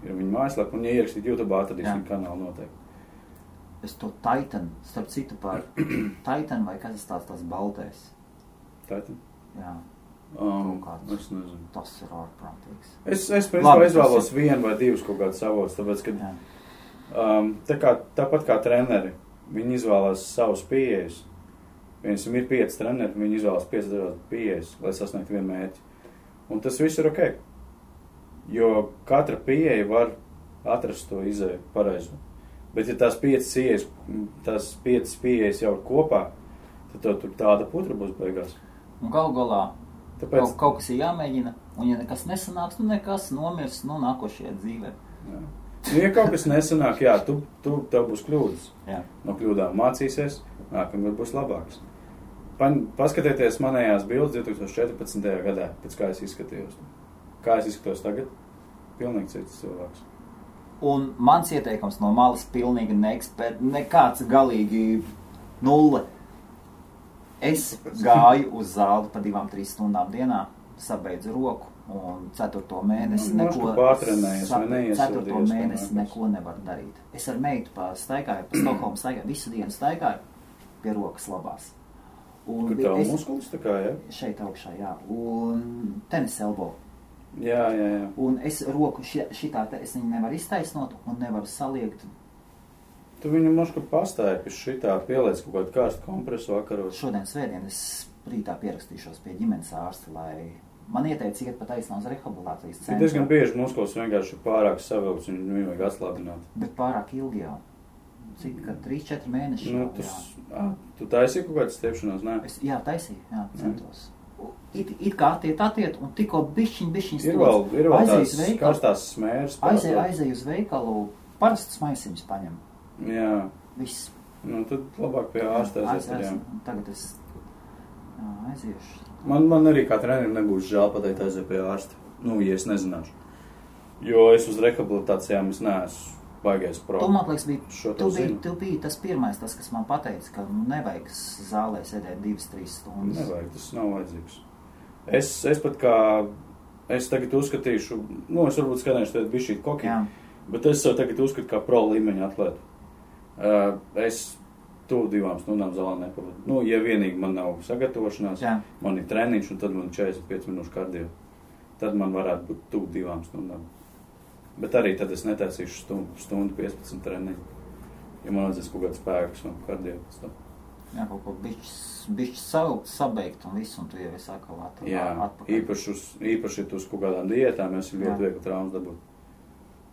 ir viņa mājaslapa, un ja ierakstīt YouTube, atradīs viņa kanālu noteikti. Es to Titan, starp citu par Titan vai kas tās baltais? Titan? Jā. Es nezinu. Tas ir ārprātīgs. Es principā izvēlos vienu vai divus kaut kādus avotus, tāpēc, ka tāpat kā treneri, viņi izvēlās savus pieejas. Viņam ir 5 treneri, viņi izvēlās 5 dažādas pieejas, lai sasniegtu vienu mērķi. Un tas viss ir ok. Jo katra pieeja var atrast to izēju pareizo. Bet ja tās 5 pieejas jau ir kopā, tad tur tāda putra būs beigās. Un galā kaut kas ir jāmēģina, un ja nekas nesanāks, nu nekas nomirs nākošajā dzīvē. Jā. Ja kaut kas nesanāk, jā, tev būs kļūdas. Jā. No kļūdām mācīsies, nākamgad būs labāks. Paskatieties manējās bildes 2014. gadā, pēc kā es izskatījos. Kā es izskatos tagad? Pilnīgi cits cilvēks. Un mans ieteikums no malas pilnīgi nekāds galīgi nulle. Es gāju uz zāli pa 2-3 stundām dienā, sabeidzu roku un 4. mēnesi neko... Pārtrenējies vai neiesodies. 4. mēnesi neko nevaru darīt. Es ar meitu staigāju, pa Stokholmu staigāju, visu dienu staigāju pie rokas labās. Un kur tā muskulis tā kā, jā? Šeit augšā, jā. Un tenis elbow. Jā. Un es roku šitā, es viņu nevaru iztaisnot un nevaru saliegt. Tu viņu mošku pastāji pie šitā, pieliec kaut kādu karstu kompresu vakaros. Šodien svētdien es rītā pierakstīšos pie ģimenes ārsta, lai man ieteica iet pa taisnā uz rehabilitācijas centru. Ir diezgan bieži muskulis vienkārši pārāk savilks un viņu vajag atslābināt. Bet pārāk ilgi jau. Cik, ka 3-4 mēneši jau, Tu taisīji kaut kādas stiepšanās, ne? Jā, taisīju, jā, centos. It kā attiet, un tikko bišķiņ Ir vēl tās karstās smēras. Aizēju uz veikalu, parastus maisiņus paņem. Jā. Viss. Nu, tad labāk pie ārsta aiziet. Tagad es aiziešu. Man arī kā trenerim nebūs žēl pateikt aiziet pie ārsta. Nu, ja es nezināšu. Jo es uz rehabilitācijām es neesmu baigais pro. Tu, man liekas, tu biji tas pirmais, kas man pateica, ka nevajag zālē sēdēt 2-3 stundas. Nevajag, tas nav vajadzīgs. Es pat kā, es tagad uzskatīšu, nu, es varbūt skanēšu tagad bišķīt koki, bet es tagad uzskatu kā pro līmeņa atlētu. Es tuvu 2 stundām zālē nepavadu. Nu, ja vienīgi man nav sagatavošanās, man ir treniņš un tad man 45 minūšu kardio. Tad man varētu būt tuvu 2 stundām. Bet arī tad es netaisīšu stundu 15 treniņu. Ja man vajadzēs kaut kāds spēks un kardio pēc tam. Jā, kaut ko bišķi sabeigt un visu, un tu jau esi atkal atpakaļ. Jā, īpaši uz kaut kādām diētām es ļoti viegli traumas dabūt.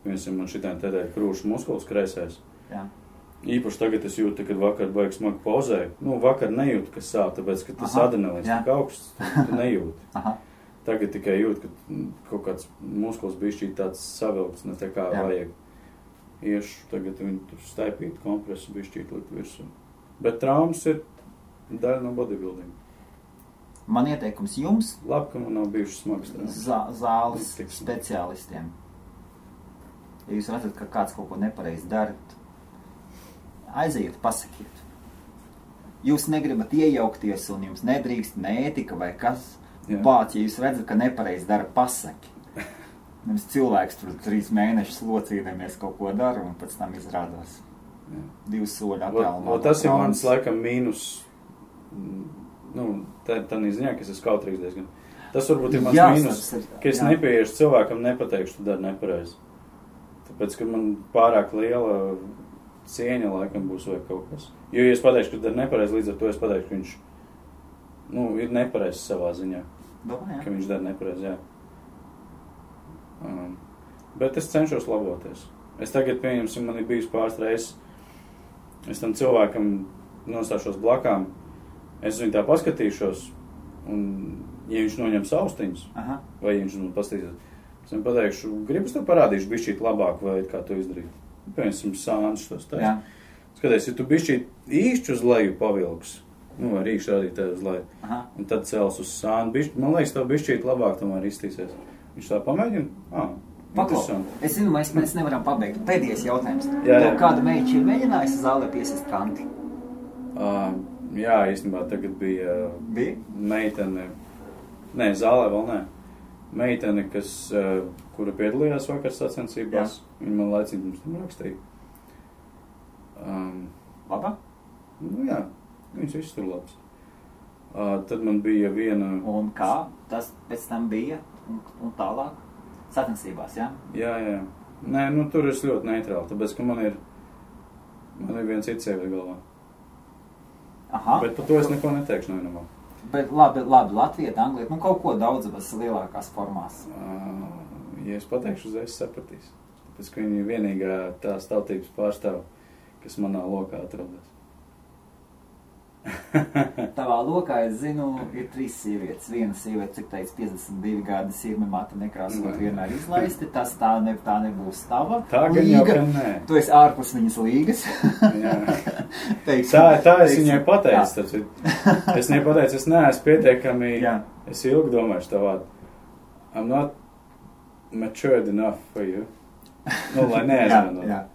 Piemēram, man šitien tēdēļ krūšu muskulis kreisēs. Jā. Īpaši tagad es jūtu, kad vakar baigi smagi pauzēju. Nu, vakar nejūtu, kas sāp, tāpēc, ka tas adrenalīns tik augsts, tu nejūti. Aha. Tagad tikai jūt, ka kaut kāds muskulis bišķīt tāds savilkts, ne tā kā vajag. Iešu tagad viņu tur staipīt kompresu bišķīt likt virsū. Bet traumas ir daļa no bodybuilding. Man ieteikums jums. Labi, ka man nav bijušas smagas traumas. Zāles speciālistiem. Ja jūs redzat, ka kāds kaut ko nepareizi dara, aiziet, pasakiet. Jūs negribat iejaukties un jums nedrīkst ne ētika vai kas. Bāc, ja jūs redzat, ka nepareizi dara, pasaki. Nevis cilvēks tur 3 mēnešus locīdamies kaut ko dara un pēc tam izrādās 2 soļi attālumā. Tas ir mans laikam mīnus, nu, tā ziņā, ka es esmu kautrīgs diezgan. Tas varbūt ir mans mīnus, ka es nepieiešu cilvēkam, nepateikšu, tu dari nepareizi. Tāpēc, ka man pārāk liela cieņa laikam būs vai kaut kas. Jo, ja es pateikšu, ka tu dari nepareizi, līdz ar to es pateikšu, ka viņš, nu, ir nepareizi savā ziņā. Domā, ka viņš dara nepareizi, jā. Bet es cenšos laboties. Es tagad, pieņemsim, man ir bijis pāris reizes, es tam cilvēkam nostāšos blakām, es viņu tā paskatīšos, un ja viņš noņems austiņus, vai ja viņš man paskatīsies, es viņam pateikšu, gribas tev parādīšu bišķīt labāk, vai kā to izdarīt. Pieņemsim, sāņus tos taisa. Skaties, ja tu bišķīt īšķi uz leju pavilks, nu, ar rīkšu rādīt tev uz leju, un tad cels uz sānu, man liekas, tev bišķīt labāk tomēr iztīsies. Viņš tā pamēģina? Paklau, es zinu, mēs nevaram pabeigt. Pēdējais jautājums. Tev kāda meiča ir mēģinājusi zālē piesist kanti? Jā, īstenībā tagad bija meitene, nē, zālē vēl nē. Meitene, kura piedalījās vakar sacensībās, viņa man laicīgi mums tam rakstīja. Labā? Nu jā, viņas viss tur labs. Tad man bija viena... Un kā tas pēc tam bija un tālāk? Sacensībās, jā? Jā. Nē, nu tur es ļoti neitrāli, tāpēc, ka man ir viens cits sievietes galvā. Aha. Bet par to es neko neteikšu nevienamā. Bet labi, Latvieta, Anglija, nu kaut ko daudzas lielākās formās. Ja es pateikšu, uzreiz sapratīs. Tāpēc, ka viņa ir vienīgā tās tautības pārstāv, kas manā lokā atrodas. Tavā lokā, es zinu, ir 3 sievietes. Viena sieviete, cik teica, 52 gadi sirmi mata nekrāsot vienmēr izlaisti. Tas tā nebūs tava tā līga. Jau, ka nē. Tu esi ārpus viņas līgas. Tā es viņai pateicu. Es viņai pateicu, es neesmu pietiekami, es ilgi domājuši tā vārdu. I'm not matured enough for you. Nu, lai neaizmanot.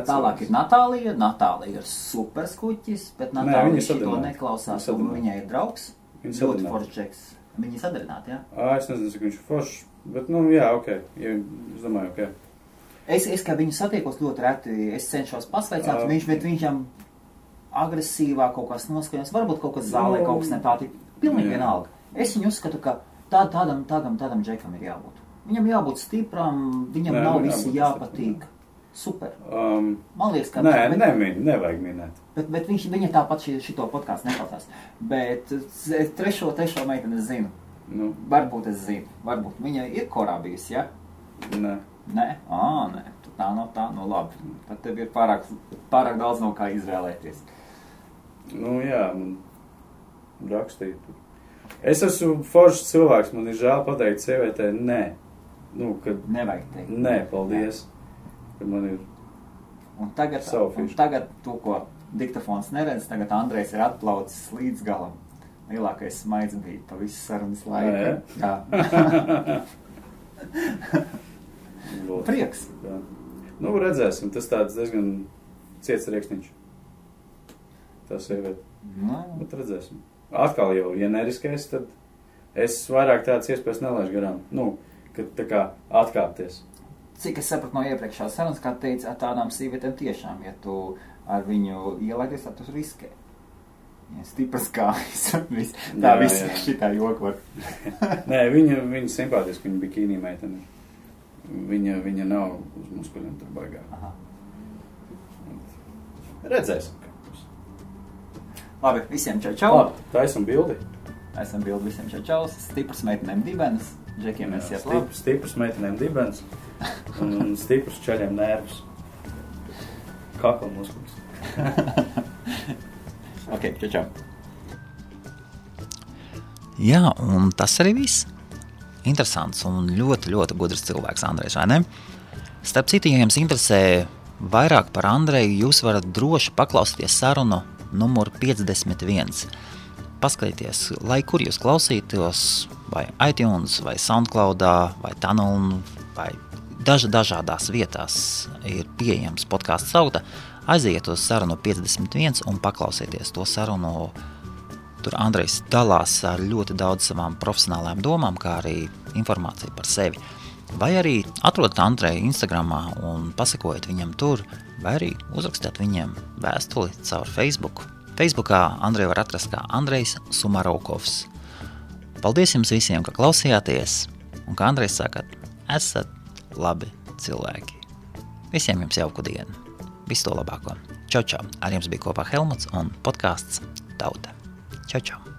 Tālāk ir Natālija. Natālija ir superskuķis, bet Natālija šito neklausās, un viņai ir draugs. Ļoti foršs džeks. Viņi sadarināti, jā? Es nezinu, cik viņš ir foršs, bet, jā, ok. Es domāju, ok. Es kā viņu satiekos ļoti reti, es cenšos pasveicināt, bet viņam agresīvā kaut kas noskaņos, varbūt kaut kas zālē, kaut kas nepātīk. Pilnīgi vienalga. Es viņu uzskatu, ka tādam džekam ir jābūt. Viņam jābūt stipram, viņam nav visi jāpatīk. Super. Man liekas, ka... Nevajag minēt. Bet viņa tāpat šito podcastu neklausās. Bet trešo meiteni es zinu. Varbūt es zinu. Varbūt viņa ir korā bijusi, ja? Nē. Nē? Nē. Tā, labi. Tad tev ir pārāk daudz no kā izvēlēties. Jā, man rakstīt. Es esmu foršs cilvēks, man ir žēl pateikt sievietē, nē. Nevajag teikt. Nē, paldies. Kad man ir un tagad to, ko diktafons neredz, tagad Andrejs ir atplaucis līdz galam. Lielākais smaids bija pa visu sarunas laiku. Jā. Prieks. Jā. Redzēsim, tas tāds diezgan ciets riekstiņš. Tā sieviete. Bet redzēsim. Atkal jau, ja neriskēs, tad es vairāk tādas iespējas nelaišu garām. Kad tā kā atkāpties. Cik es sapratu no iepriekšās sarunas, kā teica, tādām sīvietēm tiešām, ja tu ar viņu ielaidies, tad tu riskē. Ja stipras kājas, tā viss šitā joku var. Nē, viņa simpātiski, viņa bikīnī meitene. Viņa nav uz muskuļiem tur baigā. Aha. Redzēsim. Labi, visiem čau. Labi, taisam bildi. Taisam bildi visiem čau. Stipras meitenēm dibenes. Džekiem mēs iet labi. Stipras meitenēm dibenes. Un stipras ceļiem nervus. Kakla muskulis. Ok, čau. Jā, un tas arī viss. Interesants un ļoti, ļoti gudrs cilvēks Andrejs, vai ne? Starp citu, ja jums interesē vairāk par Andreju, jūs varat droši paklausīties sarunu numuru 51. Paskatieties, lai kur jūs klausītos, vai iTunes, vai SoundCloudā, vai Tunnel, vai dažādās vietās ir pieejams podcasts Tauta. Aiziet uz sarunu 51 un paklausieties to sarunu. Tur Andrejs dalās ar ļoti daudz savām profesionālām domām, kā arī informāciju par sevi. Vai arī atrodat Andreju Instagramā un pasakojiet viņam tur, vai arī uzrakstiet viņam vēstuli caur Facebook. Facebookā Andreju var atrast kā Andrejs Sumarovkovs. Paldies jums visiem, ka klausījāties, un kā Andrejs saka, esat labi cilvēki. Visiem jums jauku dienu. Visu to labāko. Čau, čau. Ar jums bija kopā Helmuts un podcasts Tauta. Čau, čau.